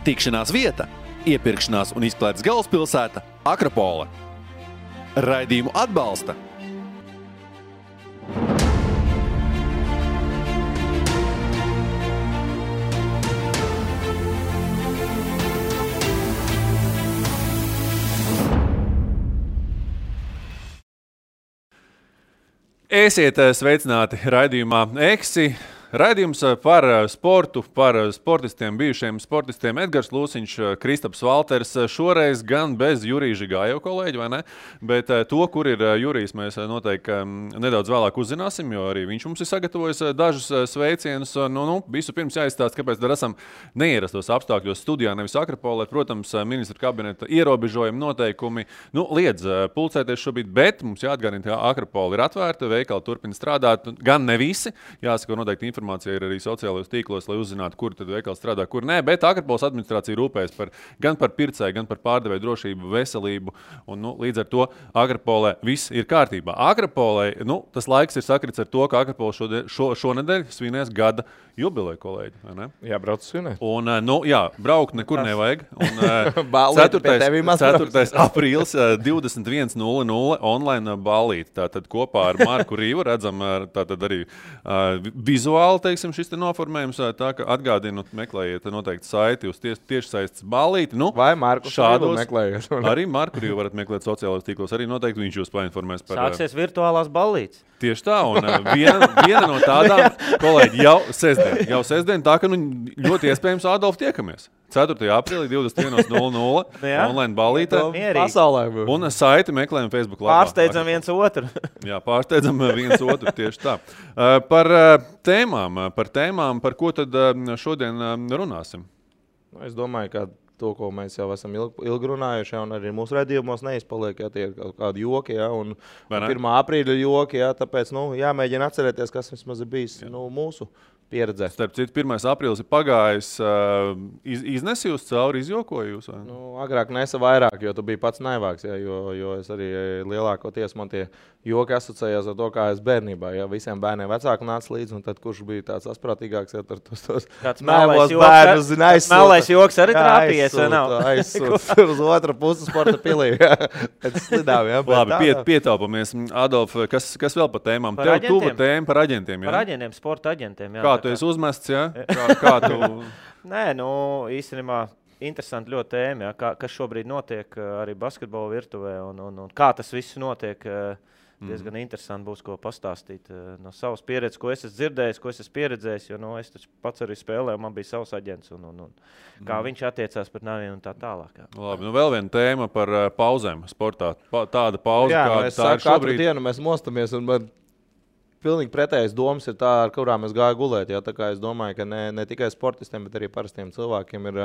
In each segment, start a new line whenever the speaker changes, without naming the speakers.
Tikšanās vieta, iepirkšanās un izklaides galvaspilsēta Akropole. Raidījumu atbalsta Esiet sveicināti raidījumā Eksi. Raidījums par sportu, par sportistiem, bijušiem sportistiem Edgars Lūsiņš, Kristaps Valters. Šoreiz gan bez Jurija Žigāja kolēģi, vai ne? Bet to, kur ir Jurijs, mēs noteikti nedaudz vēlāk uzzināsim, jo arī viņš mums ir sagatavojis dažus sveicienus. Visu pirms jāizstāst, kāpēc dar esam neierastos apstākļos studijā, nevis Akropolē. Protams, ministra kabineta ierobežojumi noteikumi liedz pulcēties šobrīd, bet mums jāatgādina, ka Akropola ir atvērta, veikali turpina strādāt, gan ne visi, jāsaka noteikti informācija ir arī sociālajos tīklos, lai uzzinātu, kur tad veikals strādā, kur nē, bet Akropoles administrācija rūpējas gan par pircēju, gan par pārdevēju drošību, veselību, un līdz ar to Akropolē viss ir kārtībā. Akropolē, tas laiks ir sakrits ar to, ka Akropole šonedēļ svinēs gada jubileju, kolēģi, vai ne?
Jā, brauc svinēt.
Un, braukt nekur nevajag. Un
4.
aprīlis 21:00 online ballīti. Tātad kopā ar Marku Rīvu redzam tātad arī vizuāli, teiksim, šis te noformējums. Tā, ka atgādinu, meklējiet noteikti saiti uz tiešsaistes ballīti.
Vai Marku Rīvu meklējiet?
Arī Marku Rīvu varat meklēt sociālajos tīklos. Arī noteikti viņš jūs painformēs par...
Sāksies virtuālās ballītes.
Tieši tā, un viena no tādām, kolēģi, jau sestdien, tā ka ļoti iespējams Adolf tiekamies. 4. aprīlī 21:00 online ballītē.
Pasaulē.
Un saiti meklējam Facebook lapā.
Pārsteidzam viens otru.
Jā, pārsteidzam viens otru, tieši tā. Par tēmām, par ko tad šodien runāsim?
Es domāju, ka to, ko mēs jau esam ilgi runājuši, un arī mūsu redzījumos neizpaliek, tie ir kaut kādi joki, un 1. aprīļa joki, tāpēc jāmēģina atcerēties, kas vismaz ir bijis mūsu pieredzē.
Starp citu, 1. aprīlis ir pagājis, iznesi jūs cauri, izjokoju jūs?
Agrāk nesa vairāk, jo tu biji pats naivāks, jo es arī lielākoties man tie joki asociējās ar to, kā es bērnībā, visiem bērniem vecāku nāca līdzi, un tad kurš bija tāds asprātīgāks, ar tos
naivos bērnus zina aizsūta. Melais joks arī trāpījies, vai nav?
Aizsūta uz otru pusi sporta pilī, pēc slidām,
Labi, pietaupamies. Adolf, kas vēl par tēmām? Tev tuva tēma par aģentiem,
Par aģentiem, sporta aģentiem,
Kā tu esi uzmests, jā? Kā tu...
Nē, īstenībā interesanti ļoti tēma, kas šobrīd notiek arī basketbola virtuvē un kā tas viss notiek. Diezgan interesanti būs, ko pastāstīt no savas pieredzes, ko es esmu dzirdējis, ko es esmu pieredzējis, jo es taču pats arī spēlēju, man bija savs aģents un kā viņš attiecās pret naviem un tā tālāk.
Labi, vēl viena tēma par pauzēm sportā. Tāda pauze,
kā tā ir šobrīd. Katru dienu mēs mostamies un man pilnīgi pretējas domas ir tā, ar kurām es gāju gulēt. Tā kā es domāju, ka ne tikai sportistiem, bet arī parastiem cilvēkiem ir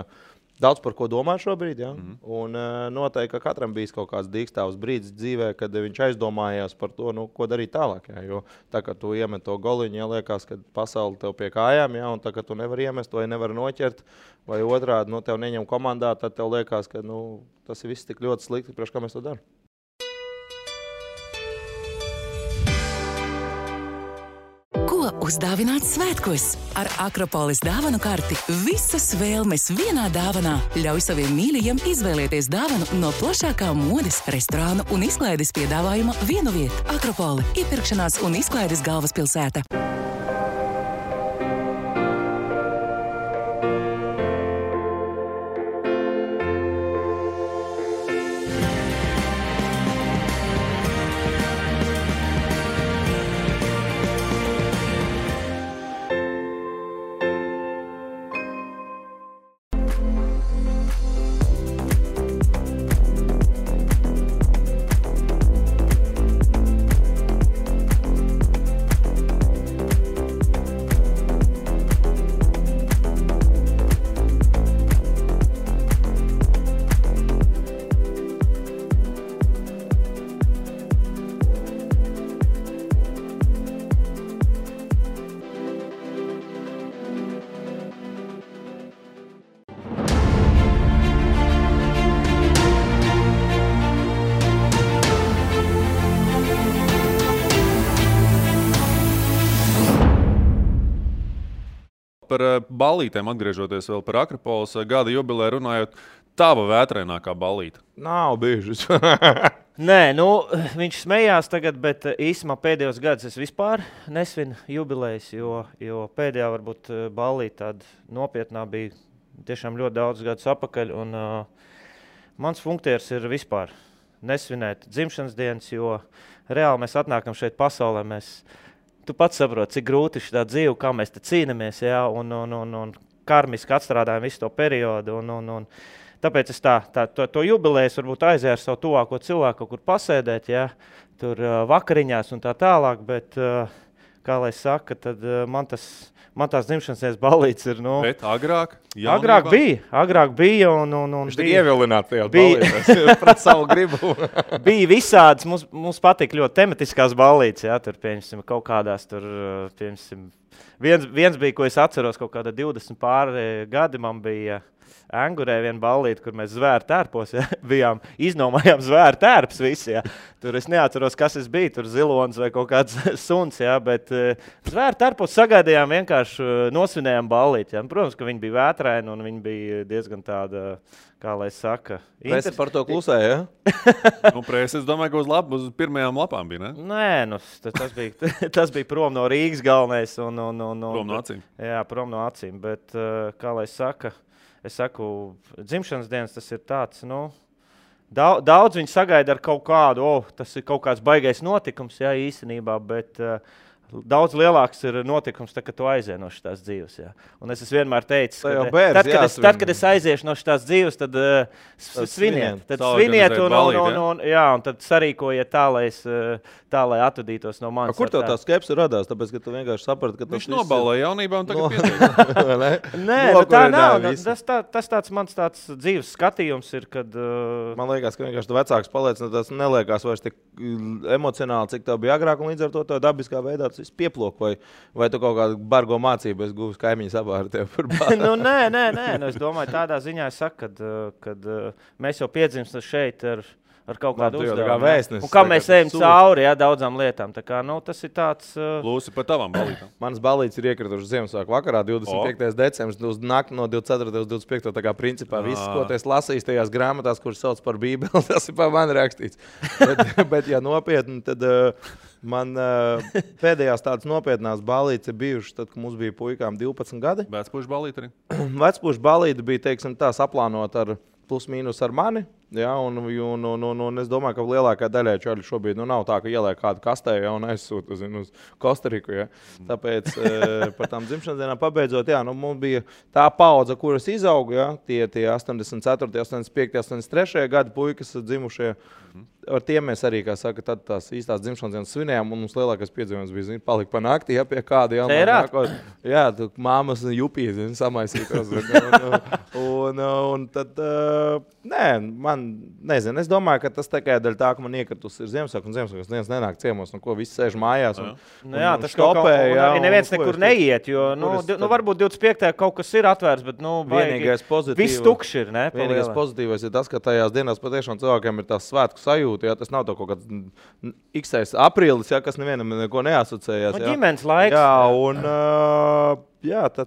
daudz par ko domāt šobrīd. Un noteikti, ka katram bijis kaut kāds dīkstāvs brīdis dzīvē, kad viņš aizdomājās par to, ko darīt tālāk. Jo tā, ka tu iemet to goliņu, liekas, ka pasauli tev pie kājām, un tā, ka tu nevari iemest vai nevari noķert, vai otrādi tev neņem komandā, tad tev liekas, ka tas ir viss tik ļoti slikti, priekš kā mēs to darām.
Uzdāvināt svētkos. Ar Akropoles dāvanu karti visas vēlmes vienā dāvanā. Ļauj saviem mīļajiem izvēlēties dāvanu no plašākā modes, restorānu un izklaides piedāvājuma vienu vietu. Akropole – iepirkšanās un izklaides galvaspilsēta.
par ballītēm, atgriežoties vēl par Akropolis gada jubilē runājot, tava vētrainākā ballīte?
Nav bijušas.
Nē, nu, viņš smējās tagad, bet īsumā pēdējos gadus es vispār nesvinu jubilejas, jo pēdējā varbūt ballīte tāda nopietnā bija tiešām ļoti daudz gadus apakaļ. Un, mans funktiers ir vispār nesvinēt dzimšanas dienas, jo reāli mēs atnākam šeit pasaulē. Tu pats saproti, cik grūti ir šitā dzīve, kā mēs te cīnamies, jā, un karmiski atstrādājam visu to periodu. Tāpēc es to jubilejas varbūt aizēju ar savu tuvāko cilvēku, kaut kur pasēdēt, jā, tur vakariņās un tā tālāk, bet, kā lai saka, tad man tās dzimšanas dienas ballītes ir, nu...
Bet agrāk?
Agrāk bija un
viņš tik ievilināts tajā ballītēs pret savu gribu.
Bija visādas, mums patīk ļoti tematiskās ballītes, jā, tur, pieņemsim, kaut kādās tur, pieņemsim, viens bija, ko es atceros, kaut kāda 20 pāri gadi man bija... Angurē viena ballīte, kur mēs zvēru tērpos, ja, bijām, iznomājām zvēru tērps visi, ja. Tur es neatceros, kas es biju, tur zilons vai kaut kāds suns, ja, bet zvēru tērpos sagaidījām vienkārši nosvinējām ballīti, ja. Protams, ka viņi bija vētraini un viņi bija diezgan tāda, kā lai saka...
Presi par to klusē, ja?
Presi, es domāju, ka uz pirmajām lapām bija, ne?
Nē, tas bija prom no Rīgas galvenais un
prom no acīm.
Jā, prom no acīm, bet, kā lai saka... Es saku, dzimšanas dienas tas ir tāds, nu, daudz viņi sagaida ar kaut kādu, tas ir kaut kāds baigais notikums, jā, īstenībā, bet daudz lielāks ir notikums, kad tu aizies no šitās dzīves, jā. Un es vienmēr teicu, tad, kad es aiziešu no šitās dzīves, tad sviniet. Tad sviniet un tad sarīkojiet tā, lai atvadītos no manis.
Kur tev tā skepse radās? Tāpēc, ka tu vienkārši saprati, ka
viņš nobalēja jaunībā un tagad pietiek.
Nē, tā nav. Tas tāds mans tāds dzīves skatījums ir, kad...
Man liekas, ka vienkārši tu vecāks paliec, tas neliekās vairs tik emocionāli, cik tev bija agrāk, un līdz ar to tā dabiskā veidā tas viss pieplok, vai tu kaut kādu bargo mācību esi guvis kaimiņu sabāri tev par bāru?
Nē. Es domāju, tādā ziņā es saku, kad mēs jau piedzimstam šeit ar kaut kādu uzdevumu. Un kā mēs ejam cauri, jā, daudzām lietām. Tā kā, nu, tas ir tāds...
Lūsi par tavām ballītām.
Manas ballītes ir iekritušas Ziemassvētku vakarā, 25. decembris, uz nakti no 24. uz 25. Tā kā principā viss, ko tu esi lasījis tajās grāmatās, kuras sauc par Bībeli, tas ir pa mani rakstīts. bet ja nopietni, tad man pēdējās tādas nopietnās ballītes ir bijušas, tad, kad mums bija puikām 12 gadi.
Vecpušu ballīte arī?
Vecpušu ballīte bija, teiksim, tā saplānot ar plus mīnus ar mani. Ja, un es domāju, ka lielākā daļai čaļu šobrīd nav tā, ka ieliek kādu kastē, ja, un aizsūta uz Kostariku. Ja. Tāpēc par tām dzimšanas dienām pabeidzot, jā, nu, mums bija tā paudze, kuras izauga, ja, tie 84, 85, 83 gadi puikas dzimušie. Ar tiem mēs arī, kā saka, tad tās īstās dzimšanas dienas svinējām, un mums lielākais piedzīvojums bija, palika pa nakti, ja, pie kāda, jā, tu māmas jupīs, samaisītos. Un tad, nē, man, nezinu, es domāju, ka tas tikai daļa tā, ka man iekritus ir Ziemassvētku, un Ziemassvētku dienas nenāk ciemos, un ko visi sēž mājās.
Tas stopē, jā. Neviens nekur neiet, jo, varbūt 25. kaut kas ir atvērts, bet, viss tukšs ir, ne?
Vienīgais pozitīvais ir tas, ka tajās dienās patiešām cilvēkiem ir tās svētku sajūta, ja tas nav kaut kāds x aprīlis, ja, kas nevienam neko neasociējās.
Ģimenes laiks.
Jā, un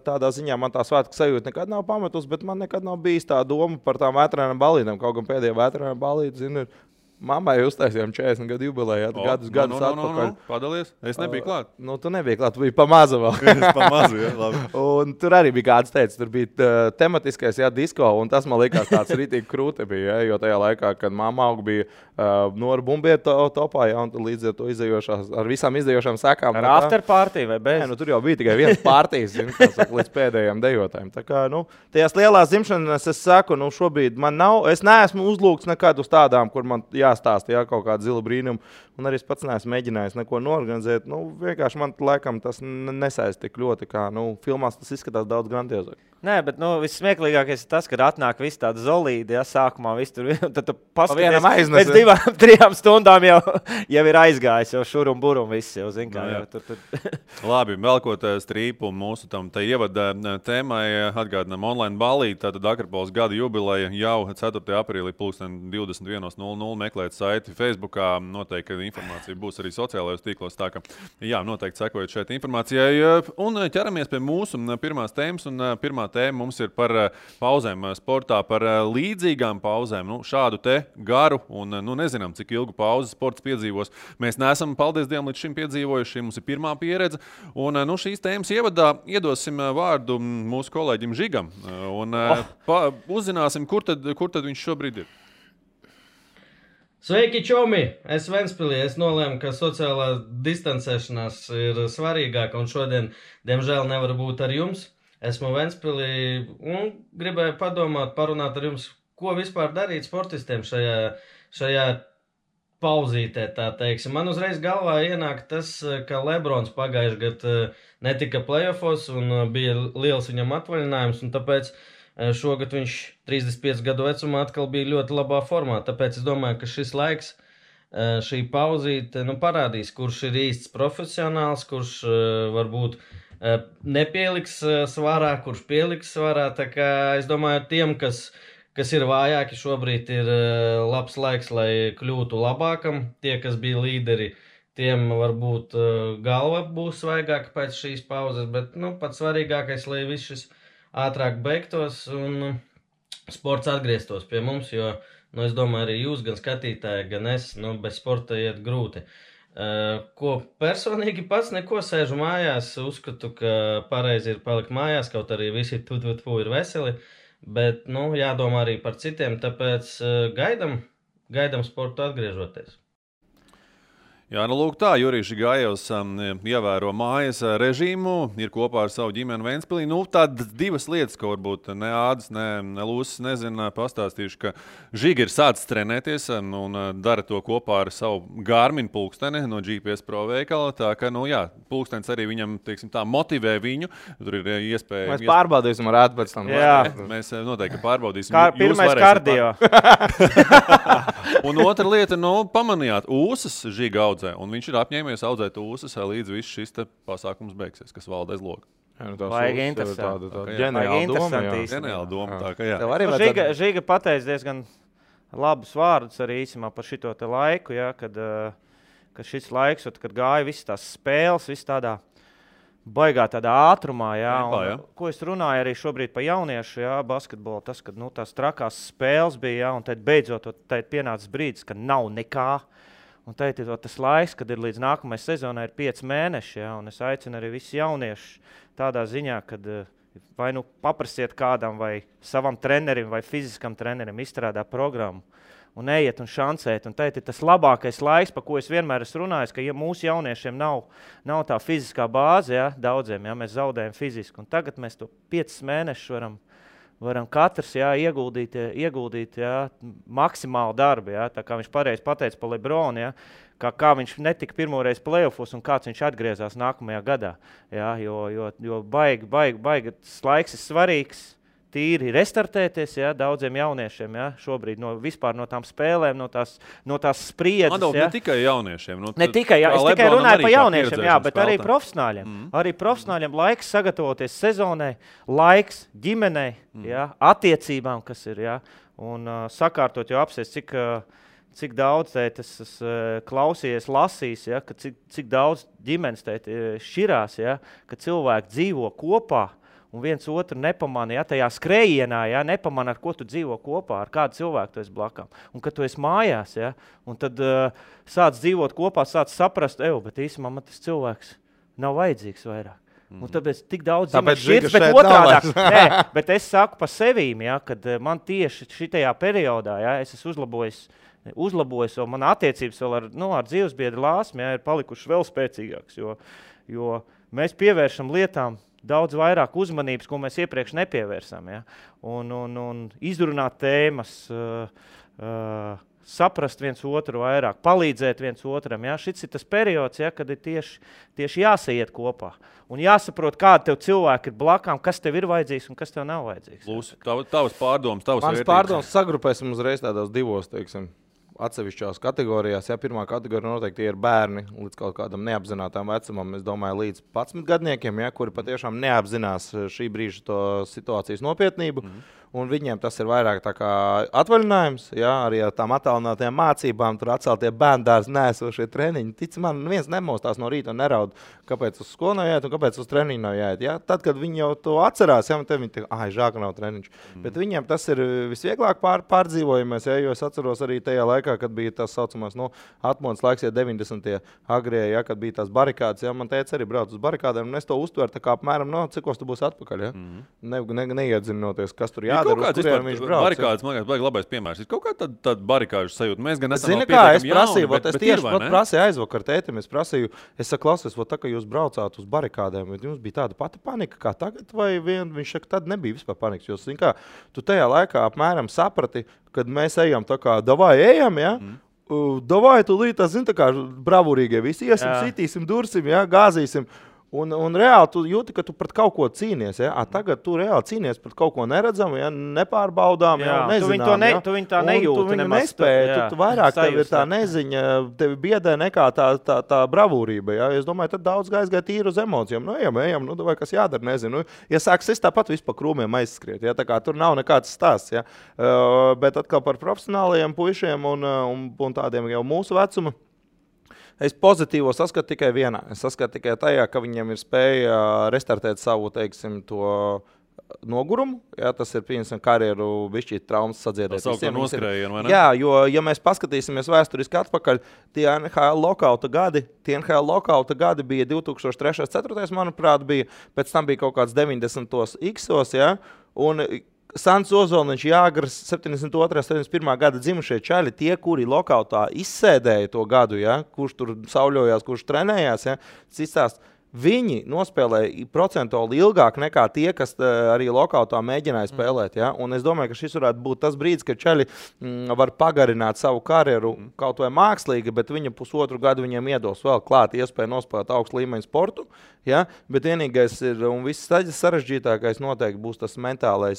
tādā ziņā man tā svētku sajūta nekad nav pametus, bet man nekad nav bijis tā doma par tām vētrainām ballītēm. Kaut gan pēdējā vētrainām ballīte, zinu, mammai uztaisījām 40 gadu jubilēju, gadus atpakaļ.
Padalies? Es nebiju klāt.
Tu nebija klāt, tu biji pa maza vēl.
Es pa mazu, jā, labi.
Un tur arī bija kāds teica, tur bija tematiskais, jā, disko, un tas man likās tāds ritīgi krūti bija, jo tajā laikā, kad mamma auga bija Nora Bumbieta topā, jā, un līdz ar to izējošās, ar visām izējošām sekām.
Ar after party vai bez?
Nē, tur jau bija tikai viens partijas, līdz pēdējiem dejotājiem. Tā kā, tajās lielās dzimšanas es saku, šobrīd man nav, es neesmu uzlūgts nekad uz tādām, kur man jāstāsta, jā, kaut kāda zila brīnuma, un arī es pats neesmu mēģinājis neko norganizēt. Vienkārši man laikam tas nesaist tik ļoti, kā, filmās tas izskatās daudz grandiozāk.
Nē, bet vissmieklīgākais ir tas, kad atnāk viss tāda zolīdi, ja sākumā viss tur, tad tu paskaties, pēc 2-3 stundām jau ir aizgājis, jau šur un bur un viss jau, zin kā.
Labi, velkot strīpu mūsu tam te ievada tēmai, atgādinām online ballīti, tātad Akropolis gada jubileja jau 4. aprīlī 21:00 meklē meklēt saiti Facebookā. Noteikti informācija būs arī sociālajos tīklos. Tā ka, jā, noteikti sekojot šeit informācijai. Un ķeramies pie mūsu pirmās tēmas. Un pirmā tēma mums ir par pauzēm sportā, par līdzīgām pauzēm. Šādu te garu un nezinām, cik ilgu pauzi sports piedzīvos. Mēs neesam, paldies Dievam, līdz šim piedzīvojuši. Mums ir pirmā pieredze. Un šīs tēmas ievadā iedosim vārdu mūsu kolēģim Žigam. Un uzzināsim, kur tad viņš šobrīd ir.
Sveiki, čomi! Es Ventspilī. Es nolēmu, ka sociālā distancēšanās ir svarīgāka un šodien, diemžēl, nevaru būt ar jums. Esmu Ventspilī un gribēju parunāt ar jums, ko vispār darīt sportistiem šajā pauzītē, tā teiksim. Man uzreiz galvā ienāk tas, ka Lebrons pagājuši gadu netika playoffos un bija liels viņam atvaļinājums, un tāpēc šogad viņš 35 gadu vecumā atkal bija ļoti labā formā. Tāpēc es domāju, ka šis laiks, šī pauzīte, parādīs, kurš ir īsts profesionāls, kurš varbūt nepieliks svarā, kurš pieliks svarā. Tā kā es domāju, tiem, kas ir vājāki, šobrīd ir labs laiks, lai kļūtu labākam. Tie, kas bija līderi, tiem varbūt galva būs svaigāka pēc šīs pauzes, bet pats svarīgākais, lai viss šis ātrāk beigtos un sports atgrieztos pie mums, jo, es domāju, arī jūs, gan skatītāji, gan es, bez sporta iet grūti. Ko personīgi pats neko sēžu mājās, uzskatu, ka pareizi ir palikt mājās, kaut arī visi ir veseli, bet, jādomā arī par citiem, tāpēc gaidam sportu atgriežoties.
Jā, lūk tā, Jurijs Gājevs ievēro mājas režīmu, ir kopā ar savu ģimeni Ventspilī. Tādas divas lietas, ko varbūt ne Ādis, ne Lūsis nezina, pastāstīšu, ka Žiga ir sācis trenēties un dara to kopā ar savu Garmin pulksteni no GPS Pro veikala. Tā ka, pulkstenis arī viņam, teiksim tā, motivē viņu. Tur ir iespēja...
Mēs pārbaudīsim ar Ādu pēc tam.
Jā, mēs noteikti pārbaudīsim.
Pirmais kardio.
Un otra lieta, pamanījāt, ūsas Žiga audzē. Un viņš ir apņēmies audzēt ūsas, līdz viss šis pasākums beigsies, kas valda aiz loga.
Vajag interesanti.
Ģeniāla doma. Tā, ka jā.
Žiga pateica diezgan labus vārdus arī īsumā par šito te laiku, ja, kad šis laiks, kad gāja visas tās spēles, viss tādā baigā tādā ātrumā, jā, ko es runāju arī šobrīd pa jauniešu, jā, basketbolu, tas, kad tās trakās spēles bija, jā, un tad beidzot pienācis brīdis, ka nav nekā. Un teikt, tas laiks, kad ir līdz nākamajai sezonai ir 5 mēneši, ja, un es aicinu arī visus jauniešus tādā ziņā, kad vai paprasiet kādam vai savam trenerim vai fiziskam trenerim izstrādā programmu un ejiet un šancēt. Un teikt, tas labākais laiks, pa ko es vienmēr esmu runājis, ka ja mūsu jauniešiem nav tā fiziskā bāze, ja, daudziem, ja, mēs zaudējam fiziski. Un tagad mēs to 5 mēnešus varam katrs ieguldīt maksimālu darbu. Jā, tā kā viņš pareizi pateica par Lebronu, jā, kā viņš netika pirmoreiz playoffos un kāds viņš atgriezās nākamajā gadā. Jā, jo baigi laiks ir svarīgs, tīri restartēties, jā, daudziem jauniešiem, jā, šobrīd vispār no tām spēlēm, no tās spriedzes.
Ne tikai jauniešiem.
Ne tikai, es tikai runāju par jauniešiem, jā, bet arī profesionāļiem. Arī profesionāļiem laiks sagatavoties sezonai, laiks ģimenei, jā, attiecībām, kas ir, jā, un sakārtot jau apsies, cik daudz tas klausījies, lasīs, ja, ka cik daudz ģimenes šķirās, ja, ka cilvēki dzīvo kopā, un viens otru nepamana, ja, tajā skrējienā, ja, nepamana, ar ko tu dzīvo kopā, ar kādu cilvēku tu esi blakām. Un kad tu esi mājās, ja, un tad sāc dzīvot kopā, sāc saprast, bet īsumā man tas cilvēks nav vajadzīgs vairāk. Un tāpēc tik daudz šķirts, bet otrādāk. Nē, bet es saku pa sevīm, ja, kad man tieši šitajā periodā, ja, es esmu uzlabojis, un man attiecības vēl ar dzīvesbiedru Lāsmu, ja, ir palikušas vēl spēcīgākas, jo mēs pievēršam lietām daudz vairāk uzmanības, ko mēs iepriekš nepievērsām. Ja? Un izrunāt tēmas, saprast viens otru vairāk, palīdzēt viens otram. Ja? Šis ir tas periods, ja, kad ir tieši jāsaiet kopā. Un jāsaprot, kāda tev cilvēki ir blakām, kas tev ir vajadzīgs un kas tev nav vajadzīgs.
Lūs, tavas pārdomas, tavas
vērtības. Mans pārdomas sagrupēsim uzreiz tādos divos, teiksim, atsevišķās kategorijās. Ja, pirmā kategorija noteikti ir bērni līdz kaut kādam neapzinātām vecumam, es domāju, līdz 11 gadniekiem, ja, kuri patiešām neapzinās šī brīža to situācijas nopietnību. un viņiem tas ir vairāk tā kā atvaļinājums, jā, arī ar tām attālinātajām mācībām, tur atceltie bērndārs nēsošie treniņi. Tic man, viens nemostās no rīta un neraud, kāpēc uz skolu nav jāiet un kāpēc uz treniņu nav jāiet. Jā? Tad, kad viņi jau to atcerās, jā, un tad viņi tā, žēl, ka nav treniņš. Bet viņiem tas ir visvieglāk pārdzīvojamies, jā, jo es atceros arī tajā laikā, kad bija tas saucamās, atmodas laiks, ja 90. agrie, ja, kad bija tās barikādes, ja, man teica arī brauc uz barikādēm, un es to uztveru tā kā apmēram, cikos tu būsi atpakaļ, ja? Neiedzinoties, kas tur jādara, uz kuriem viņš brauc.
Barikādes, man liekas, baigi labais piemērs. Ir kaut kā tāda barikāžu sajūta. Mēs gan esam
Zini kā, es prasīju, es tieši prasīju aizvakar tētim, es saku, klausies, tā kā jūs braucāt uz barikādēm, jums bija tāda pati panika kā tagad, vai viņš saka, tad nebija vispār panikas, jo, zini kā, tu tajā laikā apmēram saprati, kad mēs ejam tā kā, davai ejam, ja? Davai, tu līdz, zini, tā kā bravūrīgie visi iesim, sitīsim, dursim, ja, gāzīsim. Un reāli tu jūti, ka tu pret kaut ko cīnies. Ja? Tagad tu reāli cīnies pret kaut ko neredzamu, ja? Nepārbaudām, ja? Nezinām.
Tu viņu tā nejūti.
Tu viņu nespēji. Tu vairāk tev ir tā neziņa, tevi biedē nekā tā bravūrība. Ja? Es domāju, tad daudz gāja tīri uz emocijām. Ejam, vai kas jādara, nezinu. Ja sāks es tāpat vispār krūmiem aizskriet. Ja? Tā kā tur nav nekāds stāsts. Ja? Bet atkal par profesionālajiem puišiem un tādiem jau mūsu vecuma. Es pozitīvo saskatu tikai vienā. Es saskatu tikai tajā, ka viņiem ir spēja restartēt savu, teiksim, to nogurumu. Jā, tas ir, piemēram, karjeru bišķīt traumas sadziedēt.
Tas sauc noskrējienu, vai ne?
Jā, jo, ja mēs paskatīsimies vēsturiski atpakaļ, tie NHL lokauta gadi bija 2003-2004, manuprāt, bija. Pēc tam bija kaut kāds 90. X-os, jā. Un Sants Ozoliņš, Jāgars, 72. 71. gada dzimušie čaļi, tie, kuri lokautā izsēdēja to gadu, ja, kurš tur sauļojās, kurš trenējās, ja, citās, viņi nospēlēja procentuāli ilgāk nekā tie, kas arī lokautā mēģināja spēlēt. Ja? Un es domāju, ka šis varētu būt tas brīdis, kad čaļi var pagarināt savu karjeru kaut vai mākslīgi, bet viņa pusotru gadu viņiem iedos vēl klāt iespēju nospēlēt augstu līmeņu sportu. Ja? Bet vienīgais ir, un viss sarežģītākais noteikti būs tas mentālā,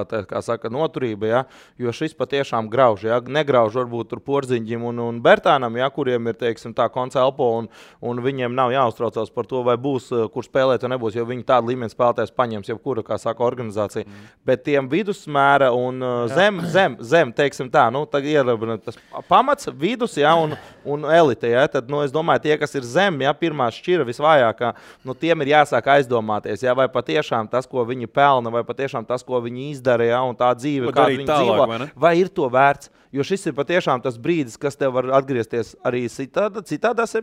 tā kā saka, noturība, ja? Jo šis patiešām grauž, ja? Negrauž varbūt tur Porziņģim un Bertānam, ja? Kuriem ir, teiksim, tā konca elpo un viņiem nav jāuztraucās par to, vai būs, kur spēlēt vai nebūs, jo viņi tādu līmeni spēlētājs paņems jebkura, kā saka, organizācija. Bet tiem vidusmēra un zem, teiksim tā, tad ir tas pamats, vidus, ja? un elite, ja? Tad, es domāju, tie, kas ir zem, ja? Pirmā šķira visvājākā, tiem ir jāsāk aizdomāties, ja? Vai patiešām tas, ko viņi pelna, vai patiešām tas, ko viņi izdara, ja, un tā dzīve, kā viņi dzīvo, vai ir to vērts. Jo šis ir patiešām tas brīdis, kas tev var atgriezties arī citādās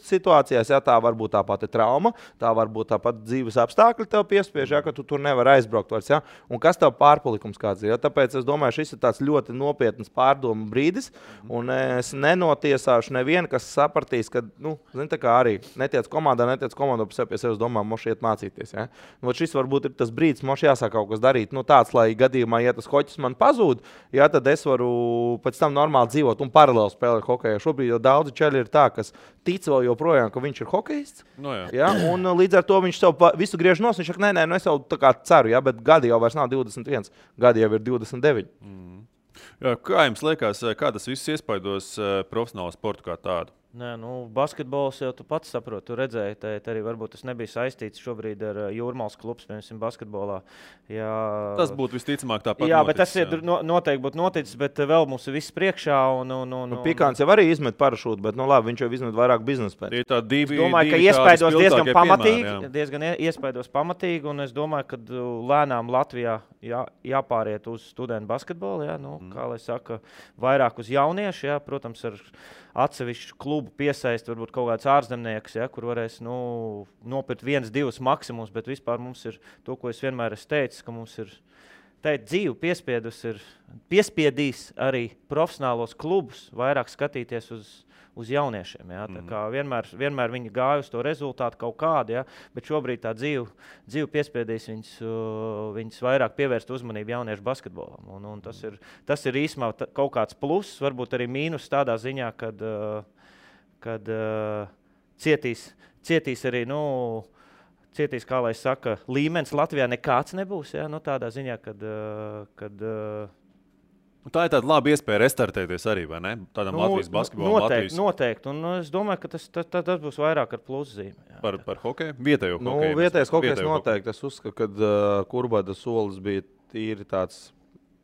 situācijās. Ja, tā var būt tā pati trauma, tā var būt tāpat dzīves apstākļi tev piespiež, ja, ka tu tur nevar aizbraukt vairs. Ja, un kas tev pārpalikums kāds ir. Ja, tāpēc es domāju, šis ir tāds ļoti nopietns pārdomu brīdis, un es nenotiesāšu nevienu, kas sapratīs, ka, zini, tā kā arī netiec komandā pie sevis domā, moši iet mācīties. Ja. Šis varbūt ir tas brīdis, moši jāsāk kaut kas darīt. Tāds, lai gadījumā, ja tas hoķis man pazūd, ja, tad es varu pēc tam normāli dzīvot un paralēli spēlēt hokeju. Šobrīd jau daudzi čaļi ir tā, kas tic vēl joprojām, ka viņš ir hokejists. Ja, un līdz ar to viņš sev visu griež nos. Viņš saka, nē, es jau tā kā ceru, ja, bet gadi jau vairs nav 21, gadi jau ir 29.
Jā, kā jums liekas, kā tas viss iespaidos profesionālo sportu kā tādu?
Nē, basketbols jau tu pats saproti, tu redzēji, arī varbūt tas nebija saistīts šobrīd ar Jūrmālas klubs, piemēram, basketbolā. Jā,
tas būtu visticamāk tāpat
jā,
noticis.
Bet tas ir noteikti būtu noticis, bet vēl mums ir viss priekšā.
Pikāns jau arī izmet parašūtu, bet labi, viņš jau izmet vairāk biznesa pēc.
Es domāju, ka iespaidos diezgan iespaidos pamatīgi, un es domāju, ka lēnām Latvijā jāpāriet uz studentu basketbolu, jā, kā lai saka, vairāk uz jauniešu, jā, protams, ar atsevišķu klubu piesaist, varbūt kaut kāds ārzemnieks, ja, kur varēs nopirkt 1-2 maksimums, bet vispār mums ir to, ko es vienmēr esmu teicis, ka mums ir dzīve piespiedīs arī profesionālos klubus vairāk skatīties uz jauniešiem. Ja. Tā kā vienmēr viņi gāja uz to rezultātu kaut kādu, ja, bet šobrīd tā dzīve piespiedīs viņus vairāk pievērst uzmanību jauniešu basketbolam. Un tas ir īsumā kaut kāds pluss, varbūt arī mīnus tādā ziņā, kad cietīs arī, cietīs, kā lai saka, līmenis Latvijā nekāds nebūs, ja, tādā ziņā, kad
Tā ir tāda laba iespēja restartēties arī, vai ne? Tādam Latvijas basketbolam.
Noteikti. Un es domāju, ka tas būs vairāk ar pluszīmi.
Par hokeju? Vietējo hokeju?
Vietējais hokejs noteikti. Es uzskatu, ka Kurbada solis bija tīri tāds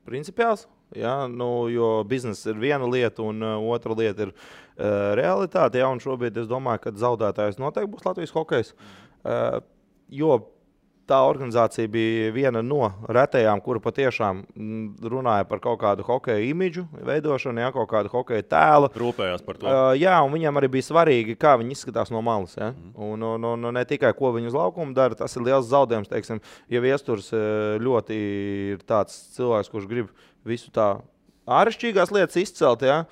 principiāls. Ja, jo biznesa ir viena lieta, un otra lieta ir realitāte. Ja, un šobrīd es domāju, ka zaudētājs noteikti būs Latvijas hokejs. Jo tā organizācija bija viena no retajām, kura patiešām runāja par kaut kādu hokeja imidžu veidošanu, ja, kaut kādu hokeja tēlu.
Rūpējās par to.
Jā, un viņam arī bija svarīgi, kā viņi izskatās no malas. Ja? Un ne tikai, ko viņi uz laukuma dara, tas ir liels zaudējums. Teiksim, ja Viesturs ļoti ir tāds cilvēks, kurš grib visu tā āršķirīgās lietas izcelt, ja,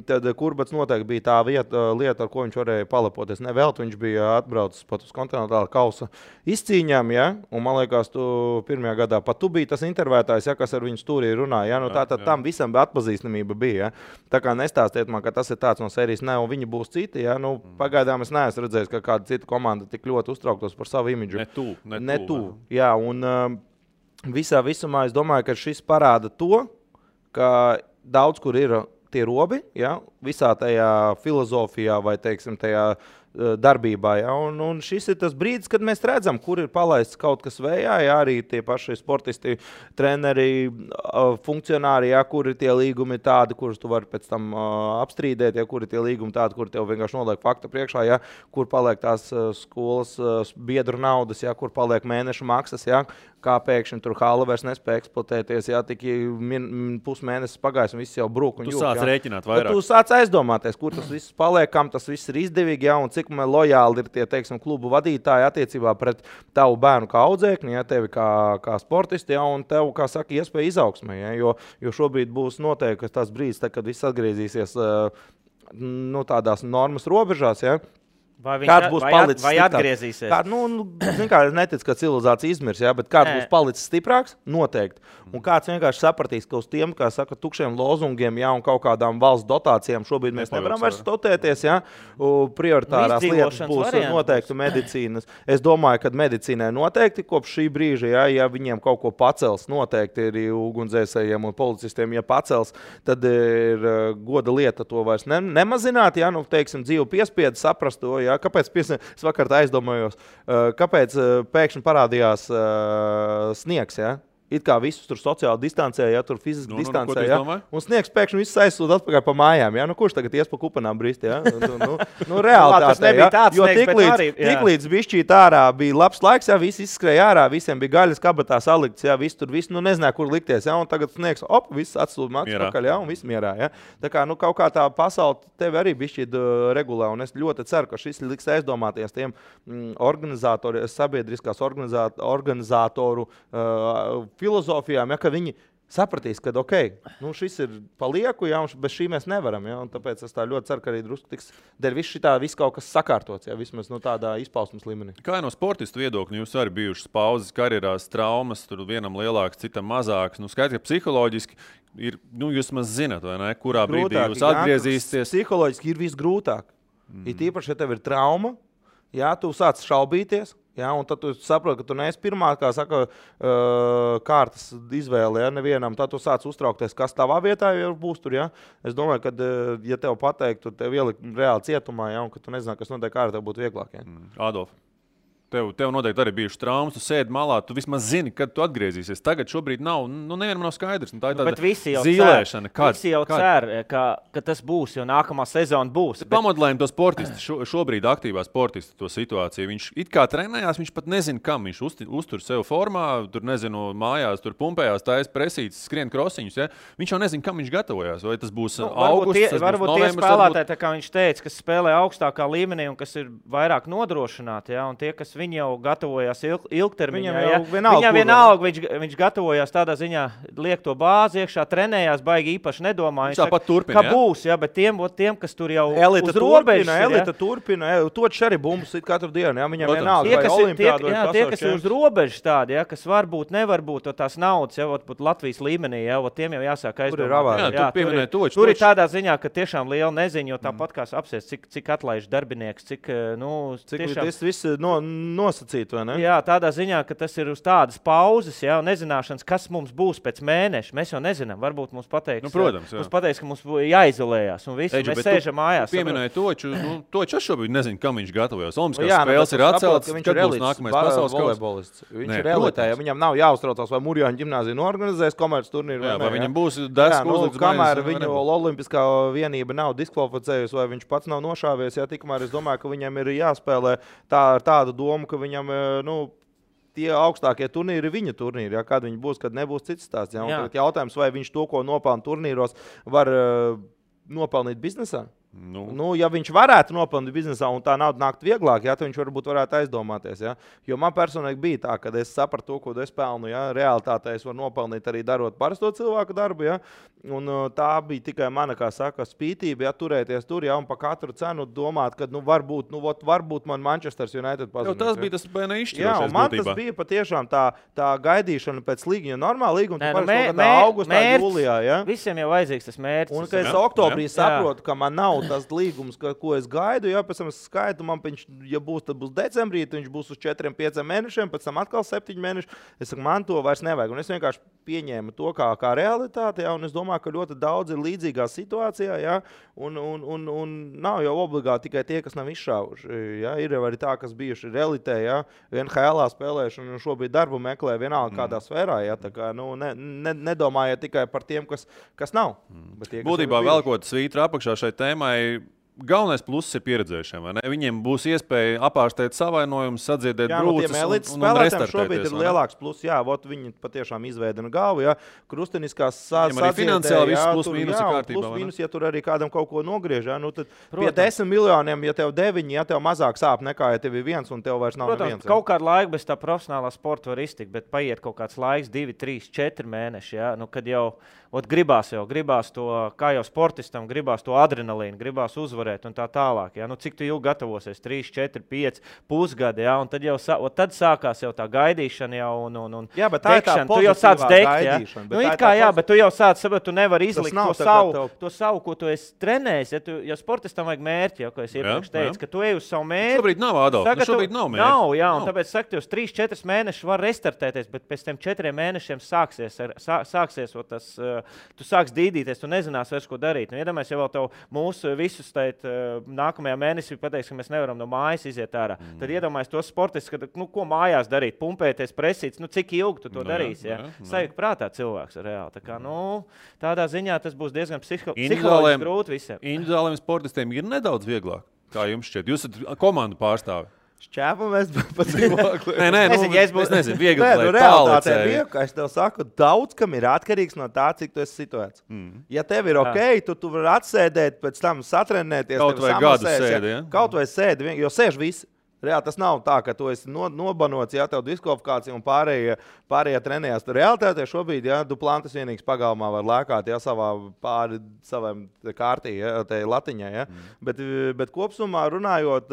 tad Kurbats noteikti bija tā lieta, ar ko viņš varēja palepoties. Nevelti viņš bija atbraucis pat uz kontinentāla kausa izcīņām, ja, un man liekas, tu pirmajā gadā pat tu biji tas intervētājs, ja, kas ar viņu stūrī runāja. Ja, tātad tam visam atpazīstamība bija. Ja. Tā kā nestāstiet man, ka tas ir tāds no sērijas, ne, un viņi būs citi. Ja. Pagaidām es neesmu redzējis, ka kāda cita komanda tik ļoti uztrauktos par savu imidžu.
Ne tu.
Jā, un visumā es domāju, ka šis parāda to, ka daudz kur ir tie robi, ja, visā tajā filozofijā vai, teiksim, tajā darbībā. Ja, un šis ir tas brīdis, kad mēs redzam, kur ir palaists kaut kas vējā, ja, arī tie paši sportisti, treneri, funkcionāri, ja, kur ir tie līgumi tādi, kurus tu vari pēc tam apstrīdēt, ja, kur ir tie līgumi tādi, kur tev vienkārši noliek fakta priekšā, ja, kur paliek tās skolas biedru naudas, ja, kur paliek mēnešu maksas, ja, kā pēkšņi tur hala vairs nespēja eksploatēties, ja tik pusmēnesis pagājis un viss jau brūk un
jūk.
Tu
sāc rēķināt vairāk.
Tu sāc aizdomāties, kur tas viss paliek, kam tas viss ir izdevīgi, ja, un cik lojāli ir tie, teiksim, klubu vadītāji attiecībā pret tavu bērnu kā audzēkni, ja, tevi kā sportisti, ja, un tev, kā saka, iespēja izaugsmē, ja, jo šobrīd būs noteikti tas brīdis, kad viss atgriezīsies tādās normas robežās, ja. Kāds būs palicis
vai atgriezīsies?
Es neticu, ka civilizācija izmirs, ja, bet kāds būs palicis stiprāks? Noteikti. Un kāds vienkārši sapratīs, ka uz tiem, kā saka, tukšiem lozungiem, ja, un kaut kādām valsts dotācijām šobrīd mēs nevaram vairs stotēties, ja. Prioritārās lietas būs noteikti medicīnas. Es domāju, ka medicīnai noteikti kopš šī brīža, ja viņiem kaut ko pacels, noteikti ir ugunsdzēsējiem un policistiem, ja pacels, tad ir goda lieta to vairs nemazināt, ja, teiksim, dzīvu piespiedu saprast to, ja. Kāpēc es vakar aizdomājos, kāpēc pēkšņi parādījās sniegs, ja? It kā visus tur sociāli distancē, ja, tur fiziski distancē, ja, un sniegs pēkšņi visus aizsūta atpakaļ pa mājām, ja, kurš tagad ies pa kupanām brist, ja, realitātē, ja, jo tiklīdz bišķīt ārā bija labs laiks, ja, visi izskrēja ārā, visiem bija gaļas kabatā salikts, ja, viss tur viss, nezināja, kur likties, ja, un tagad sniegs, viss atsūta atpakaļ, ja, un viss mierā, ja. Tā kā, kaut kā tā pasaule tevi arī bišķīt regulē, un es ļoti ceru, ka šis liks aizdomāties tiem organizatori, sabiedriskās organizatoru filozofijām, ja, ka viņi sapratīs, ka šis ir palieku, ja, un bez šī mēs nevaram. Ja, tāpēc es tā ļoti ceru, ka arī drusku tiks dēļ viss kaut kas sakārtots, ja, vismaz tādā izpausmes līmenī.
Kā no sportistu viedokļa jūs arī bijušas pauzes karjerās, traumas, tur vienam lielāks, citam mazāks. Skaidrs, ka psiholoģiski ir, jūs maz zināt, vai ne, kurā brīdī jūs atgriezīsieties.
Psiholoģiski ir visgrūtāk. Ir īpaši, ja tev ir trauma, ja, tu sāc šaubīties. Ja, un tad tu saproti, ka tu neesi pirmā, kā saka, kārtas izvēle, ja, nevienam. Tad tu sāc uztraukties, kas tavā vietā jau būs tur. Ja. Es domāju, ka, ja tev pateiktu, tev ielikt reāli cietumā, ja, un ka tu nezinātu, kas notiek ārā, tev būtu vieglāk. Ja.
Adolf. Tev noteikti arī bijuši traumas, tu sēdi malā, tu vismaz zini, kad tu atgriezīsies. Tagad šobrīd nav, nevienam nav skaidrs. Tā ir tāda zīlēšana.
Visi jau cer, ka tas būs, jo nākamā sezona būs.
Pamodelējam to sportistu, šobrīd aktīvā sportistu to situāciju. Viņš it kā trenējās, viņš pat nezina, kam viņš uztur sev formā, tur nezinu, mājās, tur pumpējās, taisa presītes, skrien krosiņus. Ja? Viņš jau nezina, kam viņš gatavojās. Vai tas būs augusts,
varbūt tie spēlētāji, tā kā viņš teica, kas spēlē augstākā līmenī un kas ir vairāk nodrošināti, ja? Un tie, kas viņi jau gatavojās ilgtermiņā. Viņam vienalga, viņš gatavojās tādā ziņā, liek to bāzi iekšā, trenējās, baigi īpaši nedomā.
Viņš tāpat turpina,
ka būs, ja, bet tiem, kas tur jau uz robežas.
Elita turpina, toči arī bumbas katru dienu, ja, viņam vienalga, vai olimpiādu vai pasaules.
Tie, kas ir uz robežas tādi, ja, kas varbūt nevar būt tās naudas, ja, būt Latvijas līmenī, ja, tiem jau jāsāk aizdomāt. Tur ir tādā ziņā, ka tiešām liela neziņa, jo tāpat kā apsies, cik atlaiž darbinieks, cik
tiešām... nosacīt, vai ne?
Jā, tādā ziņā, ka tas ir uz tādas pauzes, jā, un nezināšanas, kas mums būs pēc mēneša. Mēs jau nezinām, varbūt mums pateiks,
protams,
mums pateiks, ka mums jāizolējās, un visi mēs sēžam mājās.
Pieminēja Toču, Toču es šobrīd nezinu, kam viņš gatavojas. Olimpiskās
Jā,
spēles ir atceltas,
viņš
kad
ir
būs nākamais pasaules
volejbolists. Viņš
Nē,
ir elitē,
protams.
ja viņam nav jāuztraucās, vai Murjāņu ģimnāzija norganizēs komerces turnīru
Jā,
vai
vai
ne,
viņam būs desku uzlikts
kamēr
maizes, vai
viņu
nebūs.
olimpiskā vienība nav diskvalificējusi, vai viņš pats nav nošāvies, ja tikmēr es domāju, ka viņam ir jāspēlē ar tādu domu, ka viņam, tie augstākie turnīri ir viņa turnīri. Ja? Kad viņi būs, kad nebūs cits stāsts. Ja? Tagad jautājums, vai viņš to, ko nopelna turnīros, var nopelnīt biznesā? Ja viņš varētu nopelnīt biznesā un tā nauda nākt vieglāk, tad viņš varētu aizdomāties. Ja? Jo man personīgi bija tā, ka es sapratu to, ko es pelnu. Ja? Realitātē es varu nopelnīt arī darot parasto cilvēku darbu. Ja? Un tā bija tikai mana, kā saka, spītība, ja? Turēties tur, ja? Un pa katru cenu domāt, ka varbūt man Manchester United pazudīs.
Tas bija tas izšķirošais.
Jā, un man tas bija patiešām tā gaidīšana pēc līguma. Normāli līguma ir augustā, jūlijā. Ja?
Visiem jau vajadzīgs tas mērķis.
Un kad es oktobrī saprotu, ka man nav tas līgums, ko es gaidu, ja pēc tam es skaitu, ja būs, tad būs decembrī, tad viņš būs uz 4-5 mēnešiem, pēc tam atkal 7 mēneši. Es saku, man to vairs nevajag. Un es vienkārši pieņēmu to kā realitāti, ja, un es domāju, ka ļoti daudz ir līdzīgā situācijā, ja, un nav jau obligāti tikai tie, kas nav izšāvuši. Ja. Ir arī tā, kas bijuši realitē, ja, NHL spēlējuši un šobrīd darbu meklē vienalga kādā sfērā. Ja, tā kā, nedomājiet tikai par tiem, kas nav. Tie,
Būtībā vēl kaut kas svītra apakšā šai tēmai. Galvenais pluss ir pieredzējušiem. Viņiem būs iespēja apārstēt savainojumus, sadziedēt brūces un restartēties.
Šobrīd ir lielāks pluss. Jā, viņi patiešām izveidina galvu. Jā, krusteniskās sadziedē.
Arī finansiāli viss plus mīnus ir kārtībā.
Plus mīnus, ja tur arī kādam kaut ko nogriež. Jā, tad pie 10 miljoniem, ja tev 9, ja tev mazāk sāp nekā, ja tev ir 1 un tev vairs nav neviens.
Kaut kādu laiku bez tā profesionālā sporta var iztikt, bet paiet kaut kāds laiks, 2, 3, 4 mēneši. Jā, kad jau gribās to, kā jau sportistam, gribās to adrenalīnu, gribās uzvarēt un tā tālāk. Ja? Cik tu ilgi gatavosies? 3, 4, 5 pusgadi, ja? Un tad jau tad sākās jau tā gaidīšana jau un
jā, bet tā
dekšana.
Ir tā
tu jau sāc degt, ja? Bet tu jau sāc saprot, tu nevari izlikt to savu, ko tu esi trenējis. Ja sportistam vajag mērķi, ja, ko es iepriekš teicu, ka tu ej uz savu mērķi.
Šobrīd nav, Adolf. Šobrīd nav mērķi.
Nav, jā, un tāpēc saka, jūs 3-4 mēnešus var restartēties, bet pēc tiem 4 mēnešiem sāksies tas. Tu sāks dīdīties, tu nezināsi vairs, ko darīt. Iedomājies, ja vēl tev mūsu visus nākamajā mēnesī pateiks, ka mēs nevaram no mājas iziet ārā. Tad iedomājies tos sportistus, ko mājās darīt, pumpēties, presīts, cik ilgi tu to darīsi. Ja? Sajūta prātā cilvēks reāli. Tā kā, tādā ziņā tas būs diezgan psiholoģiski grūti visiem.
Individuāliem sportistiem ir nedaudz vieglāk, kā jums šķiet. Jūs esat komandu pārstāvi.
Šķēpamies pa cilvēku.
Nē, es nezinu, viegli
realitātē bija, kā es tev saku, daudz kam ir atkarīgs no tā, cik tu esi situēts. Ja tev ir ok, tu vari atsēdēt, pēc tam satrenēties.
Kaut vai gadu sēdi, ja?
Kaut vai sēdi, jo sēž visi. Reāli tas nav tā, ka tu esi nobanots, ja tev diskvalifikācija un pārējie trenējās. Realitātē šobrīd, ja Duplantis vienīgs pagalmā var lēkāt, ja savām kārtī, ja, tai latiņai. Ja. Bet kopsumā runājot,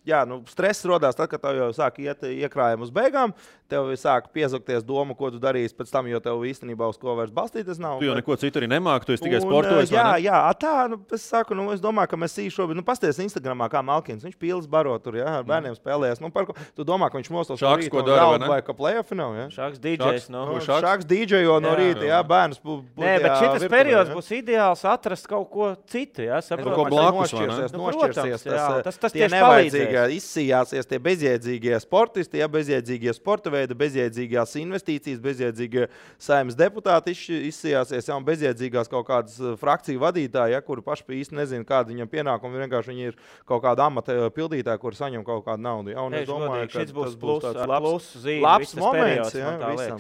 jā, stress rodās tad, kad tev jau sāk iet iekrājumi uz beigām. Tev sāk piezakties doma, ko tu darīsi pēc tam, jo tev īstenībā uz ko vairs balstīties nav.
Tu jau neko citu arī nemāki, tu esi tikai sportojis.
Es saku, es domāju, ka mēs šobrīd, pasties Instagramā, kā Malkins, viņš pīlis baro tur, ja, ar bērniem spēlējas. Tu domā, ka viņš mostos no rīta un raud vai ka playoff nav, ja?
Šāks DJs,
Šāks DJo no rīta, jā, bērns.
Nē, bet šitas periods būs ideāls atrast kaut ko citu, ja, saprot.
Ko blakus,
nošķirsies.
Tas tieši palīdzēs.
Izsījāsies tie bezjēdzīgie sportisti, ja, bezjēdzīgie sporta veidi, bezjēdzīgās investīcijas, bezjēdzīgie saimnes deputāti izsījāsies, ja, un bezjēdzīgās kaut kādas frakciju vadītāji, ja, kuri paši īsti nezina, kāda viņam pienākumi, vienkārši viņi ir kaut kāda amata pildītāji, kuri saņem kaut kādu naudu. Ja, un es domāju, ka
šis būs labs
moments, ja,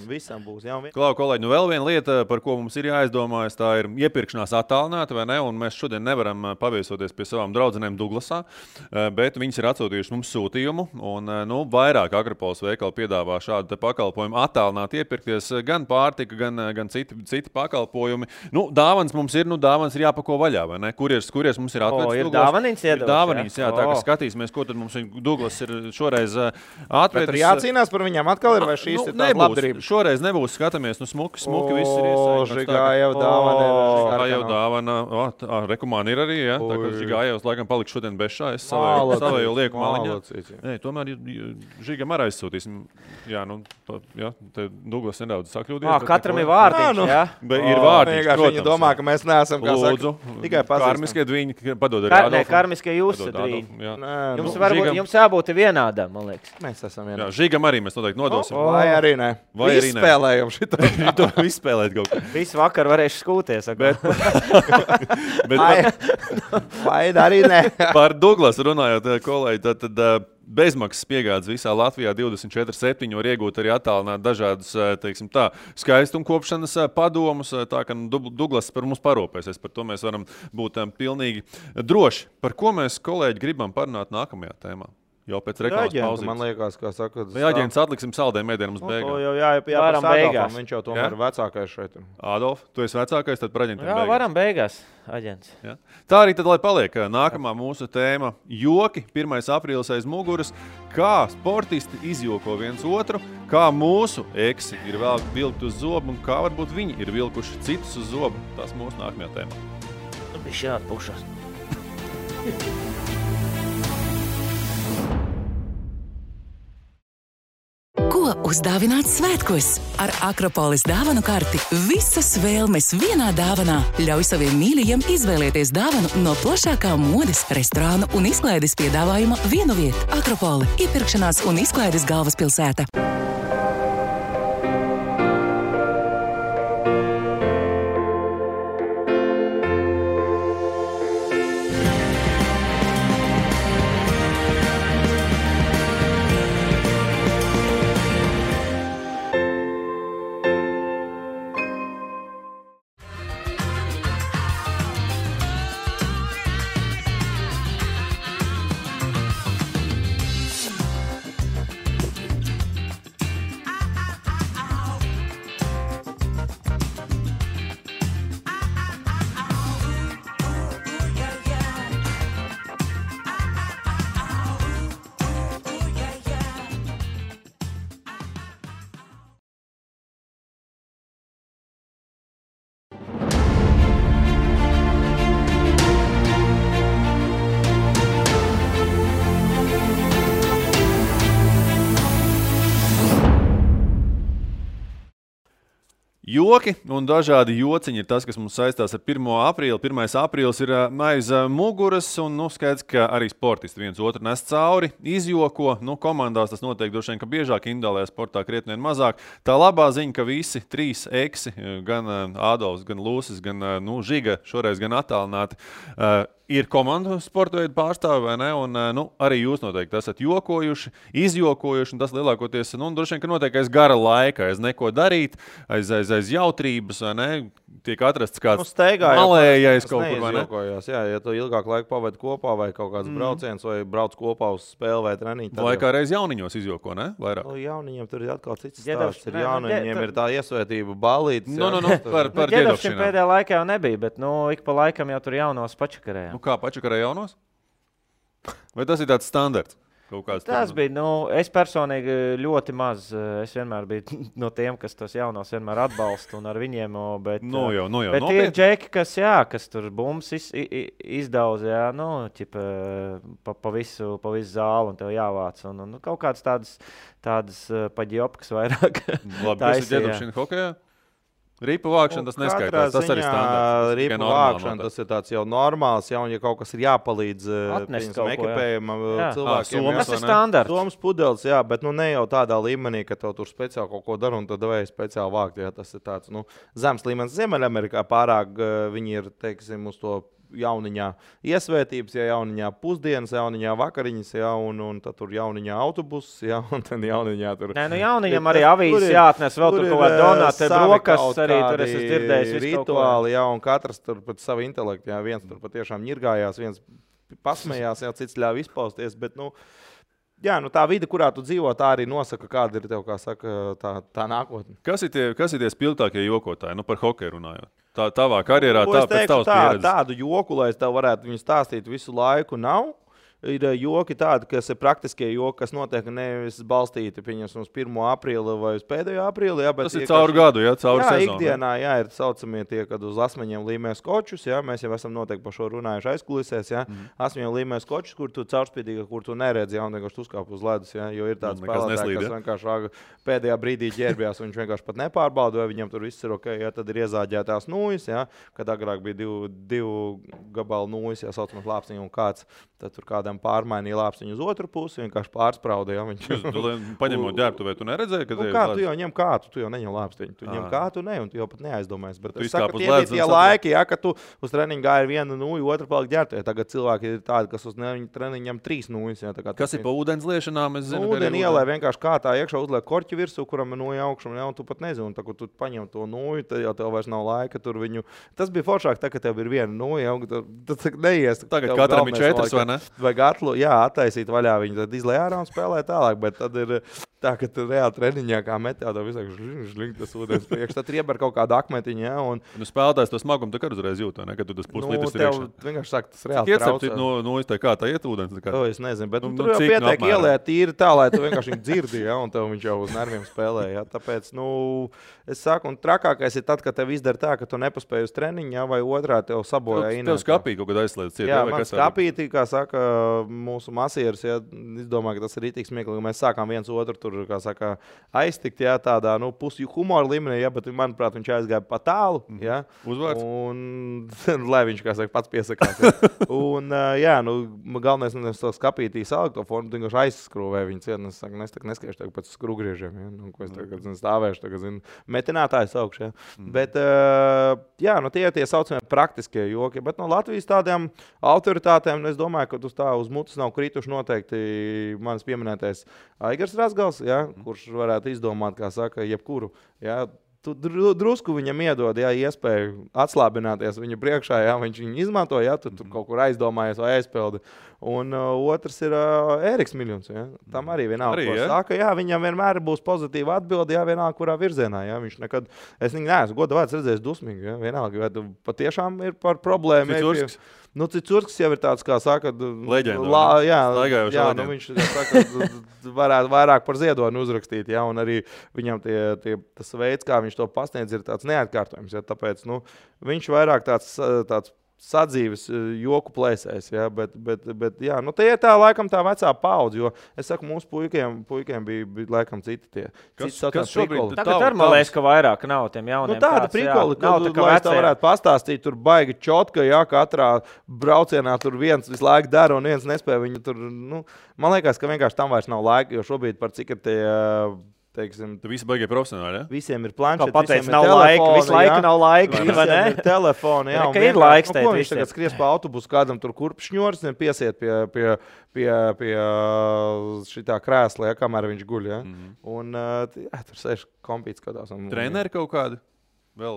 visam būs. Ja,
Klau, kolēģi, vēl viena lieta, par ko mums ir jāizdomājas, tā ir iepirkšanās attālināta, vai ne, un mēs šodien nevaram paviesoties pie savām draudzenēm Duglasā, bet viņas ir atsūtījuši mums sūtījumu, un vairāk Akropolis veikali piedāvā šādu pakalpojumu attālināt iepirkties, gan pārtika, gan citi pakalpojumi. Dāvans mums ir, dāvans ir jāpako vaļā, vai ne? Kurieris mums ir atvedis?
Ir dāvaniņas iedodas.
Dāvaniņas, jā, tā kā skatīsimies, ko tad mums Douglas ir šoreiz atvedis.
Bet jācīnās par viņām atkal ir, vai šīs ir tāda labdarība?
Šoreiz nebūs, skatāmies, smuki viss ir iesaistīts.
Žigājev dāvana.
Žigājev dāvana. Rekomāni ir arī, ja? Tā kā Žigājevs laikam paliks šodien bez šā, es savēju lieku liek maliņā.
Locīts,
Tomēr Žigam arī aizsūtīsim. Jā, te Douglas nedaudz sakļūdījās.
Katram ir vārdiņš, jā?
Ir vārdiņš, protams.
Viņi domā, ka mēs neesam, kā
Lūdzu,
tikai pazīstam.
Karmiskie dviņi, padod arī Adolfam.
Karmiskie jūs dviņi. Jums jābūt vienādam, man liekas.
Mēs esam
Jā,
vienādam.
Žigam arī mēs noteikti nodosim.
Vai arī ne. Izspēlējam šito.
To izspēlēt kaut kā.
Visu vakar varēšu skūties.
Vai arī ne.
Par Douglas runājot, kolēģi, tad bezmaksas piegādes visā Latvijā 24/7 var iegūt arī attālināt dažādus, teiksim tā, skaistumkopšanas padomus, tā ka Douglas par mums parūpēsies. Par to mēs varam būt pilnīgi droši. Par ko mēs, kolēģi, gribam parunāt nākamajā tēmā? Jau pēc reklāmas pauzes.
Man liekas, kā saka,
vai aģents atliksim saldēm mēdienam uz beigām?
To jau
Varam beigās.
Viņš jau tomēr ir vecākais šeit.
Adolf, tu esi vecākais, tad par aģentiem beigās.
Varam beigās, aģents.
Ja? Tā arī tad, lai paliek nākamā mūsu tēma – joki, 1. aprīlis aiz muguras, kā sportisti izjoko viens otru, kā mūsu eksi ir vēl vilkt uz zobu un kā varbūt viņi ir vilkuši citus uz zobu. Tas mūsu nākamajā tēmā.
Viņš jāatpušas.
Ko uzdāvināt svētkos? Ar Akropolis dāvanu karti visas vēlmes vienā dāvanā. Ļauj saviem mīļajiem izvēlēties dāvanu no plašākā modes, restorānu un izklaides piedāvājuma vienu vietu. Akropoli – iepirkšanās un izklaides galvaspilsēta.
Joki un dažādi jociņi ir tas, kas mums saistās ar 1. aprīli. 1. aprīlis ir aiz muguras un skaidrs, ka arī sportisti viens otru nes cauri, izjoko. Komandās tas notiek droši vien, ka biežāk, individuālajā sportā krietni vien mazāk. Tā labā ziņa, ka visi 3 eksi, gan Ādolfs, gan Lūsis, gan Žiga, šoreiz gan attālināti, ir komandu sporta veidu pārstāvi, vai ne? Un arī jūs noteikti esat jokojuši, izjokojuši, un tas lielākoties, droši vien, ka notiek aiz gara laika, aiz neko darīt, aiz jautrības, vai ne? Tiek atrasts kāds malējais kaut kur, vai ne?
Jā, ja tu ilgāk laiku pavadi kopā, vai kaut kāds brauciens, vai brauc kopā uz spēli vai treniņu.
Vai kā reiz jauniņos izjoko, ne? Vairāk.
Jauniņiem tur ir atkal cits stāsts. Jauniņiem ir tā iesvētība balītes.
Par
ģedovšiem pēdējā laikā jau nebija, bet ik pa laikam jau tur jaunos pačakarējām.
Kā pačakarē jaunos? Vai tas ir tāds standarts?
Tas bija, es personīgi ļoti maz. Es vienmēr biju no tiem, kas tos jaunos vienmēr atbalsta un ar viņiem, bet bet ir džeki, kas tur bums izdauz, pa visu zāli un tev jāvāc. Un kaut kādas tādas paģiopkas vairāk.
Labi, kas ir ģedovšana hokejā? Ripu vākšana tas neskaitās, tas arī standarts.
Ripu vākšana tas ir tāds jau normāls, ja kaut kas ir jāpalīdz ekipējumam cilvēkiem.
Tas ir standarts.
Somas pudeles, jā, bet ne jau tādā līmenī, ka tev tur speciāli kaut ko dara un tad vajag speciāli vākt. Jā, tas ir tāds zems līmenis. Ziemeļamerikā pārāk viņi ir, teiksim, uz to jauniņā iesvētības, jauniņā pusdienas, jauniņā vakariņas, un tad tur jauniņā autobuss, un tad jauniņā tur...
Jauniņam arī avīzes jāatnes, vēl tur kaut kā donāti, brokas arī tur es dzirdējis.
Rituāli, un katrs tur pat savu intelektu, viens tur patiešām ņirgājās, viens pasmējās, cits ļāva izpausties, bet, tā vide, kurā tu dzīvo, tā arī nosaka, kāda ir tev, kā saka, tā nākotne.
Kas ir tie spilgtākie jokotāji, par hokeju runājot? Tavā karjerā, pēc tavas pieredzes?
Tādu joku, lai es tev varētu viņu stāstīt visu laiku, nav. ir joki tādi, kas ir praktiskie joki, kas notiek nevis balstīti, pieņemsim, uz 1. aprīli vai uz pēdējo aprīli. Jā,
tas ir cauri gadu, jā, cauri sezonu.
Ikdienā, jā, ir saucamie tie, kad uz asmeņiem līmē skočus, jā, mēs jau esam noteikti par šo runājuši aizkulisēs, jā, asmeņiem līmē skočus, kur tu caurspīdīgi, kur tu neredzi, jā, un vienkārši uzkāp uz ledus, jā, jo ir tāds spēlētāji, kas vienkārši pēdējā brīdī ģērbjās, un viņš vienkārši pat nepārbauda, vai viņam tur viss ir ok, jā, tad ir iezāģētās nūjas, jā, kad agrāk bija divu gabalu nūjas, jā, saucamās lāpstiņu un kāds, tad tur kādam pārmainīja lāpstiņu uz otru pusi, vienkārši pārsprauda, jā, viņš.
Paņemot ģērbtuvē, tu neredzēji, ka
kā tu jau ņem kātu, tu jau neņem lāpstiņu, tu ņem kātu, ne, un tu jau pat neaizdomājies, bet
tu
es saku, tie bija tie laiki, jā, ka tu uz treniņu gāji vienu nūju, otru paliek ģērbtuvē, tagad cilvēki ir tādi, kas uz treniņu ņem 3 nūjas, jā, tā kā.
Kas ir pa ūdens liešanām, es zinu,
ūdeni ielē vienkārši kātā iekšā uzliek korķi virsū, kuram ir nūja augšam, jā, un tu pat nezini, un tā, kur tu paņem to nūju, tad jau tev vairs nav laika tur viņu. Tas bija foršāk, tā, ka tev ir viena nūja, un tad neies.
Tagad katram ir 4, vai ne?
Vai gatlu, jā, attaisīt vaļā viņu, tad izlej ārā un spēlē tālāk, bet tad ir tā, ka tu reāli treniņā kā metā, tev visāk žling tas ūdens priekš, tad ieber kaut kādu akmetiņu, jā, un.
Nu, spēlētājs to smagumu tā kā uzreiz jūt, ne, kad tu tas puslitrs ir iekšā.
Vienkārši saka, tas reāli traucē.
Nu, kā tā iet ūdens?
Es nezinu, bet tur jau pietiek ielēt tīri tā, lai tu vienkārši viņu dzirdi, jā, un tev viņš jau uz nerviem spēlē, jā, tāpēc, es saku, un trakākais ir tad, kad tev izdara tā, ka tu nepaspēji uz treniņu, jā, vai otrā tev sabojā
Tev skapī kaut kad aizslēdz ciet.
Jā, man skapītī, kā saka mūsu masieris, jā, es domāju, ka tas ir rītīgi smieklīgi, mēs sākām viens otru tur, kā saka, aiztikt, jā, tādā, pusi humora līmenī, jā, bet, manuprāt, viņš aizgāja pa tālu, jā.
Uzvārds.
Un, lai viņš, kā saka, pats piesakās, jā. Un, jā, galvenais, es to skapītī saliku to formu, tu vienkārši aizskrūvēju viņu ciet, es saku, es neskaišu tagad pēc skrūgriežiem, jā, ko es tagad stāvēšu, tagad, metinātājs augšu, jā. Bet, jā, tie saucamie praktiskie joki, bet no Latvijas tādām autoritātēm, es domāju, ka uz mutes nav krituši noteikti manis pieminētais Aigars Razgals, jā, kurš varētu izdomāt, kā saka, jebkuru, jā, tu drusku viņam iedod, jā, iespēju atslābināties viņa priekšā, jā, viņš viņu izmanto, jā, tu tur kaut kur aizdomājies vai aizpildi. Un otrs ir Ēriks Miļuns, jā. Tam arī vienalga, ko saka, jā, viņam vienmēr būs pozitīva atbilde, jā, vienalga, kurā virzienā, jā, viņš nekad, es neesmu goda vārds redzējis dusmīgi, jā, vienalga, vai tu patiešām ir par problēmu. Cicurskis jau ir tāds, kā saka,
leģenda.
Jā, viņš saka, varētu vairāk par ziedoni uzrakstīt, jā, un arī viņam tas veids, kā viņš to pasniedz, ir tāds neatkārtojums, jā, tāpēc, viņš vairāk tāds sadzīves joku plēsēs, jā, bet jā, tie ir tā laikam tā vecā paudze, jo es saku, mūsu puikiem bija laikam citi tie.
Kas šobrīd?
Tagad ar man liekas, ka vairāk nav tiem jauniem.
Tāda prikoli, kad lai tā varētu pastāstīt, tur baigi čotka, jā, katrā braucienā tur viens visu laiku dara un viens nespēja viņu tur, man liekas, ka vienkārši tam vairs nav laika, jo šobrīd par cik ir tie, teiksim,
tu visi baigie profesionāli, ja?
Visiem ir planšeti,
visiem ir telefoni, visu laiku nav laika, vai ne?
Ir telefoni, jā, un
ir laiks teikt,
ko viņš tagad skries pa autobusu, kādam tur kurpšņors, piesiet pie šitā krēsla, ja, kamēr viņš guļ, ja? Un, jā, tur sēž kompīts kādās.
Treneri kaut kādi? Vēl,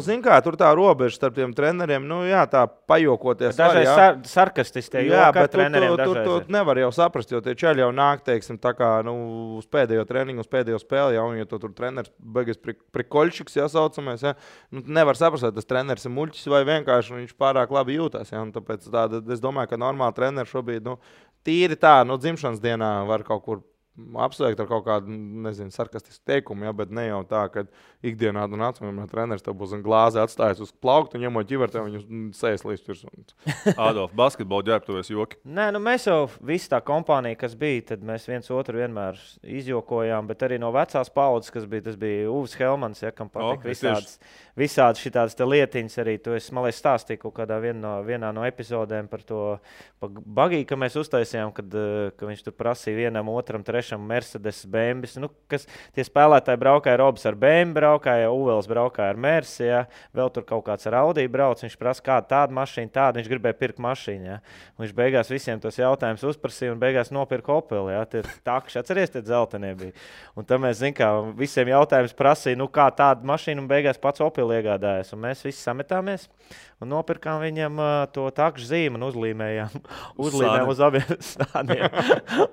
zin kā, tur tā robeža starp tiem treneriem, jā, tā pajokoties.
Dažreiz sarkastistie joka treneriem dažreiz.
Tur nevar jau saprast, jo tie čeļi jau nāk, teiksim, tā kā, uz pēdējo treniņu, uz pēdējo spēli, jā, un ja tur treneris beigas prikoļšiks, jā, saucamies, jā, nevar saprast, vai tas treneris ir muļķis vai vienkārši viņš pārāk labi jūtās, jā, un tāpēc es domāju, ka normāli treneri šobrīd, tīri tā, dzimšanas dienā var kaut kur apsveikt ar kaut kādu, nezinu, sarkastisku teikumu, ja, bet ne jau tā, ka ikdienā tu nāc, un treneris tev būs glāzi atstājis uz plauktu, un ņemot ģivertē, viņu sēs līdz virs.
Adolf, basketbola ģērbtuvēs joki?
Nē, mēs jau visi tā kompānija, kas bija, tad mēs viens otru vienmēr izjokojām, bet arī no vecās paudzes, kas bija, tas bija Uvis Helmans, ja, kam patīk visādas šitādas te lietiņas arī. To es, man liekas, stāstīju kaut kādā vienā no epizodēm par to bagiju, ka mēs uztaisījām, ka viņš tur prasīja vienam, otram, trešam Mercedes, Bembis. Kas tie spēlētāji braukāja, Robs ar Bembi braukāja, Uvels braukāja ar Mersi, ja. Vēl tur kaut kāds ar Audi brauc, viņš prasa, kāda tāda mašīna, tāda, viņš gribēja pirkt mašīnu, ja. Viņš beigās visiem tos jautājumus uzprasīja un beigās nopirka Opeli, ja. Tie takši, atceries, tie dzeltenie bija. Un tad mēs, zin kā, visiem jautājumus prasīja, kā tāda mašīna un beigās pats Opeli iegādājas. Un mēs visi sametāmies un nopirkām viņam to takšu zīmu un uzlīmējām uz abiem stādiem.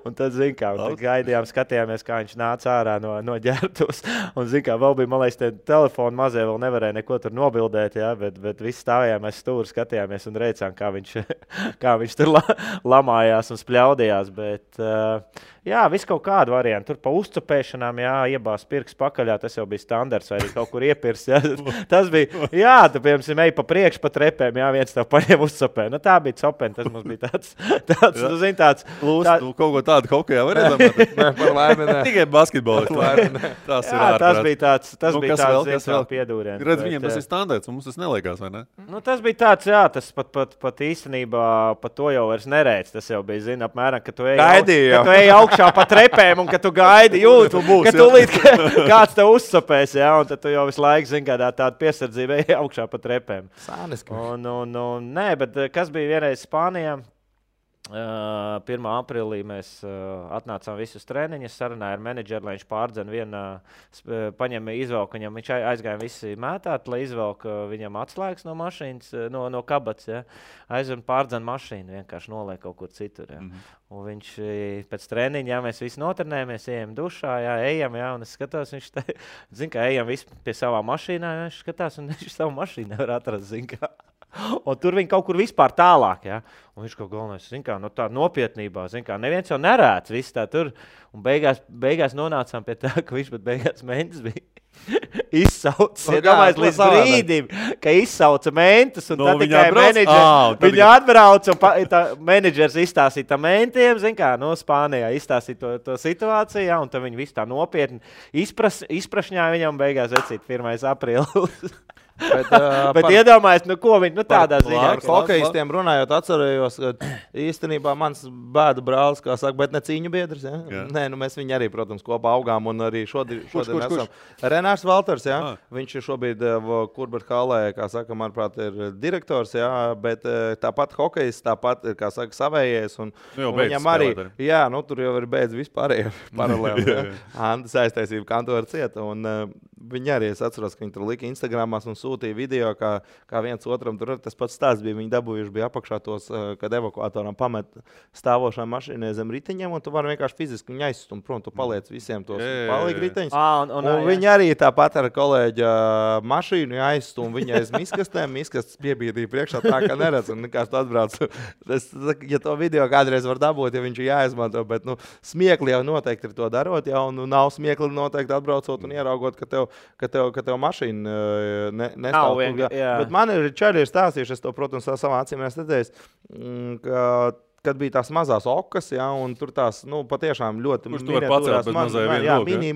Un tad, zin kā, gaidījām, skatījāmies, kā viņš nāca ārā no ģērbtuves. Un, zin kā, vēl bija, man liekas, telefonu mazie vēl nevarēja neko tur nobildēt, ja, bet visi stājām, mēs stūri skatījāmies un reicām, kā viņš tur lamājās un spļaudījās. Bet, jā, viss kaut kādu variantu. Tur pa uzcupēšanām, jā, iebās pirks pakaļā, tas jau bija standarts, vai arī kaut kur iepirs. Jā. Tas bija, jā, tu, piemēram, ej pa priekšu pa trepēm, jā, viens tev paņem uzcupē. Nu, tā bija copeni, tas mums bija tāds tu zini, tāds.
Tu kaut ko tādu hokejā var iedomāt?
Nē, par laimi, nē.
Tikai basketbolisti. Tas ir ārprāt.
Tas bija tāds,
Kas vēl?
piedūriens.
Redz, viņiem tas ir standarts, mums tas neliekās, vai ne?
Nu, tas bija tāds, jā, tas pat īstenībā pat to jau vairs nereic. Tas jau bija, zini, apmēram, ka tu ej augšā pa trepēm un ka tu gaidi, jūti, ka tūlīt kāds tev uzsapēs, jā, un tad tu jau visu laiku, zini, kādā tāda piesardzība ej augšā pa trepēm.
Sāniski.
Nē, bet kas bija vienreiz Spānijā? 1. aprīlī mēs atnācām visus treniņus, sarunāja ar menedžeru, lai viņš pārdzen paņem izvelk, viņš aizgāja visi mētāt, lai izvelk viņam atslēgas no mašīnas, no kabats, ja. Aizvien pārdzen mašīnu, vienkārši noliek kaut kur citur, ja. Un viņš pēc treniņa, jā, mēs visi notrenējamies, ejam dušā, jā, ejam, jā, un es skatos, viņš zin kā, ejam visi pie savā mašīnā, jā, viņš skatās, un viņš savu mašīnu nevar atrast, zin kā. Un tur viņi kaut kur vispār tālāk, ja? Un viņš kaut galvenais, zin kā, no tā nopietnībā, zin kā, neviens jau nerāds, viss tā tur. Un beigās nonācām pie tā, ka viņš pat beigās mentis bija izsaucis. Iedomājies līdz brīdim, ka izsauca mentis, un tad tikai menedžers. Viņa atbrauc, un menedžers izstāstīja tam mentiem, zin kā, no Spānijā izstāstīja to situāciju, ja? Un tad viņi visu tā nopietni izprašņāja viņam, beigās vecīt 1. aprīlis. Bet iedomājies, ko viņi tādā ziņā.
Par hokejistiem runājot, atcerējos, ka īstenībā mans bēdu brālis, kā saka, bet ne cīņu biedrs. Ja? Nē, mēs viņu arī, protams, kopā augām un arī šodien esam. Renārs Valters, ja? Viņš ir šobrīd Kurbert Hallē, kā saka, manuprāt, ir direktors, ja? Bet tāpat hokejists, tāpat ir, kā saka, savējies. Un viņam arī, jā, nu tur jau ir beidz vispārējie paralēli. Ja? Antas aiztaisība kantora cieta. Un viņi arī, es atceros, ka viņi tur lika Instagramās un sūtīja video, kā viens otram tur tas pats stāsts bija. Viņi dabūjuši bija apakšā tos, kad evakuatoram pamet stāvošām mašīnai zem riteņiem, un tu vari vienkārši fiziski viņu aizstumt prom, tu paliec visiem tos palīgi riteņus. Un viņi arī tāpat ar kolēģa mašīnu aizstum viņa aiz miskastēm, miskastes piebīdīja priekšā tā, ka neredz, un nekāds tu atbrauc. Ja to video kādreiz var dabūt, ja viņš ir jāizmanto, bet, smiekli jau noteikti ir to darot, ja, un nav smiekli noteikti atbraucot un ieraugot, ka tev mašīna nestāv tur. Bet man ir čaļi ir stāstījuši, es to, protams, savā acīm redzēju, kad bija tās mazās okas, ja, un tur tās, patiešām ļoti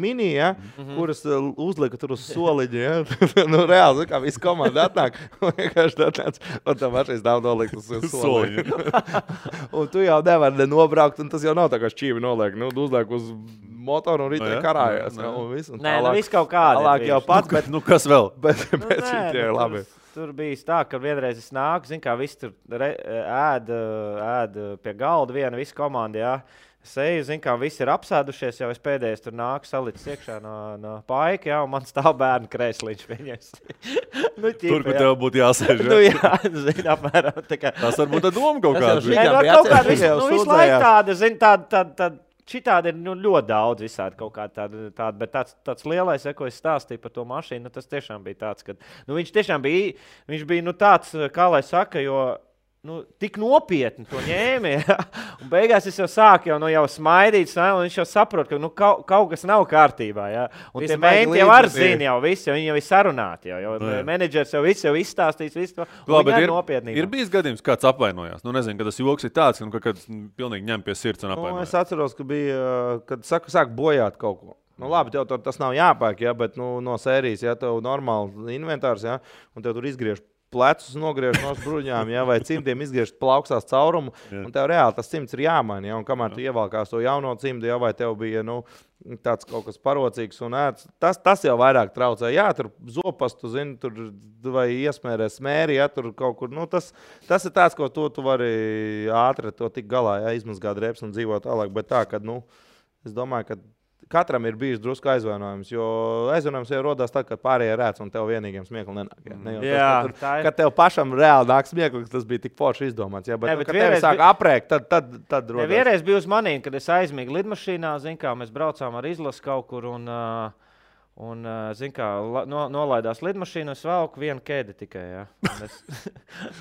mini, ja, kuras uzlika tur uz soliņa, ja. Reāli, kā visi komanda atnāk, vienkārši tāds, un tā mašīnas nav nolikt uz soliņa. Un tu jau nevari nobraukt, un tas jau nav tā kā šķīvi noliek, uzliek uz motoru un riteņi karājās.
Nē, viss kaut kādi.
Tālāk jau pats, bet
kas vēl?
Bet šitie ir labi.
Tur bija tā, ka vienreiz es nāku, zin kā visi tur ēd pie galda viena, visa komanda, jā. Es eju, zin kā, visi ir apsēdušies, jau es pēdējais tur nāku salicis iekšā no paika, jā, un man stāv bērnu krēsliņš viņas.
Tur, kur tev būtu jāsēž, jā?
Jā, zin, apmēram.
Tas varbūt tā doma kaut kāda.
Kaut kāda, visu laiku tāda, zin, tāda. Šitādi ir ļoti daudz visādi kaut kā tāda, bet tāds lielais, ko es stāstīju par to mašīnu, tas tiešām bija tāds, ka viņš tiešām bija, viņš bija tāds, kā lai saka, jo tik nopietni to ņēma, ja? Un beigās es jau sāku jau smaidīt, un viņš jau saprot, ka kaut kas nav kārtībā, ja? Un tie menti jau ar zina jau visu, viņi jau ir sarunāti, jo menedžers jau visu izstāstīs, visu to, un viņi ir nopietnībā.
Ir bijis gadījums, kāds apvainojās, nezinu, ka tas joks ir tāds, kad pilnīgi ņem pie sirds un apvainojās.
Es atceros, ka bija, kad sāk bojāt kaut ko. Labi, tev tas nav jāpērk, ja, bet no sērijas, ja tev normāli inventārs, ja, un tev tur izgriež plecus nogriež no bruņām, ja, vai cimdiem izgriež plauksās caurumu, un tev reāli tas cimds ir jāmaina, ja, un kamēr tu ievalkās to jauno cimdu, ja, vai tev bija, tāds kaut kas parocīgs un ēts, tas jau vairāk traucē. Jā, tur zopastu, zini, tur vai iesmērē smēri, ja, tur kaut kur, tas ir tāds, ko tu vari ātri to tik galā, ja, izmazgāt reps un dzīvot tālāk, bet tā, kad, es domāju, ka katram ir bijis drusku aizvainojums, jo aizvainojums jau rodās tad, kad pārējie rēc un tev vienīgiem smiekli nenāk. Ne jau tas, kad tev pašam reāli nāk smiekli, tas bija tik forši izdomāts. Ja, bet kad tevi sāk aprēkt, tad rodās.
Vienreiz bija uz manīm, kad es aizmīgu lidmašīnā, zin kā, mēs braucām ar izlasu kaut kur un zin kā, nolaidās lidmašīnu, es valku vienu kēdi tikai, ja. Un es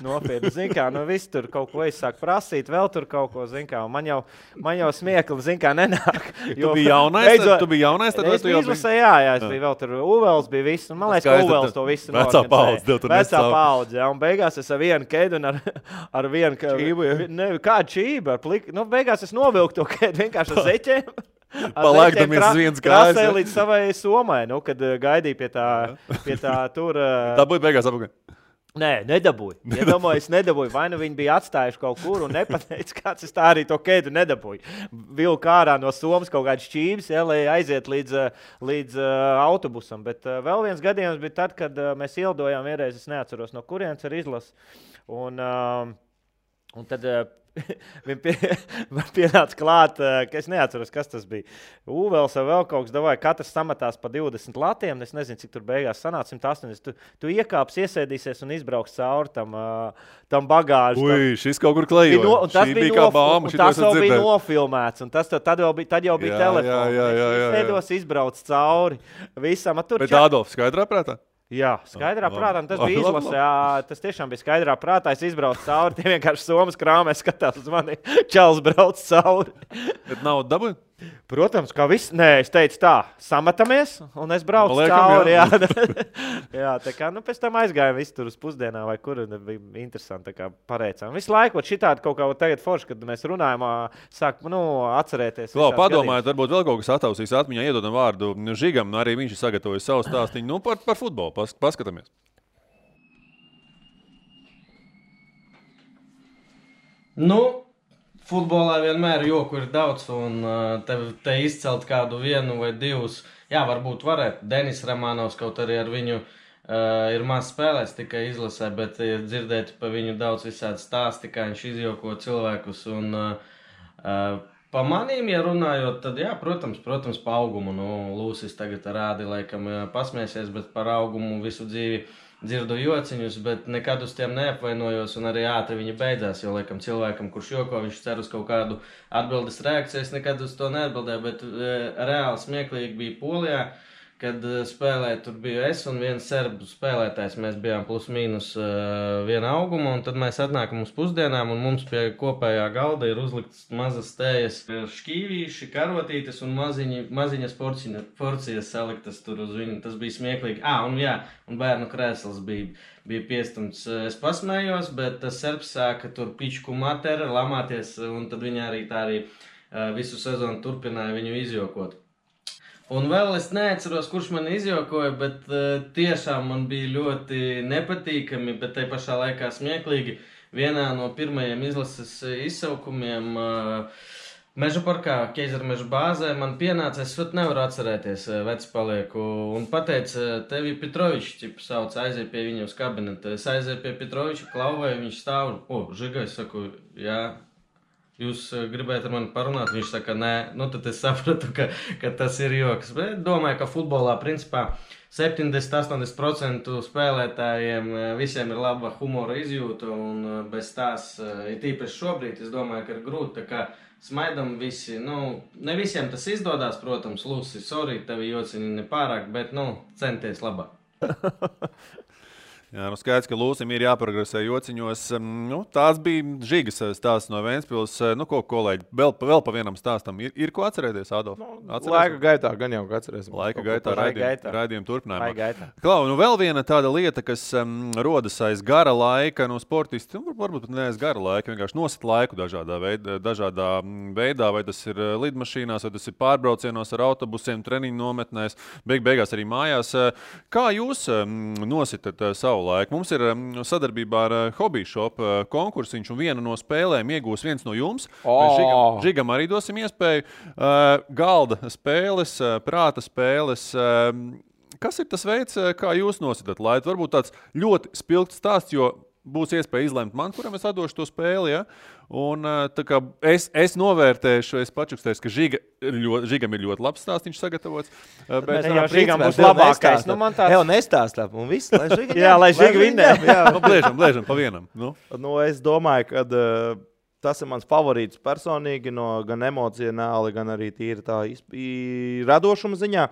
nopietni, zin kā, viss tur kaut ko sāk prasīt, vēl tur kaut ko, zin kā, un man jau smiekli, zin kā, nenāk.
Tu biji jaunais, tad
es biju izlasē, jā, es biju vēl tur, Uvels bija viss, un man liekas, ka Uvels to visu
Vecā
paudze, ja, un beigās es ar vienu kēdu un ar vienu, kādu čību, beigās es novilku to kēdu vienkārši ar zeķiem.
Palaikdamies uz viens kājas.
Krasēja līdz savai somai, kad gaidīja pie tā tur.
Dabūja beigās apakaļ.
Nē, nedabūju. Es nedabūju. Vai nu viņi bija atstājuši kaut kur un nepateica, kāds es tā arī to kēdu nedabūju. Vilku ārā no somas kaut kāds šķības, ja, lai aiziet līdz autobusam. Bet vēl viens gadījums bija tad, kad mēs ielidojām vienreiz, es neatceros no kurienes ar izlasu. Un tad pienāca klāt, ka es neatceros, kas tas bija. Uvels vai vēl kaut kas davāja, katrs samatās pa 20 latiem, es nezinu, cik tur beigās sanāca 180. Tu iekāps, iesēdīsies un izbrauks cauri tam bagāžu.
Ui, šis kaut kur klejoja.
Tas bija kā bāma, tas jau bija nofilmēts, un tad jau bija telefons. Es izbrauc cauri visam.
Bet Ādolfs skaidrā prātā?
Jā, skaidrā prātā, tas bija izlasē, tas tiešām bija skaidrā prātā, es izbraucu cauri, tie vienkārši somas krāmē skatās uz mani, čels brauc cauri.
Bet nav dabūja?
Protams, kā viss, nē, es teicu tā, samatamies, un es braucu cauri, jā. Jā, tā kā, pēc tam aizgājām visu tur uz pusdienā, vai kur, bija interesanti, tā kā pareicām. Visu laiku, šitādi kaut kā tagad forši, kad mēs runājam, sāk, atcerēties.
Padomājiet, varbūt vēl kaut kas atausīs atmiņā, iedodam vārdu Žigam, arī viņš ir sagatavojis savu stāstiņu, par futbolu, paskatāmies.
Futbolā vienmēr joku ir daudz, un te izcelt kādu vienu vai divus. Jā, varbūt varētu. Denis Ramanovs kaut arī ar viņu ir maz spēlēs tikai izlasē, bet ir dzirdēti pa viņu daudz visādi stāsti, kā viņš izjoko cilvēkus. Un pa manīm, ja runājot, tad jā, protams, pa augumu. Lūsis tagad rādi, laikam pasmēsies, bet par augumu visu dzīvi dzirdu jociņus, bet nekad uz tiem neapvainojos, un arī ātri viņi beidzās, jo, laikam, cilvēkam, kurš joko, viņš cer uz kaut kādu atbildes reakciju, es nekad uz to neatbildēju, bet reāli smieklīgi bija Polijā, kad spēlēja, tur biju es un viens serbu spēlētājs, mēs bijām plus mīnus viena auguma, un tad mēs atnākam uz pusdienām, un mums pie kopējā galda ir uzlikts mazas tējas šķīvīši, karotītes un maziņas porcijas saliktas tur uz viņu, tas bija smieklīgi. Un bērnu krēsls bija piestumts. Es pasmējos, bet tas serbs sāka tur pičku materi, lamāties, un tad viņi arī visu sezonu turpināja viņu izjokot. Un vēl es neatceros, kurš man izjokoja, bet tiešām man bija ļoti nepatīkami, bet tai pašā laikā smieklīgi. Vienā no pirmajiem izlases izsaukumiem Meža parkā, Keizermeža bāzē, man pienāca, es nevaru atcerēties, vecs palieku, un pateica, tevi Petrovičs, sauc, aiziet pie viņa uz kabinetu. Es aizēju pie Petroviča, klauvēju, viņš stāv, Žiga, es saku, jā. Jūs gribējat ar mani parunāt? Viņš saka, nē, tad es sapratu, ka tas ir joks. Bet domāju, ka futbolā principā 70–80% spēlētājiem visiem ir laba humora izjūta, un bez tās, ir tīpaši šobrīd, es domāju, ka ir grūti, tā kā smaidam visi, ne visiem tas izdodās, protams, Lusi, sorry, tevi jociņi nepārāk, bet, centies labāk.
Jā, skaidrs, ka Lūsim ir jāprogresē jociņos. Tās bija Žigas stāsts no Ventspils. Kolēģi, vēl pa vienam stāstam. Ir ko atcerēties, Ādolf?
Laika gaitā gan jau atcerēsim.
Laika gaitā raidījuma turpinājumā. Klau, vēl viena tāda lieta, kas rodas aiz gara laika, sportisti, varbūt ne aiz gara laika, vienkārši nosit laiku dažādā veidā, vai tas ir lidmašīnās, vai tas ir pārbraucienos ar autobusiem, treniņu nometnēs, beigās arī mājās. Kā jūs nositat savu laiku? Mums ir sadarbībā ar Hobby Shop konkursiņš, un vienu no spēlēm iegūs viens no jums. Žigam arī dosim iespēju. Galda spēles, prāta spēles. Kas ir tas veids, kā jūs nositat laitu? Varbūt tāds ļoti spilgts stāsts, jo būs iespēja izlemt man, kuram es atdošu to spēli. Ja? Un, tā kā es novērtēšu, es pačukstēšu, ka Žigam ir ļoti labs stāsts, viņš sagatavots.
Bet jau Žigam būs labākais. Nu, man tāds...
Jau nestāstā, un viss, lai Žiga
jā, lai Žiga vinnē.
Blēžam pa vienam. Nu,
es domāju, ka tas ir mans favorīts personīgi, gan emocionāli, gan arī tīri tā radošuma ziņā.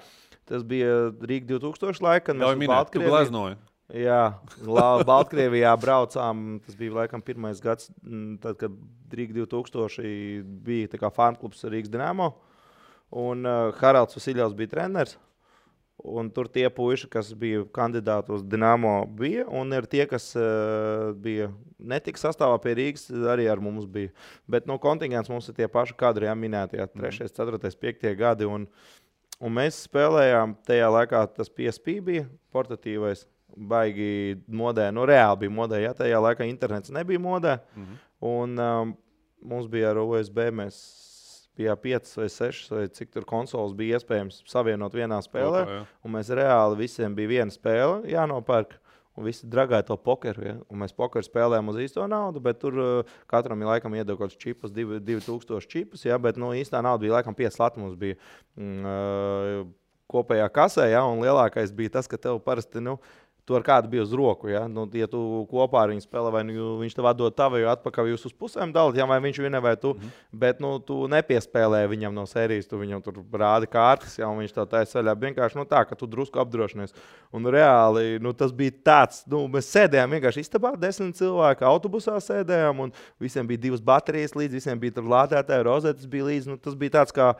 Tas bija Rīga 2000 laika, kad mēs
Baltkrieviju gleznoju.
Jā, Baltkrievijā braucām. Tas bija laikam pirmais gads, tad, kad Rīga 2000 bija tā kā fanklubs Rīgas Dinamo. Un Haralds Vasiļovs bija treneris. Un tur tie puiši, kas bija kandidāti uz Dinamo, bija. Un ir tie, kas bija netika sastāvā pie Rīgas, arī ar mums bija. Bet kontingents mums ir tie paši kadri, jā, minētie 3., 4., 5. gadi. Un mēs spēlējām tajā laikā, tas PSP bija portatīvais, baigi modē. Reāli bija modē, jā, tajā laikā internets nebija modē. Un mums bija ar USB, mēs bija 5 vai 6, vai cik tur konsoles bija iespējams savienot vienā spēlē. Un mēs reāli visiem bija viena spēle jānopērk. Un visi dragāja to pokeru. Ja? Un mēs pokeru spēlējām uz īsto naudu, bet tur katram laikam iedeva kaut kāds čipus, 2000 čipus. Ja? Bet īstā nauda bija laikam 5 lati mums bija kopējā kasē. Ja? Un lielākais bija tas, ka tev parasti... Tu ar kādu bija uz roku, ja? Ja tu kopā ar viņu spēlē, vai viņš tev atdod tavu, jo atpakaļ jūs uz pusēm dalat, ja? Vai viņš vienē vai tu, bet tu nepiespēlēji viņam no sērijas, tu viņam tur rādi kārtas, ja? Un viņš tev taisa ceļā vienkārši tā, ka tu drusku apdrošinies. Un reāli, tas bija tāds, mēs sēdējām vienkārši istabā, 10 cilvēki autobusā sēdējām, un visiem bija 2 baterijas līdz, visiem bija tur lādētāji, rozetes bija līdz, tas bija tāds kā,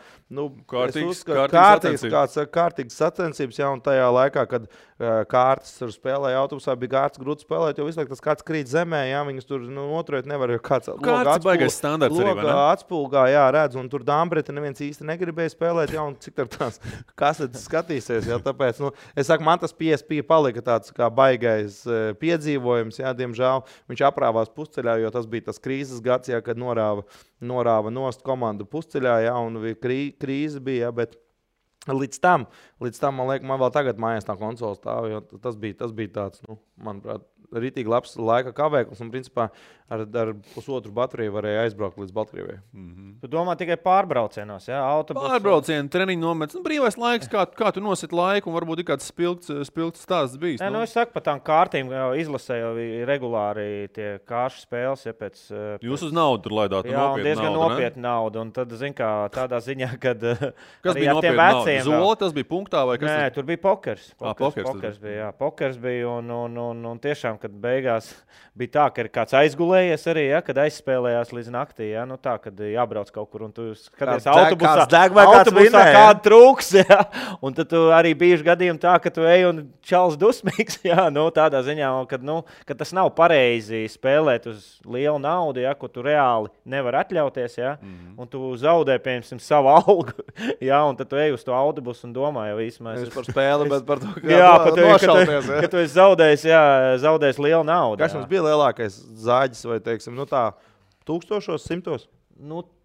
kārtīgas sacensības, ja? Un tajā laikā, kad kārtas tur spēlēja autobusā, bija kārtas grūti spēlēt, jo visu laiku tas kāds krīt zemē, jā, viņas tur noturēt nevar, jo kāds atspulgā, jā, redz, un tur Dāmbreta neviens īsti negribēja spēlēt, jā, un cik tur tās kasetes skatīsies, jā, tāpēc, es saku, man tas PSP palika tāds kā baigais piedzīvojums, jā, diemžēl, viņš aprāvās pusceļā, jo tas bija tas krīzes gads, jā, kad norāva nost komandu pusceļā, jā, un krīze bija, jā, bet Līdz tam, man liekas, man vēl tagad mājās tā konsola stāv, jo tas bija tāds, manuprāt, ritīgi labs laika kavēklis, un principā ar pusotru bateriju varēja aizbraukt līdz Baltkrievijai.
Tu domā tikai pārbraucienos, jā?
Pārbraucieni, treniņu nomets, brīvais laiks, kā tu nosit laiku, un varbūt ir kāds spilgts stāsts bijis.
Es saku, pa tām kārtīm izlasē jau regulāri tie kāršu spēles, ja pēc...
Jūs uz naudu tur laidāt,
jā, un diezgan nopietni naudu, un tad, zin kā, tādā ziņā, kad...
Kas bija nopietni naudu? Zola, tas bija punktā, vai kas?
Nē, tur bija pokers.
Pokers
bija, jā. Pokers bija, un tiešām, kad beigās bija tā, ka ir kāds aizgulējies arī, ja, kad aizspēlējās līdz naktī, ja, tā, kad jābrauc kaut kur, un tu skaties autobusā kādu trūks, ja, un tad tu arī bijuši gadījumi tā, ka tu ej un čals dusmīgs, ja, tādā ziņā, kad tas nav pareizi spēlēt uz lielu naudu, ja, ko tu reāli nevar atļauties, ja, un tu zaudē, piemēram, savu algu, ja, un tad tu ej uz to autobusu un domā jau īsmēs.
Es par spēli, bet par to, kā nošalties.
Ka tu esi zaudējis lielu naudu.
Kas mums bija lielākais zāģis vai, teiksim, tā 1000, 100?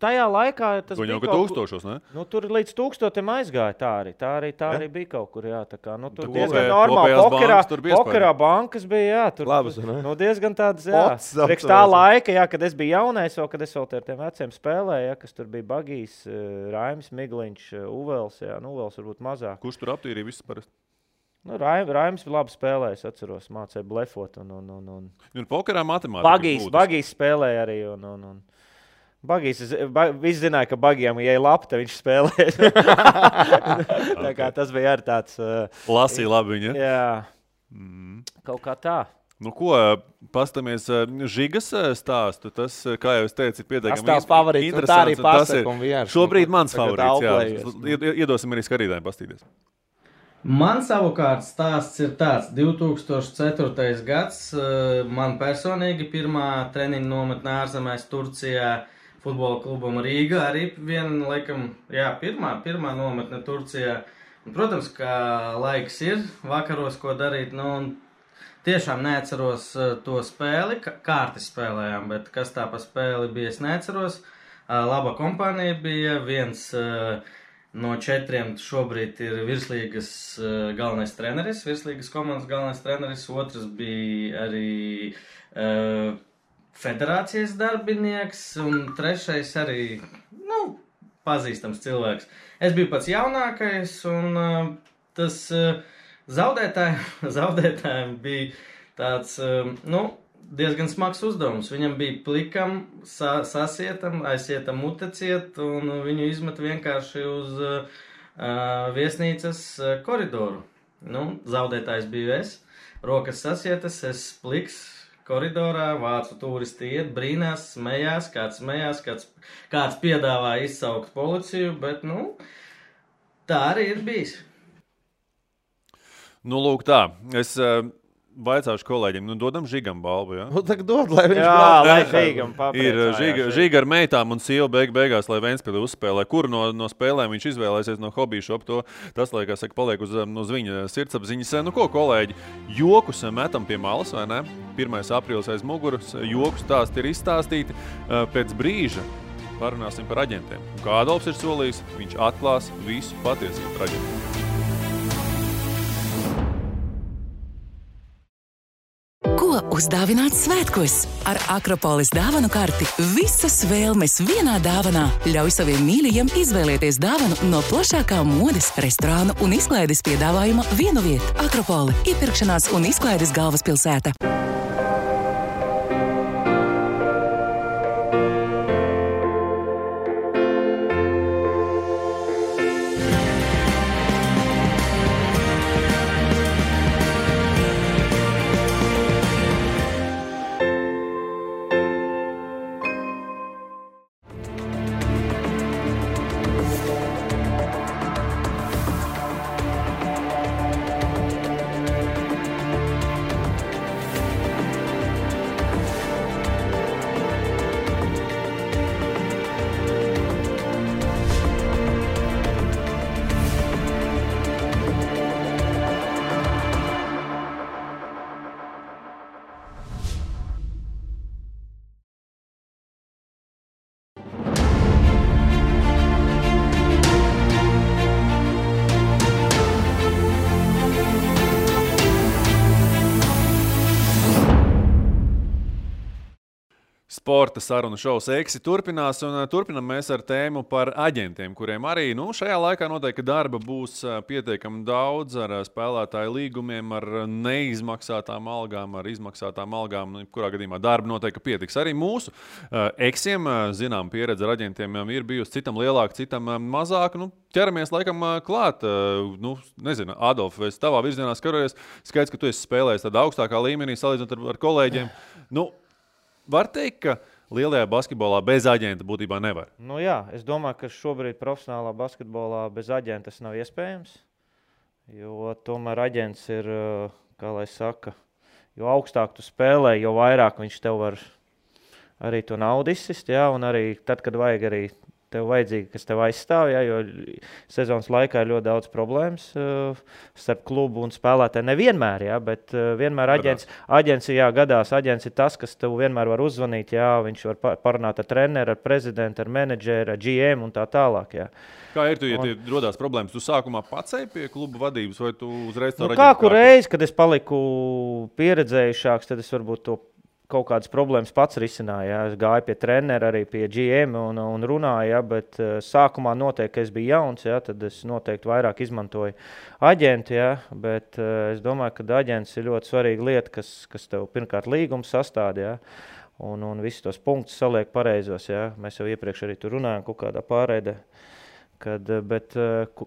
Tajā laikā tas
bija
kaut
kur... 1000, ne?
Tur līdz 1000 aizgāja tā arī bija kaut kur, jā. Tā kā, tur diezgan normāli. Pokerā bankas bija, jā. Tur
labas, ne?
Diezgan tādas, jā. Priekš tā laika, jā, kad es biju jaunais, kad es vēl ar tiem veciem spēlēju, jā, kas tur bija Bagijs, Raimis, Migliņš, Uvels, jā. Uvels varbūt mazāk.
Kurš tur aptīrīja visus parasti?
Raims labi spēlēja, es atceros, mācēja blefot.
Un pokerā matemātika.
Bagijs spēlēja arī. Bagijs, visi zināja, ka Bagijam, ja ir labi, tad viņš spēlēja. Tā kā tas bija arī tāds...
Lasīja labi viņa.
Jā, kaut kā tā.
Pastamies Žigas stāstu. Tas, kā jau es teicu, ir pietiekami
interesants. Tas tās favorīts, tā arī pasaka un vienkārši.
Šobrīd mans favorīts, jā. Iedosim arī skatītājiem pastīties.
Man savukārt stāsts ir tāds. 2004. gads, man personīgi pirmā treniņa nometnē ārzemēs Turcijā futbola klubam Rīga. Arī viena, laikam, jā, pirmā nometne Turcijā. Un, protams, ka laiks ir vakaros, ko darīt. Tiešām neatceros to spēli, kārti spēlējām, bet kas tā pa spēli bija, es neatceros. Laba kompānija bija, viens No 4 šobrīd ir virslīgas galvenais treneris, virslīgas komandas galvenais treneris, otrs bija arī federācijas darbinieks, un trešais arī, pazīstams cilvēks. Es biju pats jaunākais, un tas zaudētājiem bija tāds, diezgan smags uzdevums. Viņam bija plikam, sasietam, aizsietam muteciet, un viņu izmet vienkārši uz viesnīcas koridoru. Zaudētājs biju es, rokas sasietas, es pliks koridorā, vācu turisti iet, brīnās, smējās, kāds piedāvā izsaukt policiju, bet, tā arī ir bijis.
Lūk tā, es vaicāšu kolēģiem, dodam Žigam balvu, ja?
Tagad dod, lai viņš
lai Žigam papriecājās.
Ir Žiga ar meitām un sieva beigās, lai Ventspili uzspēlē. Kuru no spēlēm viņš izvēlēsies no hobby shop, tas, lai, kā saka, paliek uz viņa sirdsapziņas. Ko, kolēģi, jokus metam pie malas, vai ne? 1. aprīlis aiz muguras, joku stāsti ir izstāstīti. Pēc brīža parunāsim par aģentiem. Kā Adolfs ir solījis, viņš atklās visu patiesību par aģentiem.
Ko uzdāvināt svētkos? Ar Akropolis dāvanu karti visas vēlmes vienā dāvanā. Ļauj saviem mīļajiem izvēlēties dāvanu no plašākā modes, restorānu un izklaides piedāvājuma vienu vietu. Akropoli – iepirkšanās un izklaides galvaspilsēta.
Sporta sarunu šovs Eksi turpinās, un turpinam mēs ar tēmu par aģentiem, kuriem arī šajā laikā noteikti darba būs pietiekami daudz ar spēlētāju līgumiem, ar neizmaksātām algām, ar izmaksātām algām. Kurā gadījumā darba noteikti pietiks. Arī mūsu Eksiem, zinām, pieredze ar aģentiem ir bijusi citam lielāka, citam mazāka. Ķeramies laikam klāt. Nezinu, Adolf, es tavā virzienā skatos, skaidrs, ka tu esi spēlējis tādā augstākā līmenī, salīdzinot ar kolēģiem. Var teikt, ka lielajā basketbolā bez aģenta būtībā nevar?
Jā, es domāju, ka šobrīd profesionālā basketbolā bez aģenta tas nav iespējams, jo tomēr aģents ir, kā lai saka, jo augstāk tu spēlē, jo vairāk viņš tev var arī to naudu izsist, un arī tad, kad vajag arī tev vajadzīgi, kas tev aizstāv, jo sezonas laikā ir ļoti daudz problēmas starp klubu un spēlētāju. Nevienmēr, bet vienmēr aģents gadās. Aģents ir tas, kas tev vienmēr var uzvanīt, viņš var parunāt ar treneru, ar prezidentu, ar menedžeru, ar GM un tā tālāk.
Kā ir, ja rodās problēmas? Tu sākumā pats eji pie kluba vadības vai tu uzreiz to
Kādu reizi, kad es paliku pieredzējušāks, tad es varbūt to kaut kādas problēmas pats risināja. Es gāju pie trenera, arī pie GM un runāju, bet sākumā noteikti, ka es biju jauns, tad es noteikti vairāk izmantoju aģentu, bet es domāju, ka aģents ir ļoti svarīga lieta, kas tev pirmkārt līgums sastāda, un visus tos punktus saliek pareizos, Mēs jau iepriekš arī tur runājam kaut kādā pārēdē. Bet,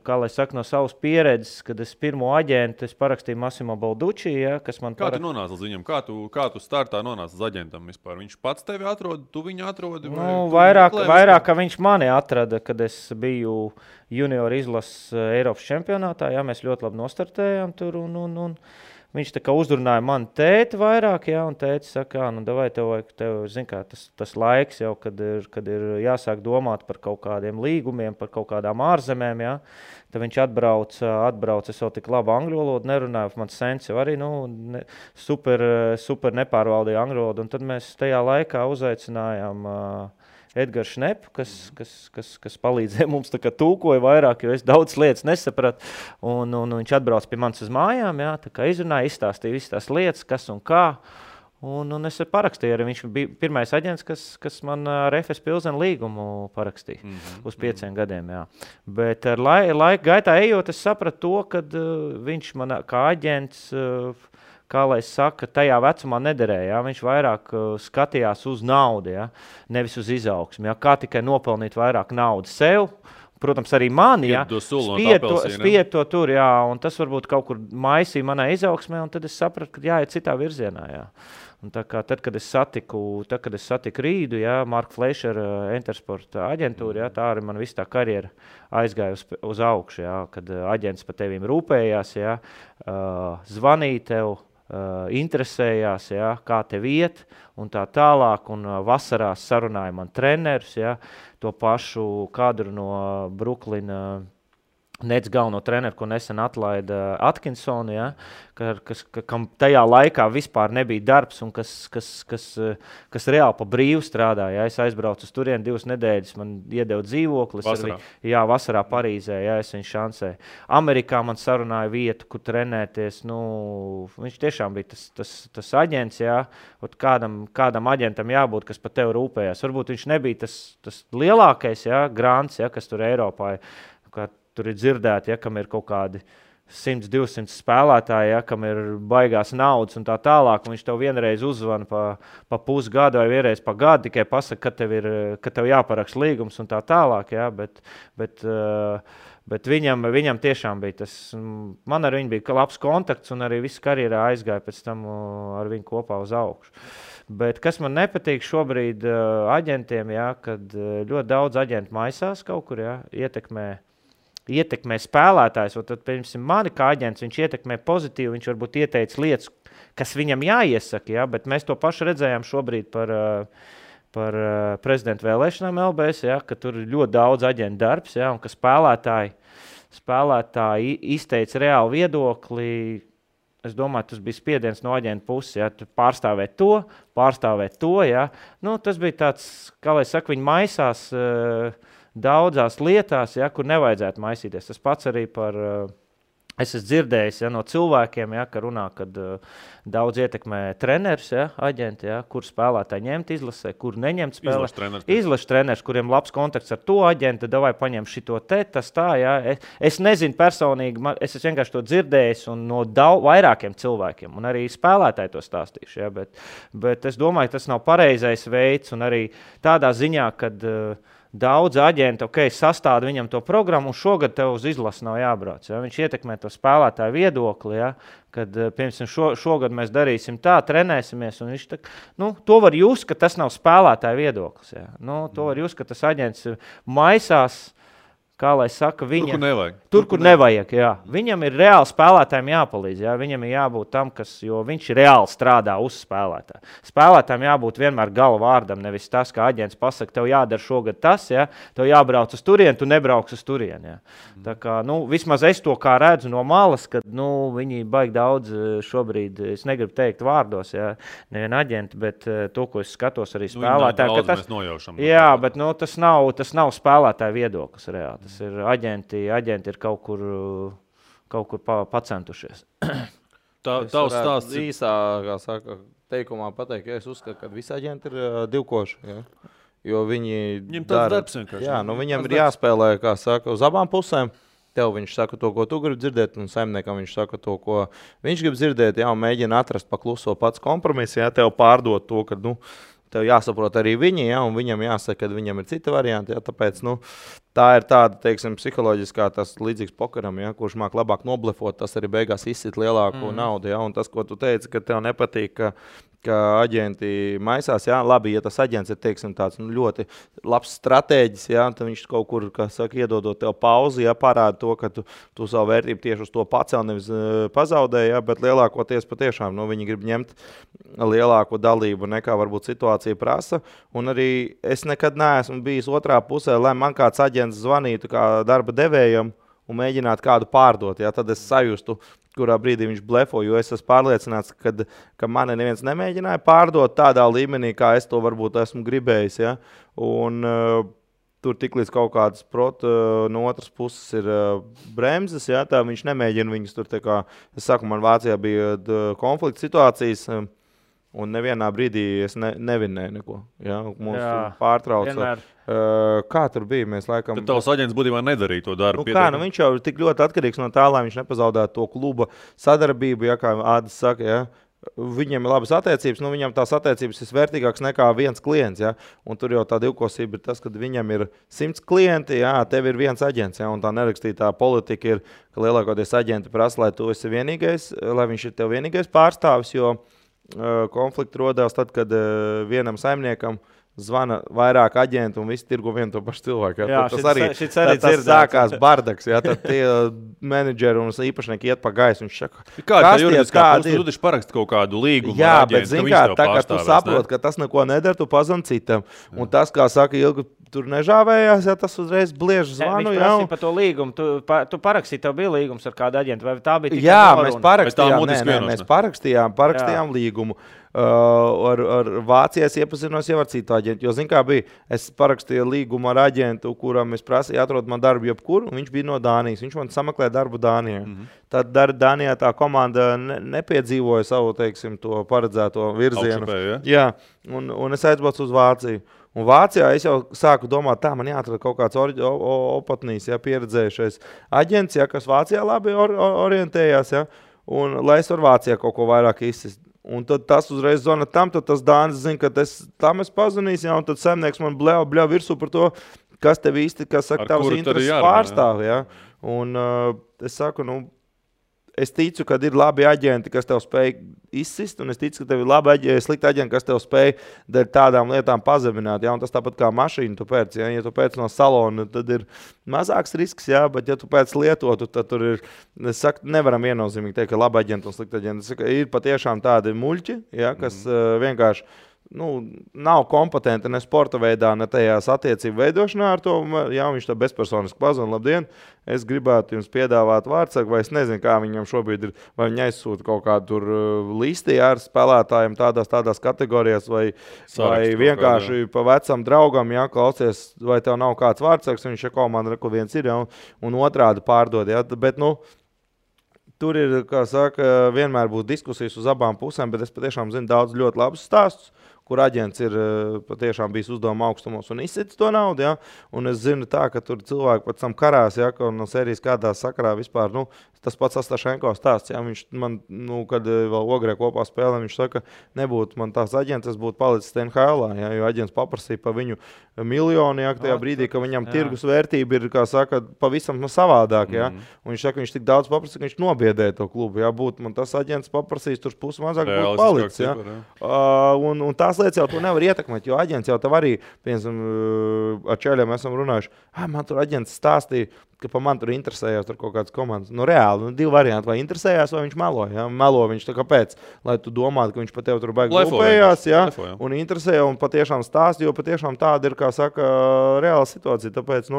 kā lai saka, no savas pieredzes, kad es pirmo aģentu, es parakstīju Massimo Balducci, kas man
Kā tu nonāci līdz viņam? Kā tu startā nonāci līdz aģentam vispār? Viņš pats tevi atrod, tu viņu atrodi?
Vairāk, ka viņš mani atrada, kad es biju junior izlases Eiropas čempionātā, mēs ļoti labi nostartējām tur, un viņš tā kā uzrunāja mani tēti vairāk, un tēti saka, davai tev zin kā, tas laiks jau, kad ir jāsāk domāt par kaut kādiem līgumiem, par kaut kādām ārzemēm, Tad viņš atbrauc, es vēl tik labi angļu valodu nerunāju, mans sens jau arī, super nepārvaldīja angļu valodu, un tad mēs tajā laikā uzaicinājām Edgars Šneps, kas palīdzēja mums tā kā tūkoja vairāk, jo es daudz lietas nesapratu. Un viņš atbrauc pie manis uz mājām, jā, tā kā izrunāja, izstāstīja visas tās lietas, kas un kā. Un es parakstīju arī. Viņš bija pirmais aģents, kas man ar FS Pilsenu līgumu parakstīja uz 5 gadiem. Jā. Bet ar laika gaitā ejot, es sapratu to, ka viņš man kā aģents, kā lai saka, tajā vecumā nederēja. Jā. Viņš vairāk skatījās uz naudu, jā, nevis uz izaugsmi. Jā. Kā tikai nopelnīt vairāk naudas sev. Protams, arī mani, ja, spied to tur, jā, un tas varbūt kaut kur maisīja manā izaugsmē, un tad es sapratu, ka jāiet citā virzienā, jā. Un tā kā tad, kad es satiku Rīdu, jā, Marka Fleišera Entersporta aģentūra, jā, tā arī man viss tā karjera aizgāja uz augšu, jā, kad aģents par tevīm rūpējās, jā, zvanīja tev, interesējās, jā, kā tev iet un tā tālāk, un vasarās sarunāja man trenerus, jā, to pašu kadru no Bruklina Nets galveno treneru, ko nesen atlaida Atkinsonu, ja, kam tajā laikā vispār nebija darbs un kas reāli pa brīvu strādāja. Ja. Es aizbraucu uz turieni 2 nedēļas, man iedeva dzīvoklis. Vasarā Parīzē, ja, es viņu šansēju. Amerikā man sarunāja vietu, kur trenēties. Nu, viņš tiešām bija tas aģents, ja, kādam aģentam jābūt, kas par tevi rūpējās. Varbūt viņš nebija tas lielākais, ja, grants, ja, kas tur Eiropā ir. Tur ir dzirdēti, ja, kam ir kaut kādi 100-200 spēlētāji, ja, kam ir baigās naudas un tā tālāk, un viņš tev vienreiz uzvana pa pusgadu vai vienreiz pa gadu, tikai pasaka, ka tev jāparaksta līgums un tā tālāk, ja, bet viņam tiešām bija tas, man ar viņu bija labs kontakts un arī viss karjerā aizgāja pēc tam ar viņu kopā uz augšu. Bet kas man nepatīk šobrīd aģentiem, ja, kad ļoti daudz aģentu maisās kaut kur, ja, ietekmē spēlētājs, un tad, piemēram, mani kā aģents, viņš ietekmē pozitīvi, viņš varbūt ieteica lietas, kas viņam jāiesaka, ja, bet mēs to pašu redzējām šobrīd par prezidenta vēlēšanām LBS, ja, ka tur ir ļoti daudz aģentu darbs, ja, un ka spēlētāji izteica reāli viedokli. Es domāju, tas bija spiediens no aģenta puses, ja, pārstāvēt to, ja. Nu, tas bija tāds, kā lai saka, viņi maisās daudzās lietās, ja, kur nevajadzētu maisīties. Tas pats arī es esmu dzirdējis, ja, no cilvēkiem, ja, ka runā, kad daudz ietekmē treneris, ja, aģenti, ja, kur spēlētāji ņemt izlasē, kur neņemt spēlē. Izlašu treneris, kuriem labs kontakts ar to aģentu, davai paņem šito tas tā, ja. Es nezinu personīgi, es esmu vienkārši to dzirdējis un no vairākiem cilvēkiem, un arī spēlētāji to stāstīšu, ja, bet es domāju, tas nav pareizais veids, un arī tādā ziņā, kad daudz aģenti, sastāda viņam to programmu, un šogad tev uz izlasi nav jābrauc. Ja? Viņš ietekmē to spēlētāju viedokli, ja? Kad, piemēram, šogad mēs darīsim tā, trenēsimies, un viņš to var just, ka tas nav spēlētāju viedoklis. Ja? Nu, to var just, ka tas aģents maisās, kā lai saka, tur, kur nevajag, jā. Viņam ir reāli spēlētājiem jāpalīdz, jā. Viņam ir jābūt tam, jo viņš reāli strādā uz spēlētāju. Spēlētājiem jābūt vienmēr gala vārdam, nevis tas, kā aģents pasaka, tev jādara šogad tas, jā, tev jābrauc uz turieni, tu nebrauks uz turieni, jā. Tā kā, vismaz es to kā redzu no malas, kad, viņi baigi daudz šobrīd, es negribu teikt vārdos, jā, nevien aģenti, bet to, ko es skatos arī spēlētāju, jā, bet, tas nav spēlētāju viedoklis reāli. Tas ir aģenti ir kaut kur pacentušies.
Tavs stāsts īsā, kā saka, teikumā pateikt, ka es uzskatu, ka visi aģenti ir divkoši, ja? Jo viņi dara, jā, viņam ir jāspēlē, kā saka, uz abām pusēm. Tev viņš saka to, ko tu gribi dzirdēt, un saimniekam viņš saka to, ko viņš grib dzirdēt, jā, un mēģina atrast pakluso pats kompromisu, jā, tev pārdot to, ka, tev jāsaprot arī viņi, ja, un viņam jāsaka, ka viņam ir cita varianti, ja, tāpēc, tā ir tāda, teiksim, psiholoģiskā, tas līdzīgs pokeram, ja, kurš māk labāk noblefot, tas arī beigās izsit lielāko naudu, ja, un tas, ko tu teici, ka tev nepatīk, ka aģenti maisās, jā, labi, ja tas aģents ir, teiksim, tāds ļoti labs stratēģis, jā, tad viņš kaut kur, kā saka, iedodot tev pauzi, jā, parāda to, ka tu savu vērtību tieši uz to pacel, nevis pazaudēji, jā, bet lielākoties patiešām, viņi grib ņemt lielāko dalību nekā varbūt situācija prasa, un arī es nekad neesmu bijis otrā pusē, lai man kāds aģents zvanītu kā darba devējam un mēģināt kādu pārdot. Ja? Tad es sajustu, kurā brīdī viņš blefo, jo es esmu pārliecināts, ka mani neviens nemēģināja pārdot tādā līmenī, kā es to varbūt esmu gribējis. Ja? Un tur tiklīdz kaut kādas no otras puses ir bremzes, ja? Tā viņš nemēģina viņus tur, tā kā, es saku, man Vācijā bija konflikta situācijas, un nevienā brīdī es nevinēju neko. Ja? Mums pārtrauca. Kā tur bija? Mēs laikam...
Tad tavs aģents būtībā nedarīja to darbu.
Viņš jau ir tik ļoti atkarīgs no tā, lai viņš nepazaudētu to kluba sadarbību, ja, kā Ādis saka, ja. Viņam ir labas attiecības, viņam tās attiecības ir vērtīgākas nekā viens klients, ja. Un tur jau tā divkosība ir tas, ka viņam ir 100 klienti, ja, tev ir viens aģents, ja, un tā nerakstītā politika ir, ka lielākoties aģenti prasa, lai tu esi vienīgais, lai viņš ir tev vienīgais pārstāvis, jo konflikti rodās tad, kad vienam saimniekam zvana vairāk aģentu un visi tirgo vienu to pašu cilvēku. Ja?
Jā,
tas sākās bardaks. Ja? Tad tie menedžeri un īpašnieki iet pa gaisu.
Kāda ir juridiskā puse? Tu taču paraksti kaut kādu līgumu.
Jā, bet zini kā, tā kā tu saproti, ka tas neko nedara, tu pazvan citam. Un tas, kā saka Ilga, tur nežāvējās, ja tas uzreiz bliež zvanu.
Viņš prasīja par to līgumu. Tu parakstīji, tev bija līgums ar kādu aģentu, vai tā bija tikai
Jā, mēs parakstījām līgumu. Ar Vācijas iepazinos jau ar citu aģentu, jo, zin kā bija, es parakstīju līgumu ar aģentu, kuram es prasīju atrod man darbu jebkur, un viņš bija no Dānijas, viņš man sameklēja darbu Dānijā. Tad Dānijā tā komanda nepiedzīvoja savu, teiksim, to paredzēto virzienu. Jā, un es aizbraucu uz Vāciju. Un Vācijā es jau sāku domāt, tā man jāatrod kaut kāds opatnīs, ja, pieredzējušais aģents, ja, kas Vācijā labi orientējās, ja, un lai es varu Vācijā kaut ko vairāk izsist. Un tad tas uzreiz zvana tam, tad tas Dānis zina, ka tam es pazvanīšu, ja, un tad saimnieks man bļauj virsū par to, kas tev īsti, kas saka, tavs intereses pārstāv. Ja. Un es saku, es ticu, ka ir labi aģenti, kas tev spēj izsist, un es ticu, ka tev ir slikti aģenti, kas tev spēj dēļ tādām lietām pazemināt. Ja? Un tas tāpat kā mašīnu tu pēc. Ja tu pēc no salona, tad ir mazāks risks, ja? Bet ja tu pēc lietotu, tad tur ir, es saku, nevaram viennozīmīgi teikt, ka labi aģenti un slikti aģenti. Es saku, ir patiešām tādi muļķi, ja? Kas vienkārši nav kompetenti ne sporta veidā, ne tajās attiecību veidošanā ar to. Jā, viņš tā bezpersoniski pazvan, labdien, es gribētu jums piedāvāt vārdsargu, vai es nezinu, kā viņam šobrīd ir, vai viņi aizsūta kaut kādu tur listi ar spēlētājiem tādās kategorijās, vai vienkārši pa vecam draugam, jā, klausies, vai tev nav kāds vārdsargs, viņš komanda reku viens ir, jā, un otrādi pārdod, jā, bet, tur ir, kā saka, vienmēr būs diskusijas uz abām pusēm, bet es patiešām zinu daudz ļoti labus stāstus, kur aģents ir patiešām bijis uzdevuma augstumos un izsits to naudu, ja? Un es zinu tā, ka tur cilvēki pēc tam karās, ja? Ka no serijas kādā sakarā vispār, tas pats Astašenko stāsts, ja? Viņš man, kad vēl Ogrē kopā spēlē, viņš saka, nebūtu man tās aģents, es būtu palicis NHL-ā, ja? Jo aģents paprasīja pa viņu miljonu, ja? Tajā brīdī, ka viņam tirgus vērtība ir, kā saka, pavisam savādāk, ja? Un viņš saka, viņš tik daudz paprasīja, ka viņš nobiedēja to klubu, ja? Būtu man tas aģents paprasījis, tur pusi mazāk būtu palicis, ja? Un tās lietas jau to nevar ietekmēt, jo aģents jau tev arī, piemēram, ar čēļiem esam runājuši, man tur aģents stāstīja, ka pa man tur interesējās tur kaut kādas komandas. Reāli, divi varianti, vai interesējās, vai viņš melo. Ja? Melo viņš tā kāpēc, lai tu domātu, ka viņš pa tev tur baigi lupējās, ja? Un interesēja un patiešām stāst, jo patiešām tāda ir, kā saka, reāla situācija. Tāpēc,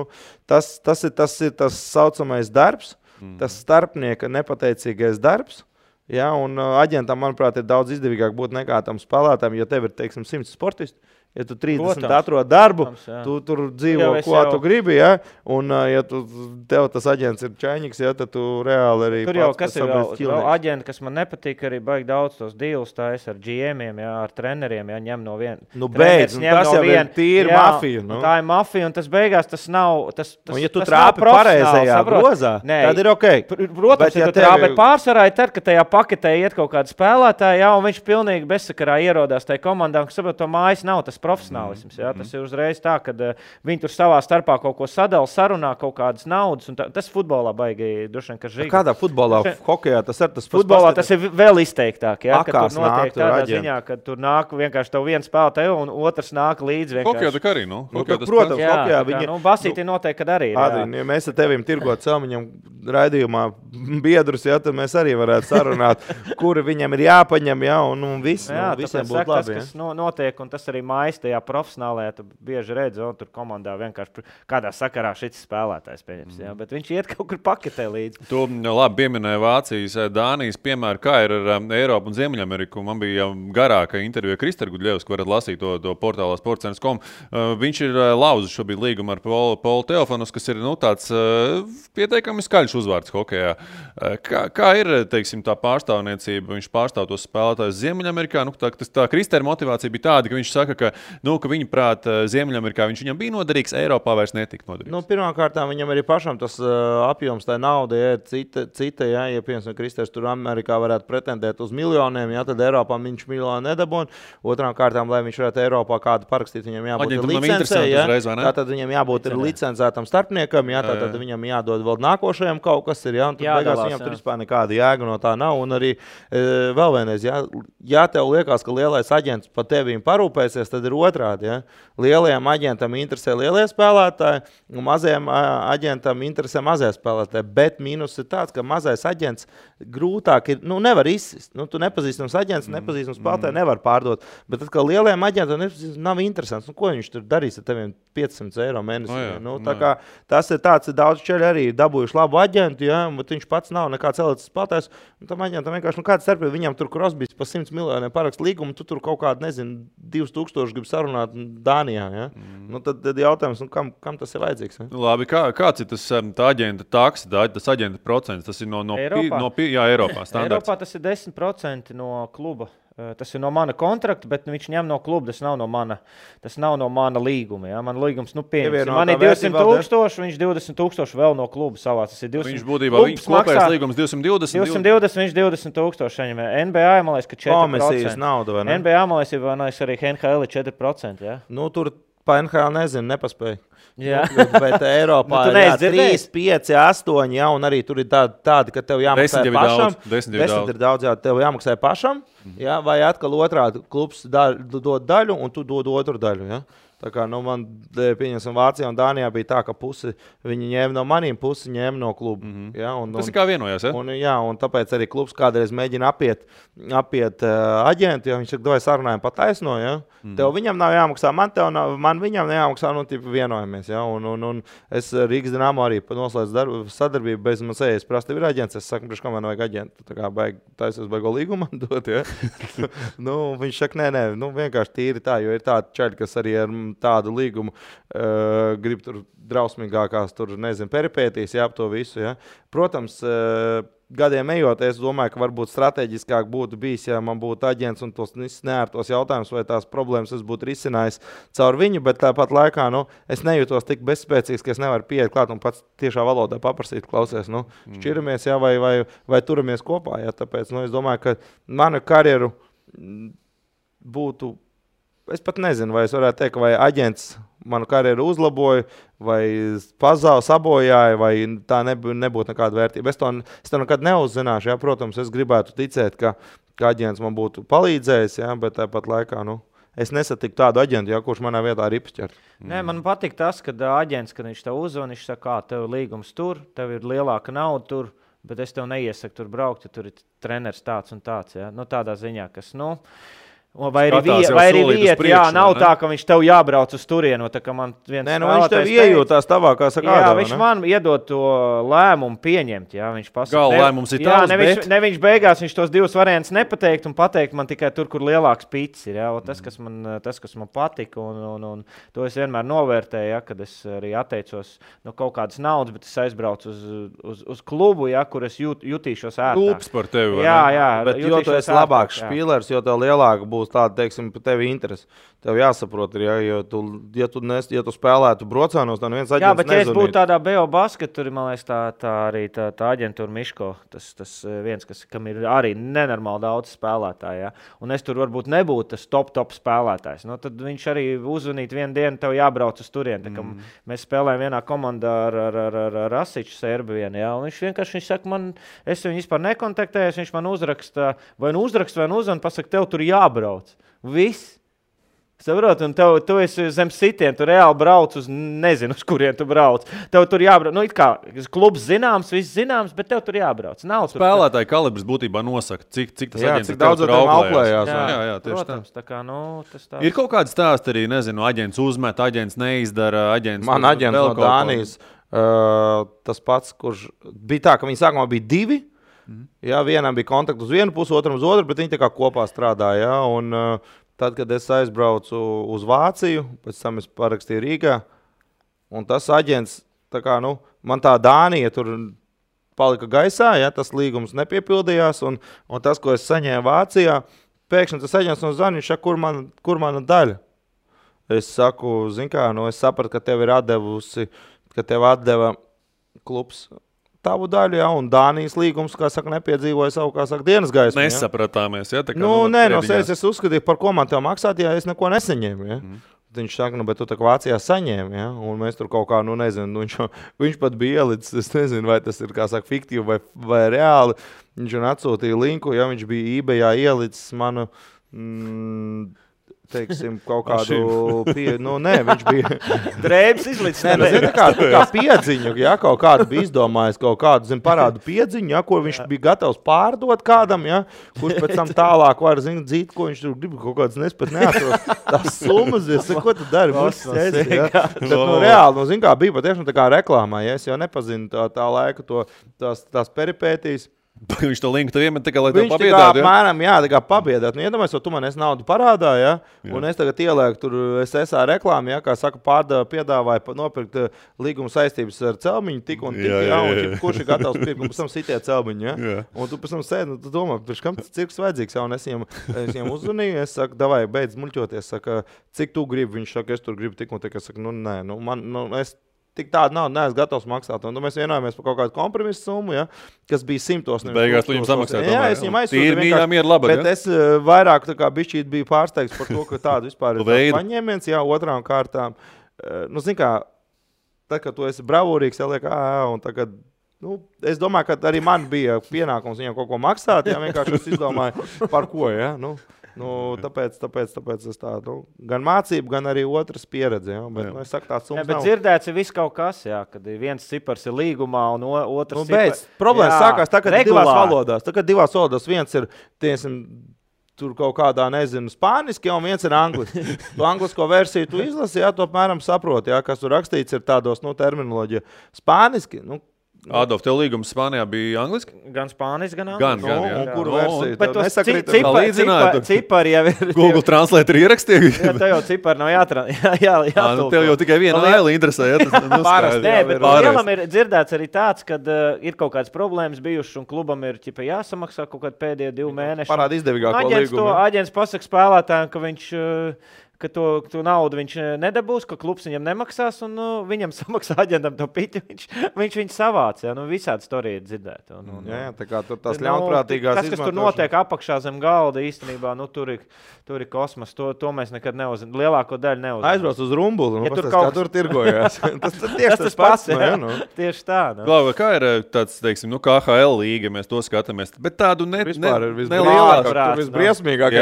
tas ir tas saucamais darbs, tas starpnieka nepateicīgais darbs. Ja, un aģentam, manuprāt, ir daudz izdevīgāk būt nekā tam spēlētājiem, jo tev ir, teiksim, 100 sportisti. Ja tu 30 atrod darbu, tu tur dzīvo, ko tu gribi, ja? Un ja tev tas aģents ir čaņiks, ja, tad tu reāli arī
tur jau, kas ir vēl aģenti, kas man nepatīk, arī baigi daudz tos deals tais ar GM-iem, ja, ar treneriem, ja, ņem no viena.
Beidz, tas jau ir tīri mafija.
Tā ir mafija, un tas beigās tas nav,
un ja tu trāpi pareizajā grozā, tad ir ok.
Protams, ja tu trāpi pārsvarā, tad, ka tajā paketē iet kaut kāda spēlētāja, ja, un viņš pilnīgi bezsakarā ierodās tajā komandām, kas saprot, to mājas nav tas profesionālisms. Ja? Tas ir uzreiz tā, ka viņi tur savā starpā kaut ko sadala, sarunā kaut kādas naudas. Tas futbolā baigi droši vien, ka žīgi.
Kādā futbolā? Hokejā tas ir tas pats.
Futbolā tas ir vēl izteiktāk. Ja? Kad tur notiek tādā ziņā, kad tur nāk vienkārši tev viens spēlētāj un otrs nāk līdzi vienkārši.
Hokejā tā arī,
protams, hokejā viņi...
Basīti noteikti, kad arī.
Adrian, ja mēs ar tevim tirgot Celmiņam raidījumā biedrus, ja, tad mēs arī varētu sarunāt, kuri viņam ir jāpaņem, ja, un viss, visiem būtu labi.
Tas, kas notiek, un tas arī mājas mājas tajā profesionālajā, tu bieži redzi, un tur komandā vienkārši kādā sakarā šis spēlētājs pieņems. Jā, bet viņš iet kaut kur paketē līdzi.
Tu labi pieminēji Vācijas, Dānijas piemēru, kā ir ar Eiropu un Ziemeļameriku. Man bija garāka intervija Krister Gudļevs, ko varat lasīt to portālā sportcentrs.com. Viņš ir lauzis šobrīd līgumu ar Polu Teofanus, kas ir tāds pieteikami skaļš uzvārds hokejā. Kā ir, teiksim, tā pārstāvniecība? Viņš pārstāv tos spēlētājus Ziemeļamerikā. Tā Kristera motivācija bija tāda, ka viņš saka, ka viņa prāt Ziemeļamerikā viņš viņam bija noderīgs, Eiropā vairs netika noderīgs.
Pirmkārt, viņam arī pašam tas apjoms, tā nauda ir cita, ja piemēram, Kristers tur Amerikā varētu pretendēt uz miljoniem, ja, tad Eiropā viņš miljonu nedabūna. Otrām kārtām, lai viņš varētu Eiropā kādu parakstīt, viņam jābūt licencē, ja, tātad viņam jābūt licencētam starpniekam, ja, tātad viņam jādod vēl nākošajam kaut kas ir, ja, un tad beigās viņam tur vispār nekāda jēga no tā nav. Un arī vēl vienreiz, ja tev liekas, ka lielais aģents par tevīm parūpēsies, tad ir otrādi. Ja. Lielajam aģentam interesē lielie spēlētāji, un mazajam aģentam interesē mazie spēlētāji. Bet mīnus ir tāds, ka mazais aģents grūtāk ir, nevar izsist. Tu nepazīstams aģents, nepazīstams spēlētāji nevar pārdot. Bet tad, ka lielajam aģentam nav interesants, ko viņš tur darīs ar teviem 500 eiro mēnesī? Tas ir tāds, daudz čeļi arī dabūjuši labu aģentu, ja, bet viņš pats nav nekāds elites spēlētājs. Tam aģentam vienkārši kāds starpība, viņam tur Crosbys pa 100 miljoniem parakst līgumu, tu tur kaut kādu, 2000 grib sarunāt Dānijā. Ja? Tad jautājums, kam tas ir vajadzīgs? Ja?
Labi, kāds ir tas aģenta taksa, tas aģenta procents? Tas ir no Eiropā standarts.
Eiropā tas ir 10% no kluba. Tas ir no mana kontrakta, bet viņš ņem no kluba. Tas nav no mana līguma. Ja? Man līgums, pieņems. Man ir 200,000, viņš 20,000 vēl no kluba savā. Tas ir 200.
Viņš būtībā, kopējais līgums 220.
220, viņš 20,000. NBA, man liekas, ka 4%.
Komisijas nauda, vai ne?
NBA, man liekas, arī NHL ir 4%. Ja?
Tur pa NHL nezinu, nepaspēju.
Jā.
Bet Eiropā ir 3, 5, 8, ja, un arī tur ir tādi, ka tev jāmaksā pašam.
10
ir daudz, jā, tev jāmaksā pašam, ja, vai atkal otrādi klubs dod daļu, un tu dod otru daļu. Ja. Tā kā man, pieņemsim, Vācijā un Dānijā bija tā, ka pusi viņi ņēma no maniem, pusi ņēma no kluba. Ja,
tas ir kā vienojās,
ja? Un tāpēc arī klubs kādreiz mēģina apiet aģentu, jo viņš saka, vai sarunājam pa taisno, ja? Tev viņam nav jāmaksā, man viņam jāmaksā, vienojamies. Ja? Un es Rīgas Dinamo arī noslēdzu sadarbību, bez man sējas prasti ir aģents, es saku, priekš, kā man vajag aģentu, tā kā taisies baigo līgumu man dot, ja? Viņš saka, nē, vienkārši tīri tā, jo ir tādi čaļi, kas arī ar tādu līgumu grib tur drausmīgākās, peripētīs, ap to visu. Ja. Protams, gadiem ejot, es domāju, ka varbūt strateģiskāk būtu bijis, ja man būtu aģents un tos neērtos jautājumus vai tās problēmas es būtu risinājis caur viņu, bet tāpat laikā, es nejūtos tik bezspēcīgs, ka es nevaru pieiet klāt un pats tiešā valodā paprasīt, klausies, šķiramies, ja, vai turamies kopā, ja, tāpēc, es domāju, ka manu karjeru būtu. Es pat nezinu, vai es varētu teikt, vai aģents manu karjeru uzlaboja, vai sabojāja, vai tā nebūtu nekāda vērtība. Es to nekad neuzzināšu. Ja? Protams, es gribētu ticēt, ka aģents man būtu palīdzējis, ja? Bet tāpat laikā es nesatiku tādu aģentu, ja? Kurš manā vietā ir ipšķert.
Nē, man patīk tas, ka aģents, kad viņš tev uzzvan, viņš saka, tev ir līgums tur, tev ir lielāka nauda tur, bet es tev neiesaku tur braukt, ja tur ir treneris tāds un tāds. Ja? Tādā ziņā, kas, vai arī vieta, jā, nav tā, ka viņš tev jābrauc uz turienu.
Viņš tev iejūtās tavā, kā saka,
jā, viņš man iedod to lēmumu pieņemt. Jā, viņš pasaka,
lēmums ir tavs,
ne viņš beigās, viņš tos divus variantus nepateikt un pateikt man tikai tur, kur lielāks pits ir. Jā, tas, kas man patika, un to es vienmēr novērtēju, ja, kad es arī atteicos no kaut kādas naudas, bet es aizbraucu uz klubu, ja, kur es jutīšos ērtāk.
Klubs par tevi.
Jā,
bet jo tu esi labāks špīlers, jo tev lielāka būs tāda, teiksim, par tevi interesi. Tev jāsaprot, ja tu spēlētu brocānos, tad viens aģents nezvanīt.
Jā, bet ja es būtu tādā BO basket, tur, man liekas, tā arī tā aģentūra Miško, tas viens, kam ir arī nenormāli daudz spēlētāji, ja? Un es tur varbūt nebūtu tas top spēlētājs. Tad viņš arī uzvanīt vienu dienu, tev jābrauc uz turieni. Mēs spēlējam vienā komandā ar Rasiču Serbiju, ja? Un viņš saka, es viņu vispār nekontaktējos, viņš man uzraksta vai uzvan, pasaka, tev tur jābrauc. Viss. Saprot, un tu esi zem sitiem, tu reāli brauc uz nezinu, uz kurien tu brauc. Tev tur jābrauc, nu it kā klubs zināms, viss zināms, bet tev tur jābrauc. Nav tur
spēlētāji kalibrs būtībā nosaka, cik tas aģents
cik daudz
tur
auklējās.
Jā, tieši
protams, tā kā, tas tā.
Ir kaut kāds stāsts arī, nezinu, aģents uzmet, aģents neizdara, aģents...
Man aģents no Dānijas, tas pats, kurš bija tā, ka viņi sākumā bija 2. Jā, vienam bija kontakts uz vienu pusi, otram uz otru, bet viņi tā kā kopā strādāja, jā, un... Tad, kad es aizbraucu uz Vāciju, pēc tam es parakstīju Rīgā, un tas aģents, tā kā, man tā Dānija tur palika gaisā, ja, tas līgums nepiepildījās, un tas, ko es saņēmu Vācijā, pēkšņi tas aģents no Zaniņš, kur mana daļa? Es saku, zin kā, es sapratu, ka tev ir atdevusi, ka tev atdeva klubs tavu daļu, ja, un Dānijas līgums, kā saka, nepiedzīvoja savu, kā saka, dienas gaismu.
Nesapratāmies, ja? Tā kā,
nē, no sevis es uzskatīju, par ko man tev maksāt, ja es neko nesaņēmu, ja. Viņš saka, bet tu tā kā Vācijā saņēmi, ja, un mēs tur kaut kā, nezinu, viņš pat bija ielicis, es nezinu, vai tas ir, kā saka, fiktīvi vai reāli, viņš atsūtīja linku, ja viņš bija eBayā ielicis manu, teiksim, kaut kādu viņš bija
drēbes izlicis.
Kā piedziņu, ja, kaut kādu bija izdomājis, kaut kādu, parādu piedziņu, ja, ko viņš bija gatavs pārdot kādam, ja, kurš pēc tam tālāk var, dzīt, ko viņš tur grib, kaut kāds nespat neatros. Tās summas, ko tu dari? Bet, reāli, kā bija patiešām tā kā reklāmā, ja, es jau nepazinu tā laika tās peripētīs.
Viņš to linku tev iemet, lai tev pabiedātu,
ja? Apmēram, jā, tā kā pabiedāt. Iedomājies, tu man esi naudu parādā, ja? Un es tagad ielieku tur SSA reklāmu, ja? Kā saka, piedāvāja nopirkt līguma saistības ar celmiņu tik un tik, ja? Un kurš ir gatavs pirkt, un pēc tam sitie celmiņu, ja? Un tu pēc tam sēdi, tu domā, pirms kam tas cirks vajadzīgs, ja? Un es viņiem uzzvanīju, es saku, davai, beidz muļķoties, saka, cik tu gribi, viņš saka, es tur gribu tik un tik, es saku, nē, es tik tādu naudu neesmu gatavs maksāt. Un mēs vienojāmies par kaut kādu kompromisu summu, ja, kas bija 100.
Beigās tu viņam samaksāt.
Jā, es viņam aizsūtīju.
Tīri mīļā miera labad,
bet es vairāk tā kā bišķīt biju pārsteigts par to, ka tādu vispār ir paņēmiens, jā, otrām kārtām. Zin kā, tad, kad tu esi bravūrīgs, jāliek, un tagad, es domāju, ka arī man bija pienākums viņam kaut ko maksāt, jā, vienkārši es izdomāju, par ko, jā, tāpēc es tādu, gan mācību, gan arī otras pieredzi, ja? Bet, es saku, tāds summas
bet dzirdēts ir viss kaut kas, jā, kad viens cipars ir līgumā un otrs cipars.
Problēmas sākās tā, kad divās valodās, viens ir, tur kaut kādā, nezinu, spāniski, un viens ir angliski. Tu anglisko versiju tu izlasi, jā, tu apmēram saproti, jā, kas tur rakstīts ir tādos, terminoloģija. Spāniski,
Adolf, tev līgums Spānijā bija angliski?
Gan spāniski, gan angliski.
Un kuru versiju?
Bet tos cipari jau ir...
Google Translate ir ierakstīja?
Jā, tev jau cipari nav jātulko.
Tev jau tikai viena aila interesē, ja tas
pārasti. Nē, bet lielam ir dzirdēts arī tāds, kad ir kaut kādas problēmas bijušas un klubam ir jāsamaksā kaut kādi pēdējie 2 mēneši.
Parāda izdevīgāko līgumu.
Aģents pasaka spēlētājiem, ka viņš... ka to naudu viņš nedabūs, ka klubs viņam nemaksās, un viņam samaksā aģentam to piti, viņš viņu savāc. Ja? Visādi storija ir dzirdēta.
Jā, tā kā tur tās ļaunprātīgās
izmantošanas. Tas, kas tur notiek apakšā zem galda, īstenībā, tur ir kosmos. To mēs nekad neuzinām. Lielāko daļu neuzinām.
Aizbrauc uz Rumbuli, kā tur tirgojās. Tas pats.
Tieši tā.
Klauva, kā ir tāds, teiksim, KHL līga, mēs to skatāmies, bet tādu
vispār ir visbriesmīgāk.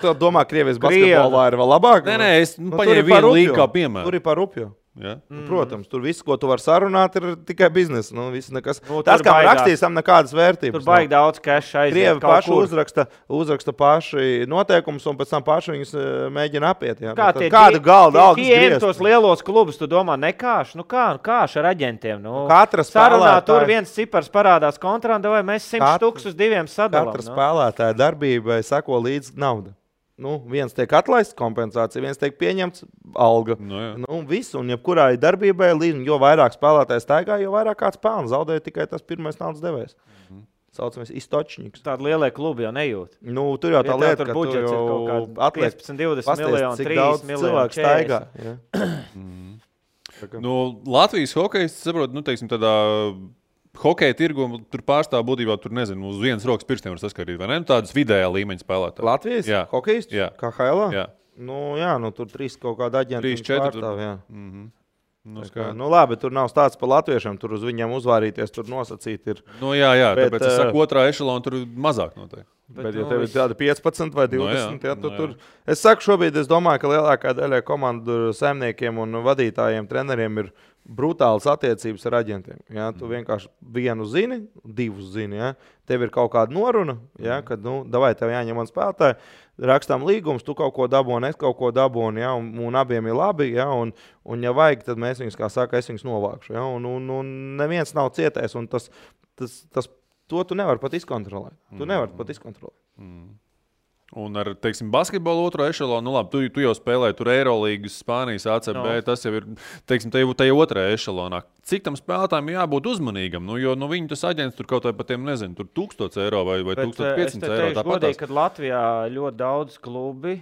Tu domā, Krievijas basketbolā ir vēl labāk?
Nē, es paņēmu vienu līgu kā piemēru.
Tur ir par Rupju.
Ja?
Protams, tur viss, ko tu vari sarunāt, ir tikai biznesa. Tas, kā rakstīs, tam nekādas vērtības.
Tur baigi daudz cash aiziet.
Krievi paši uzraksta paši noteikumus, un pēc tam paši viņus mēģina apiet. Ja? Kādu galdu algas griezt?
Tos lielos klubus, tu domā, nekāš? Kāš ar aģentiem?
Katra spēlētāja.
Tur viens cipars parādās kontrānda, vai mēs 100 tūkstošus uz 2 sadalām.
Katra spēlētāja darbībai sako līdz nauda. Viens tiek atlaists kompensācija, viens tiek pieņemts alga. Viss, un jebkurā darbībai, jo vairāk spēlētājs staigā, jo vairāk kāds pelna. Zaudēja tikai tas pirmais naudas devējs. Saucamies istočniks.
Tāda lielie klubi jau nejūt.
Tur jau tā lieta, ka
tu jau atliek 15, 20 miljonu, 3 miljonu
cilvēku staigā.
Latvijas hokejs, saprot, teiksim, tādā... Hokeja tirgu tur pārstāv būtībā, tur nezinu, uz vienas rokas pirkstiem var saskarīt, vai ne? Tādas vidējā līmeņa spēlētāji.
Latvijas?
Jā.
Hokejs?
Jā.
KHL?
Jā.
Tur 3 kaut kāda aģenta pārstāv, jā. Labi, tur nav stāsts par latviešiem, tur uz viņiem uzvārīties, tur nosacīt ir.
Jā, tāpēc es saku, otrā ešalona tur mazāk noteikti.
Bet ja tev ir tāda 15 vai 20, tur. Es saku šobrīd, es domāju, ka lielākā daļai komandu saimniekiem un vadītājiem, treneriem ir brutālas attiecības ar aģentiem. Ja? Tu vienkārši vienu zini, divus zini. Ja? Tev ir kaut kāda noruna, ja? Kad, davai, tev jāņem man spēlētāji, rakstām līgumus, tu kaut ko dabūni, es kaut ko dabūni, ja? un abiem ir labi. Ja? Un ja vajag, tad mēs viņus, kā saka, es viņus novākšu. Ja? Un neviens nav cietējis, un to tu nevari pat izkontrolēt. Tu nevari pat izkontrolēt.
Un ar, teiksim, basketbolu otro ešalonu, labi, tu jau spēlēji tur Eirolīgas, Spānijas, ACB, tas jau ir, teiksim, tajā otrajā ešalonā. Cik tam spēlētājiem jābūt uzmanīgam? Jo viņi tas aģents tur kaut vai par tiem, nezinu, tur 1000 eiro vai 1500 eiro.
Es godīgi, kad Latvijā ļoti daudz klubi,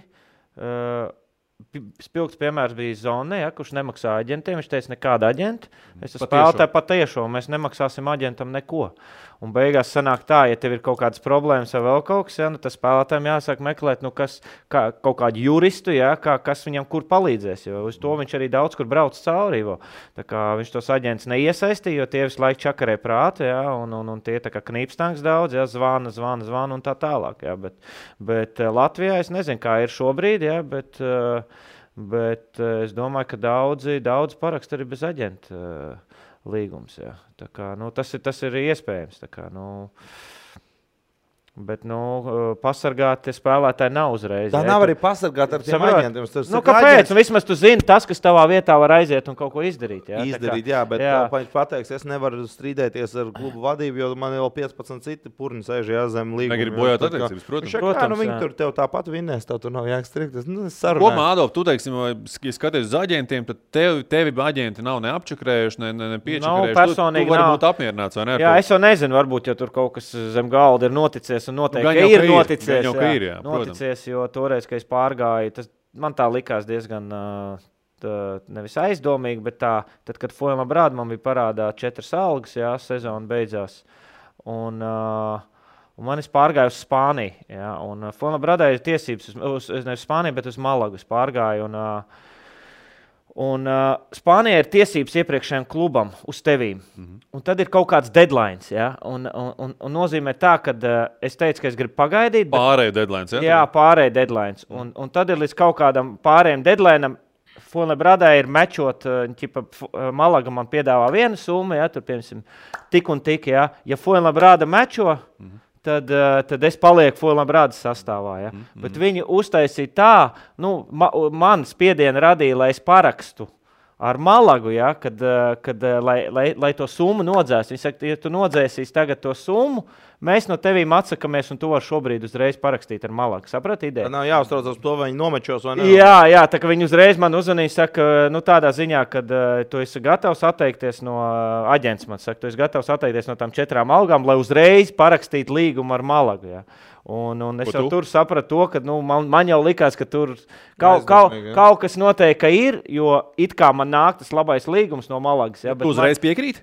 spilgts piemērs bija Zone, kurš nemaksā aģentiem. Viņš teica, nekāda aģenta. Es spēlētāju patiešo, mēs nemaksāsim aģentam neko. Un beigās sanāk tā, ja tev ir kaut kādas problēmas vai vēl kaut kas, tas spēlētājiem jāsāk meklēt, kaut kādu juristu, kas viņam kur palīdzēs. Jo uz to viņš arī daudz kur brauc cauri. Tā kā viņš tos aģents neiesaistīja, jo tie visu laiku čakarē prātu, un tie tā kā knīpstanks daudz, zvana un tā tālāk. Bet Latvijā es nezinu, kā ir šobrīd, bet es domāju, ka daudzi parakst arī bez aģenta līgums. Jā. Tā kā, tas ir iespējams. Tā kā, bet pasargāt spēlētāji nav uzreiz.
Tā nav arī pasargāt ar tiem aģentiem.
Kāpēc? Vismaz tu zini tas, kas tavā vietā var aiziet un kaut ko izdarīt.
Bet viņš pateiks, es nevaru strīdēties ar klubu vadību, jo man jau 15 citi purni sēž zem līguma.
Negribu bojāt attiecības, protams.
Viņi tur tev tāpat vinnēs, tev tur nav jākstrikt.
Kopumā, Adolf, tu teiksim, ja skaties uz aģentiem, tad tevi aģenti nav neapčakrējuši, nepiečakrējuši. Tu vari būt apmierināts, vai ne?
Jā, es jau nezinu, varbūt, ja tur kaut kas zem galda ir noticies. Un noteikti ir noticies, noticies, jo toreiz, kad es pārgāju, man tā likās diezgan nevis aizdomīgi, bet tad, kad Foilma Brāda man bija parādā 4 algas, sezona beidzās, un man es pārgāju uz Spāniju, un Foilma Brādā ir tiesības, nevis Spāniju, bet uz Malagu es pārgāju, un Spānijā ir tiesības iepriekšējiem klubam uz tevīm. Un tad ir kaut kāds deadlines. Un nozīmē tā, ka es teicu, ka es gribu pagaidīt.
Pārēju deadlines.
Jā, pārēju deadlines. Un tad ir līdz kaut kādam pārējiem deadlineam. Foilma Brādā ir mečot, Malaga man piedāvā vienu summu, tur piemēram tik un tik. Ja Foilma Brāda mečo, tad es palieku Foilma Brādas sastāvā. Bet viņi uztaisīja tā, man spiedienu radīja, lai es parakstu ar Malagu, kad lai to summu nodzēs. Viņi saka, ja tu nodzēsīs tagad to summu, mēs no tevīm atsakamies, un tu vari šobrīd uzreiz parakstīt ar Malagu. Saprati ideju?
Nav jāuztraucas par to, vai viņi nomečos vai ne.
Jā, tā kā viņi uzreiz man uzvanīja, saka, tādā ziņā, kad tu esi gatavs atteikties no aģents, man saka, tu esi gatavs atteikties no tām 4 algām, lai uzreiz parakstītu līgumu ar Malagu. Un es jau tur sapratu to, ka man jau likās, ka tur kaut kas noteikti ir, jo it kā man nāk tas labais līgums no Malagas.
Tu uzreiz piekrīt?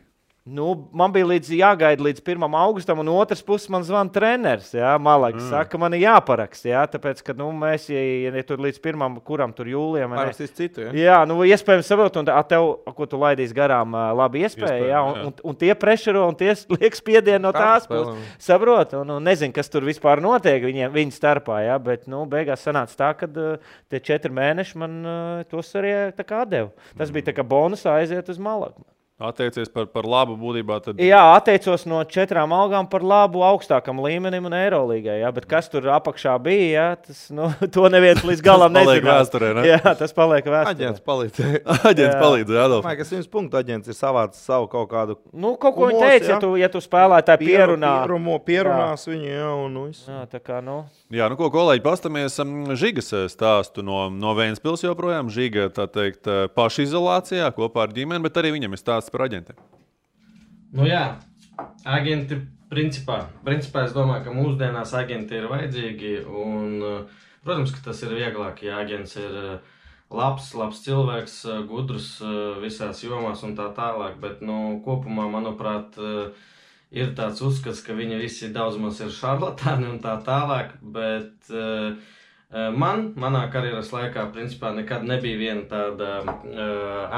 Man bija jāgaida līdz 1. augustam, un otrs puses man zvana treneris, Malagas. Saka, man ir jāparaksta, tāpēc, ka mēs, ja tur līdz 1. kuram tur jūlijam...
Parakstīs citu,
iespējams saprot, un tev, ko tu laidīs garām, labi iespēja, un tie prešero, un tie liek spiedienu no tās puses. Saprot, un nezinu, kas tur vispār notiek viņu starpā, bet, beigās sanāca tā, ka tie 4 mēneši man tos arī tā kā atdeva. Tas bija tā kā bonusā aiziet uz Malagu.
Atteicies par labu būtībā? Tad...
Jā, atteicos no 4 algām par labu augstākam līmenim un Eirolīgai. Bet kas tur apakšā bija, tas, to neviens līdz galam nezinās.
Tas paliek vēsturē, ne?
Jā, tas paliek vēsturē.
Aģents palīdzēja.
Aģents palīdzēja, Adolf.
Domāju, ka 100 punktu aģents ir savāds savu kaut kādu...
Kaut ko viņi teica, ja tu spēlētāji pierunā.
Pierunās viņu, un viss.
Jā, tā kā,
Jā, ko kolēģi, pastamies Žigas stāstu no Ventspils joprojām. Žiga, tā teikt, pašizolācijā kopā ar ģimeni, bet arī viņam ir stāsts par aģentiem.
Jā, aģenti principā es domāju, ka mūsdienās aģenti ir vajadzīgi un, protams, ka tas ir vieglāk, ja aģents ir labs cilvēks, gudrs visās jomās un tā tālāk, bet, kopumā, manuprāt, ir tāds uzskats, ka viņi visi daudz maz ir šarlatāni un tā tālāk, bet Manā karjeras laikā, principā, nekad nebija viena tāda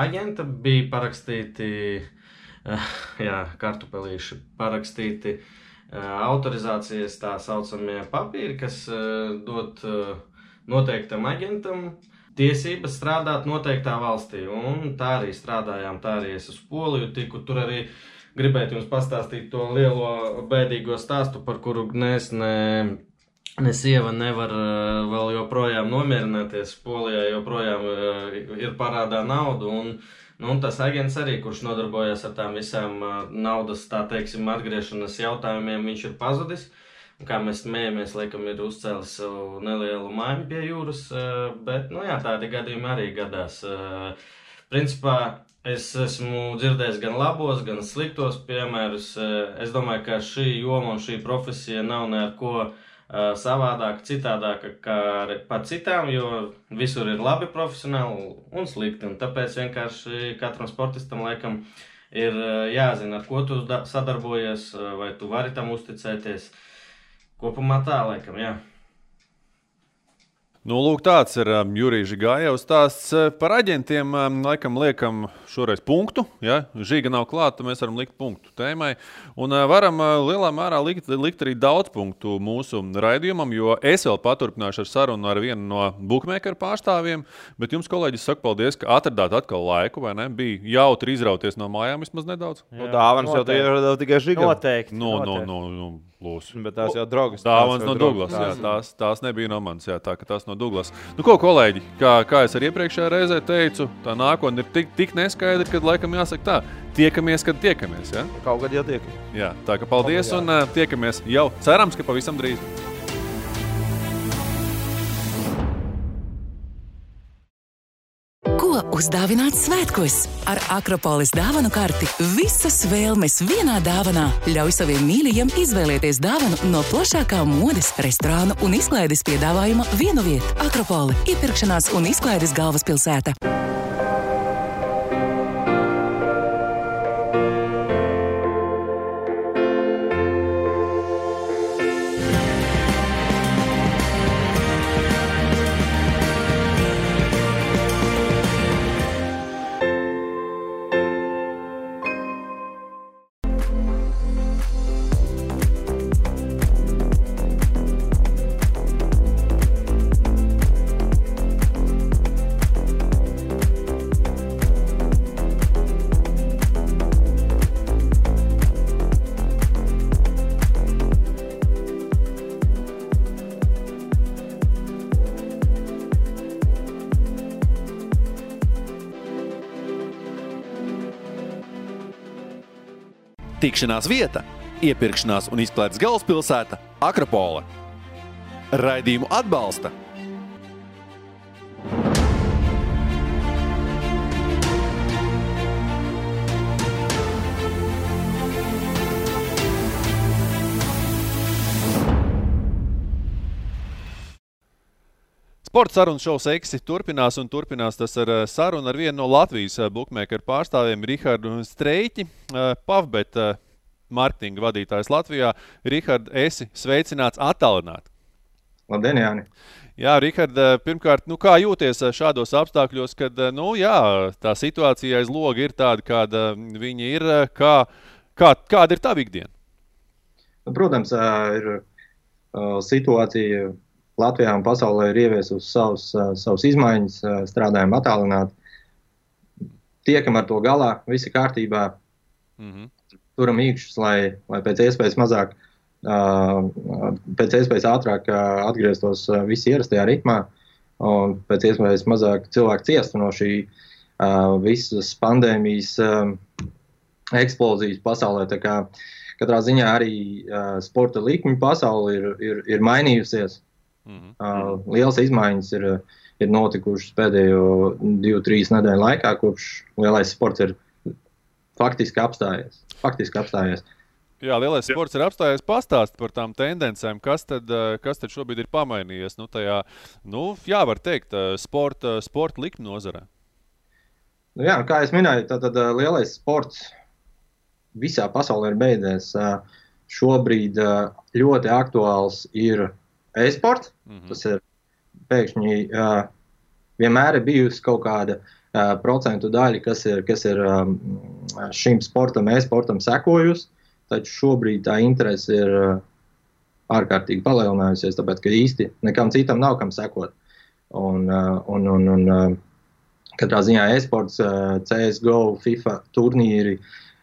aģenta. Bija parakstīti, kartupelīši, parakstīti autorizācijas tā saucamie papīri, kas dod noteiktam aģentam tiesības strādāt noteiktā valstī. Un tā arī strādājām, tā arī es uz Poliju tiku. Tur arī gribētu jums pastāstīt to lielo bēdīgo stāstu, par kuru ne sieva nevar vēl joprojām nomierināties. Polijā joprojām ir parādā naudu. Un tas aģents arī, kurš nodarbojas ar tām visām naudas, tā teiksim, atgriešanas jautājumiem, viņš ir pazudis. Kā mēs smējamies, laikam ir uzcēlis savu nelielu māju pie jūras, bet, tādi gadījumi arī gadās. Principā, es esmu dzirdējis gan labos, gan sliktos piemērus. Es domāju, ka šī joma un šī profesija nav neko savādāka, citādāka kā par citām, jo visur ir labi profesionāli un slikti. Un tāpēc vienkārši katram sportistam, laikam, ir jāzina, ar ko tu sadarbojies, vai tu vari tam uzticēties. Kopumā tā, laikam, jā.
Nu, lūk, tāds ir Jurijs Žigājevs stāsts par aģentiem. Laikam liekam šoreiz punktu. Ja? Žiga nav klāta, mēs varam likt punktu tēmai. Un varam lielā mērā likt arī daudz punktu mūsu raidījumam, jo es vēl paturpināšu ar sarunu ar vienu no bookmakeru pārstāvjiem. Bet jums, kolēģis, saku paldies, ka atradāt atkal laiku, vai ne? Bija jautri izrauties no mājām vismaz nedaudz.
Dāvanas jau ieradās tikai Žigam.
Noteikti.
Lūs.
Bet tās jau draugas.
Dāvanas no Douglas, jā. Tās nebija no manis, jā, tā ka tās no Douglas. Nu ko, kolēģi, kā es arī iepriekšējā reizē teicu, tā nākotne ir tik neskaidra, kad laikam jāsaka tā, tiekamies, kad tiekamies, jā?
Kaut kad jau tiekamies.
Jā, tā ka paldies un tiekamies jau, cerams, ka pavisam drīz.
Ko uzdāvināt svētkos? Ar Akropolis dāvanu karti visas vēlmes vienā dāvanā. Ļauj saviem mīļajiem izvēlēties dāvanu no plašākā modes, restorānu un izklaides piedāvājuma vienu vietu. Akropoli – iepirkšanās un izklaides galvaspilsēta.
Tikšanās vieta, iepirkšanās un izklaides galvaspilsēta Akropole. Raidījumu atbalsta
Sporta sarunas šovs Eksi turpinās un turpinās tas ar sarunu ar vienu no Latvijas bookmakeru pārstāvjiem Rihardu Streiķi, Pavbet marketinga vadītājs Latvijā. Rihard, esi sveicināts attālināti.
Labdien, Jāni.
Jā, Rihard, pirmkārt, kā jūties šādos apstākļos, kad, tā situācija aiz loga ir tāda, kāda viņa ir, kāda ir tava ikdiena?
Protams, ir situācija Latvijā un pasaulē ir ieviesusi savas izmaiņas, strādājam attālināti. Tiekam ar to galā, visi kārtībā, turam īkšķus, lai pēc iespējas mazāk, pēc iespējas ātrāk atgrieztos visi ierastajā ritmā un pēc iespējas mazāk cilvēku ciestu no šī visas pandēmijas eksplozijas pasaulē. Tā kā katrā ziņā arī sporta likmi pasauli ir mainījusies. Lielas izmaiņas ir notikušas pēdējo 2-3 nedēļu laikā, kopš lielais sports ir faktiski apstājies.
Jā, lielais sports ir apstājies. Pastāst par tām tendencēm, kas tad šobrīd ir pamainījies var teikt, sporta likmi nozarē.
Jā, kā es minēju, tad lielais sports visā pasaulē ir beidzies. Šobrīd ļoti aktuāls ir e-sports. Tas ir pēkšņi vienmēr ir bijusi kaut kāda procentu daļa, kas ir šim sportam, e-sportam sekojusi, taču šobrīd tā interese ir ārkārtīgi palielinājusies, tāpēc, ka īsti nekam citam nav kam sekot. Un katrā ziņā e-sports, CSGO, FIFA turnīri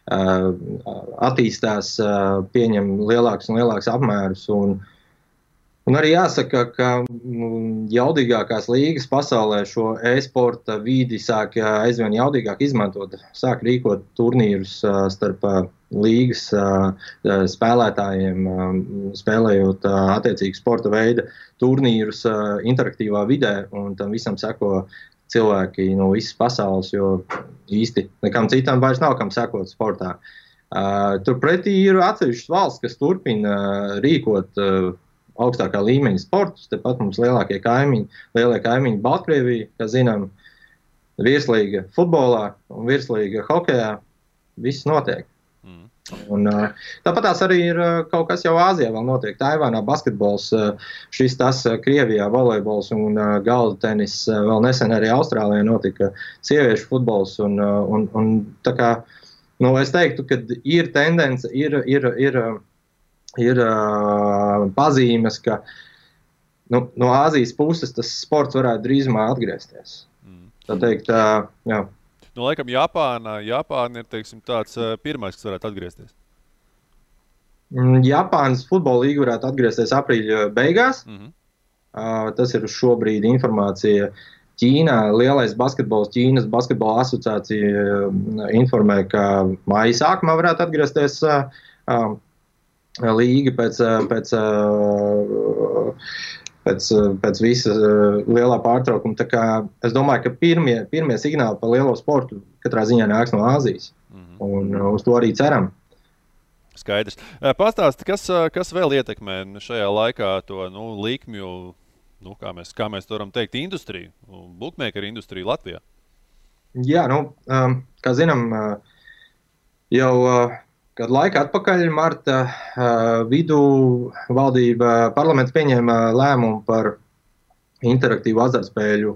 attīstās, pieņem lielākus un lielākus apmērus. Un arī jāsaka, ka jaudīgākās līgas pasaulē šo e-sporta vidi sāk aizvien jaudīgāk izmantot. Sāk rīkot turnīrus starp līgas spēlētājiem, spēlējot attiecīgi sporta veida turnīrus interaktīvā vidē, un tam visam seko cilvēki no visas pasaules, jo īsti nekam citam vairs nav kam sekot sportā. Turpretī ir atsevišķas valsts, kas turpina rīkot augstākā līmeņa sportus. Tepat mums lielie kaimiņi Baltkrievija, kā zinām, virslīga futbolā un virslīga hokejā. Viss notiek. Un, tāpat tās arī ir kaut kas jau Āzijā vēl notiek. Taivānā basketbols, šis tas Krievijā volejbols un galda tenis. Vēl nesen arī Austrālijā notika sieviešu futbols. Un tā kā, es teiktu, ka ir tendence, ir pazīmes, ka no Āzijas puses tas sports varētu drīzumā atgriezties. Tā teikt, jā.
Laikam Japāna ir, teiksim, tāds pirmais, kas varētu atgriezties.
Japānas futbola līga varētu atgriezties aprīļa beigās. Tas ir šobrīd informācija Ķīnā. Lielais basketbols, Ķīnas basketbola asociācija informē, ka māja sākumā varētu atgriezties līga pēc visa lielā pārtraukuma. Tā kā es domāju, ka pirmie signāli par lielo sportu katrā ziņā nāks no Āzijas. Un uz to arī ceram.
Skaidrs. Pastāsti, kas vēl ietekmē šajā laikā to likmju, kā mēs varam teikt, industriju, bookmakeru industriju Latvijā?
Jā, kā zinām, jau kādu laiku atpakaļ, marta vidū valdība parlaments pieņēma lēmumu par interaktīvu azartspēļu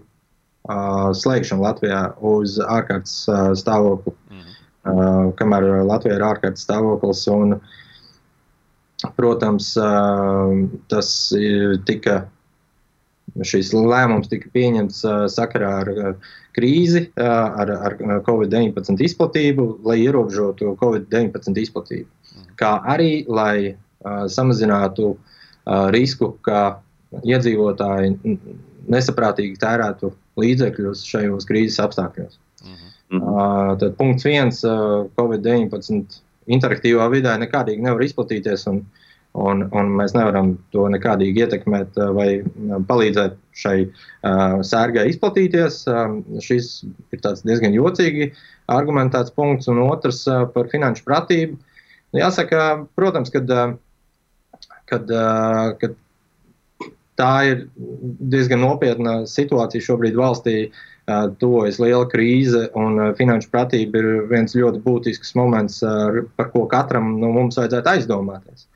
slēgšanu Latvijā uz ārkārtas stāvokli. Kamēr Latvijā ir ārkārtas stāvoklis. Un, protams, šis lēmums tika pieņemts sakarā ar krīzi, ar Covid-19 izplatību, lai ierobežotu Covid-19 izplatību. Kā arī, lai samazinātu risku, ka iedzīvotāji nesaprātīgi tērētu līdzekļus šajos krīzes apstākļos. Tad punkts 1, Covid-19 interaktīvā vidē nekādīgi nevar izplatīties, un mēs nevaram to nekādīgi ietekmēt vai palīdzēt šai sērgai izplatīties. Šis ir tāds diezgan jocīgi argumentēts punkts, un otrs par finanšu pratību. Jāsaka, protams, kad tā ir diezgan nopietna situācija šobrīd valstī, tuvojas liela krīze, un finanšu pratība ir viens ļoti būtisks moments, par ko katram no mums vajadzētu aizdomāties.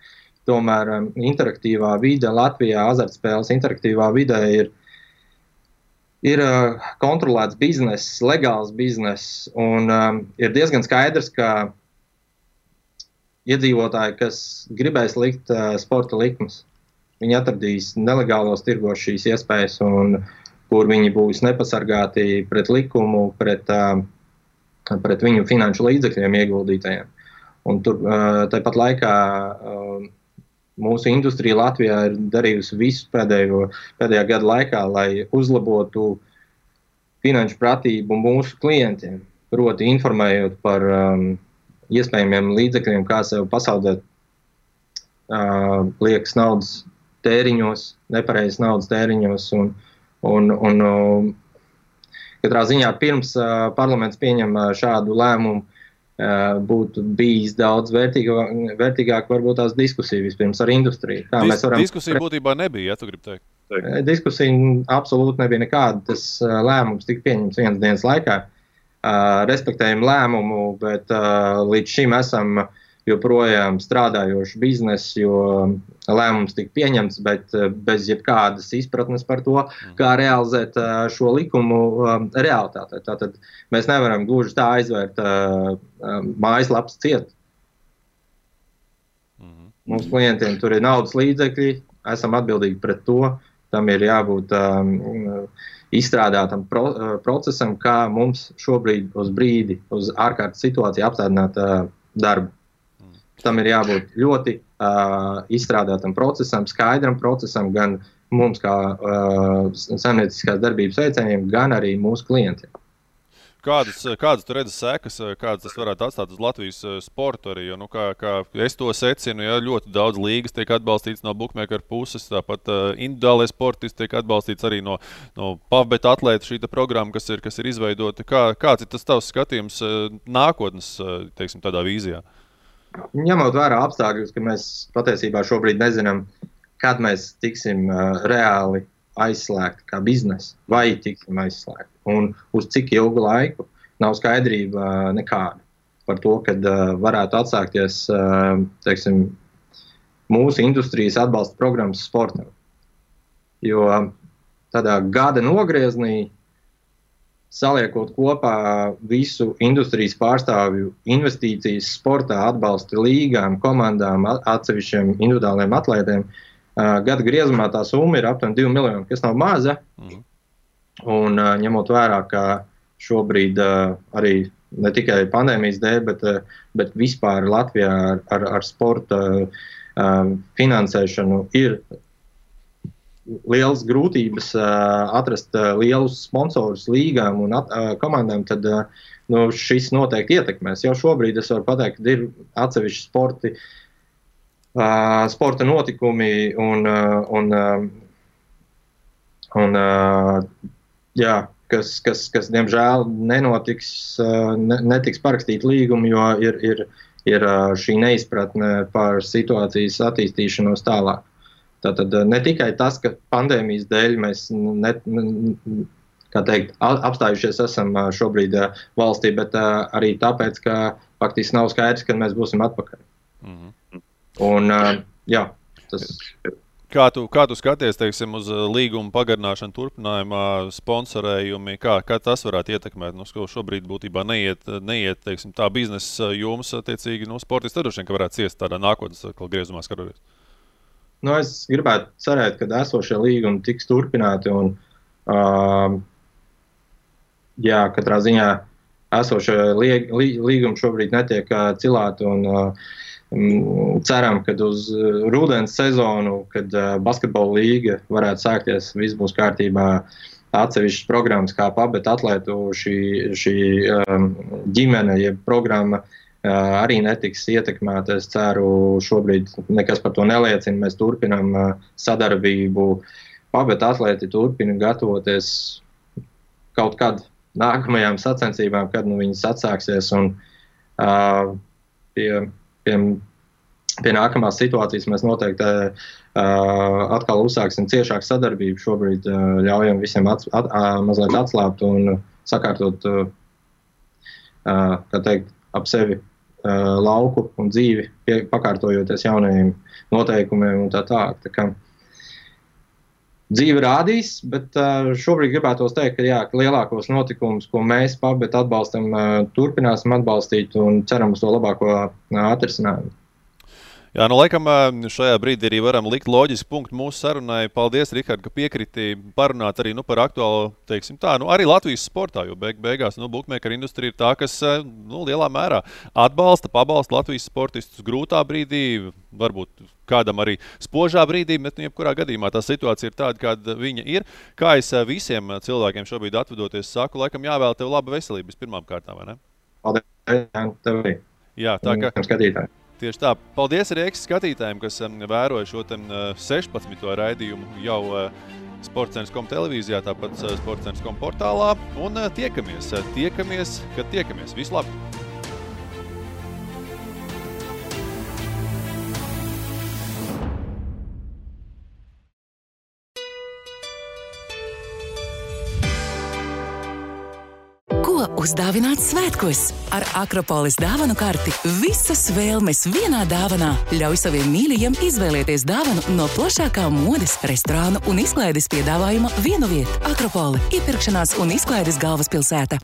Tomēr interaktīvā vide Latvijā, azartspēles interaktīvā vidē ir kontrolēts bizness, legāls bizness, un ir diezgan skaidrs, ka iedzīvotāji, kas gribēs likt sporta likmes, viņi atradīs nelegālos tirgos šīs iespējas, un kur viņi būs nepasargāti pret likumu, pret viņu finanšu līdzekļiem ieguldītajiem. Un tur tāpat laikā mūsu industrija Latvijā ir darījusi visu pēdējā gada laikā, lai uzlabotu finanšu pratību mūsu klientiem, proti informējot par iespējamiem līdzekļiem, kā sev pasaldēt liekas naudas tēriņos, nepareizas naudas tēriņos, un katrā ziņā pirms parlaments pieņem šādu lēmumu, būtu bijis daudz vērtīgāk varbūt tās diskusija vispirms ar industriju.
Diskusija būtībā nebija, ja tu gribi teikt?
Diskusija absolūti nebija nekāda. Tas lēmums tika pieņemts vienas dienas laikā. Respektējam lēmumu, bet līdz šim esam joprojām strādājošs bizness, jo lēmums tika pieņemts, bet bez jebkādas izpratnes par to, kā realizēt šo likumu realitātē. Tātad mēs nevaram gluži tā aizvērt mājaslapas ciet. Mums klientiem tur ir naudas līdzekļi, esam atbildīgi pret to, tam ir jābūt izstrādātam procesam, kā mums šobrīd uz brīdi, uz ārkārtas situāciju apstādināt darbu. Tam ir jābūt ļoti izstrādātam procesam, skaidram procesam, gan mums kā saimnieciskās darbības veicējiem, gan arī mūsu klientiem.
Kādas tu redzi sekas, kādas tas varētu atstāt uz Latvijas sportu arī, jo, kā es to secinu, ja ļoti daudz līgas tiek atbalstīts no bookmaker puses, tāpat individuālais sportisti tiek atbalstīts arī no pavbet atlēta šīta programma, kas ir izveidota. Kāds ir tas tavs skatījums nākotnes, teiksim, tādā vīzijā?
Ņemot vērā apstākļus, ka mēs patiesībā šobrīd nezinām, kad mēs tiksim reāli aizslēgti kā biznesa, vai tiksim aizslēgti. Un uz cik ilgu laiku nav skaidrība nekāda par to, kad varētu atsākties, teiksim, mūsu industrijas atbalsta programmas sportam. Jo tādā gada nogrieznī, saliekot kopā visu industrijas pārstāvju investīcijas sportā, atbalsta līgām, komandām, atsevišķiem individuāliem atlētiem, gada griezumā tā summa ir aptuveni 2 miljoni, kas nav maza. Un ņemot vērā, ka šobrīd arī ne tikai pandēmijas dēļ, bet vispār Latvijā ar sporta finansēšanu ir lielas grūtības atrast lielus sponsorus līgām un komandām, tad šis noteikti ietekmēs. Jau šobrīd es varu pateikt, ka ir atsevišķi sporta notikumi kas diemžēl netiks parakstīt līgumu, jo ir šī neizpratne par situācijas attīstīšanos tālāk. Tātad ne tikai tas, ka pandēmijas dēļ mēs apstājušies esam šobrīd valstī, bet arī tāpēc, ka faktiski nav skaidrs, kad mēs būsim atpakaļ. Un, tas ir.
Kā tu skaties, teiksim, uz līguma pagarināšanu turpinājumā, sponsorējumi, kā tas varētu ietekmēt? Šobrīd būtībā neiet teiksim, tā biznesa jums, attiecīgi, sportisti droši vien, ka varētu ciest tādā nākotnes griezumā skatoties.
Es gribētu cerēt, ka esošie līgumi tiks turpināti un katrā ziņā esošie līgumi šobrīd netiek cilāti un ceram, ka uz rudens sezonu, kad basketbola līga varētu sākties, viss būs kārtībā, atsevišķas programmas kā pavbet atlētu šī ģimene, jeb programma arī netiks ietekmēta. Es ceru, šobrīd nekas par to neliecina. Mēs turpinām sadarbību. Pavbet atlēti turpina gatavoties kaut kad nākamajām sacensībām, kad viņas atsāksies. Un pie nākamās situācijas mēs noteikti atkal uzsāksim ciešāku sadarbību. Šobrīd ļaujam visiem mazliet atslābt un sakārtot, ap sevi lauku un dzīvi, pakārtojoties jaunajiem noteikumiem un tā tālāk. Tā kā dzīve rādīs, bet šobrīd gribētos teikt, ka lielākos notikumus, ko mēs pavbet atbalstam, turpināsim atbalstīt un ceram uz to labāko atrisinājumu.
Jā, laikam šajā brīdī arī varam likt loģisku punktu mūsu sarunai. Paldies, Rihard, ka piekriti parunāt arī par aktuālu, teiksim tā, arī Latvijas sportā, jo beigās bookmaker industrija ir tā, kas lielā mērā pabalsta Latvijas sportistus grūtā brīdī, varbūt kādam arī spožā brīdī, bet jebkurā gadījumā tā situācija ir tāda, kāda viņa ir. Kā es visiem cilvēkiem šobrīd atvedoties saku, laikam jāvēl tev laba veselība pirmām kārtām, vai ne?
Paldies, tev arī.
Jā, tā kā
skatītāji.
Tieši tā. Paldies arī skatītājiem, kas vēroja šo 16. raidījumu jau Sportcentrs.com televīzijā, tāpat Sportcentrs.com portālā. Un tiekamies, kad tiekamies. Visu labi!
Ko uzdāvināt svētkos. Ar Akropolis dāvanu karti visas vēlmes vienā dāvanā. Ļauj saviem mīļajiem izvēlēties dāvanu no plašākā modes, restorānu un izklaides piedāvājuma vienu vietu. Akropole – iepirkšanās un izklaides galvaspilsēta.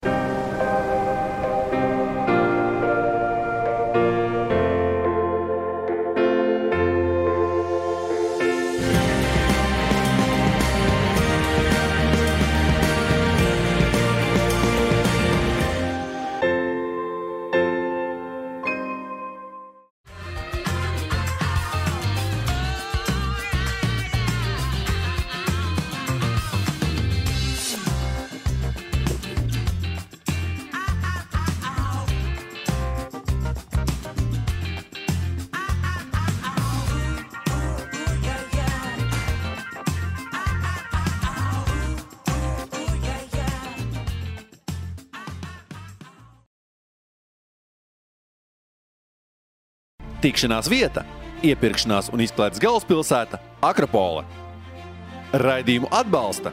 Tikšanās vieta, iepirkšanās un izklaides galvaspilsēta Akropole. Raidījumu atbalsta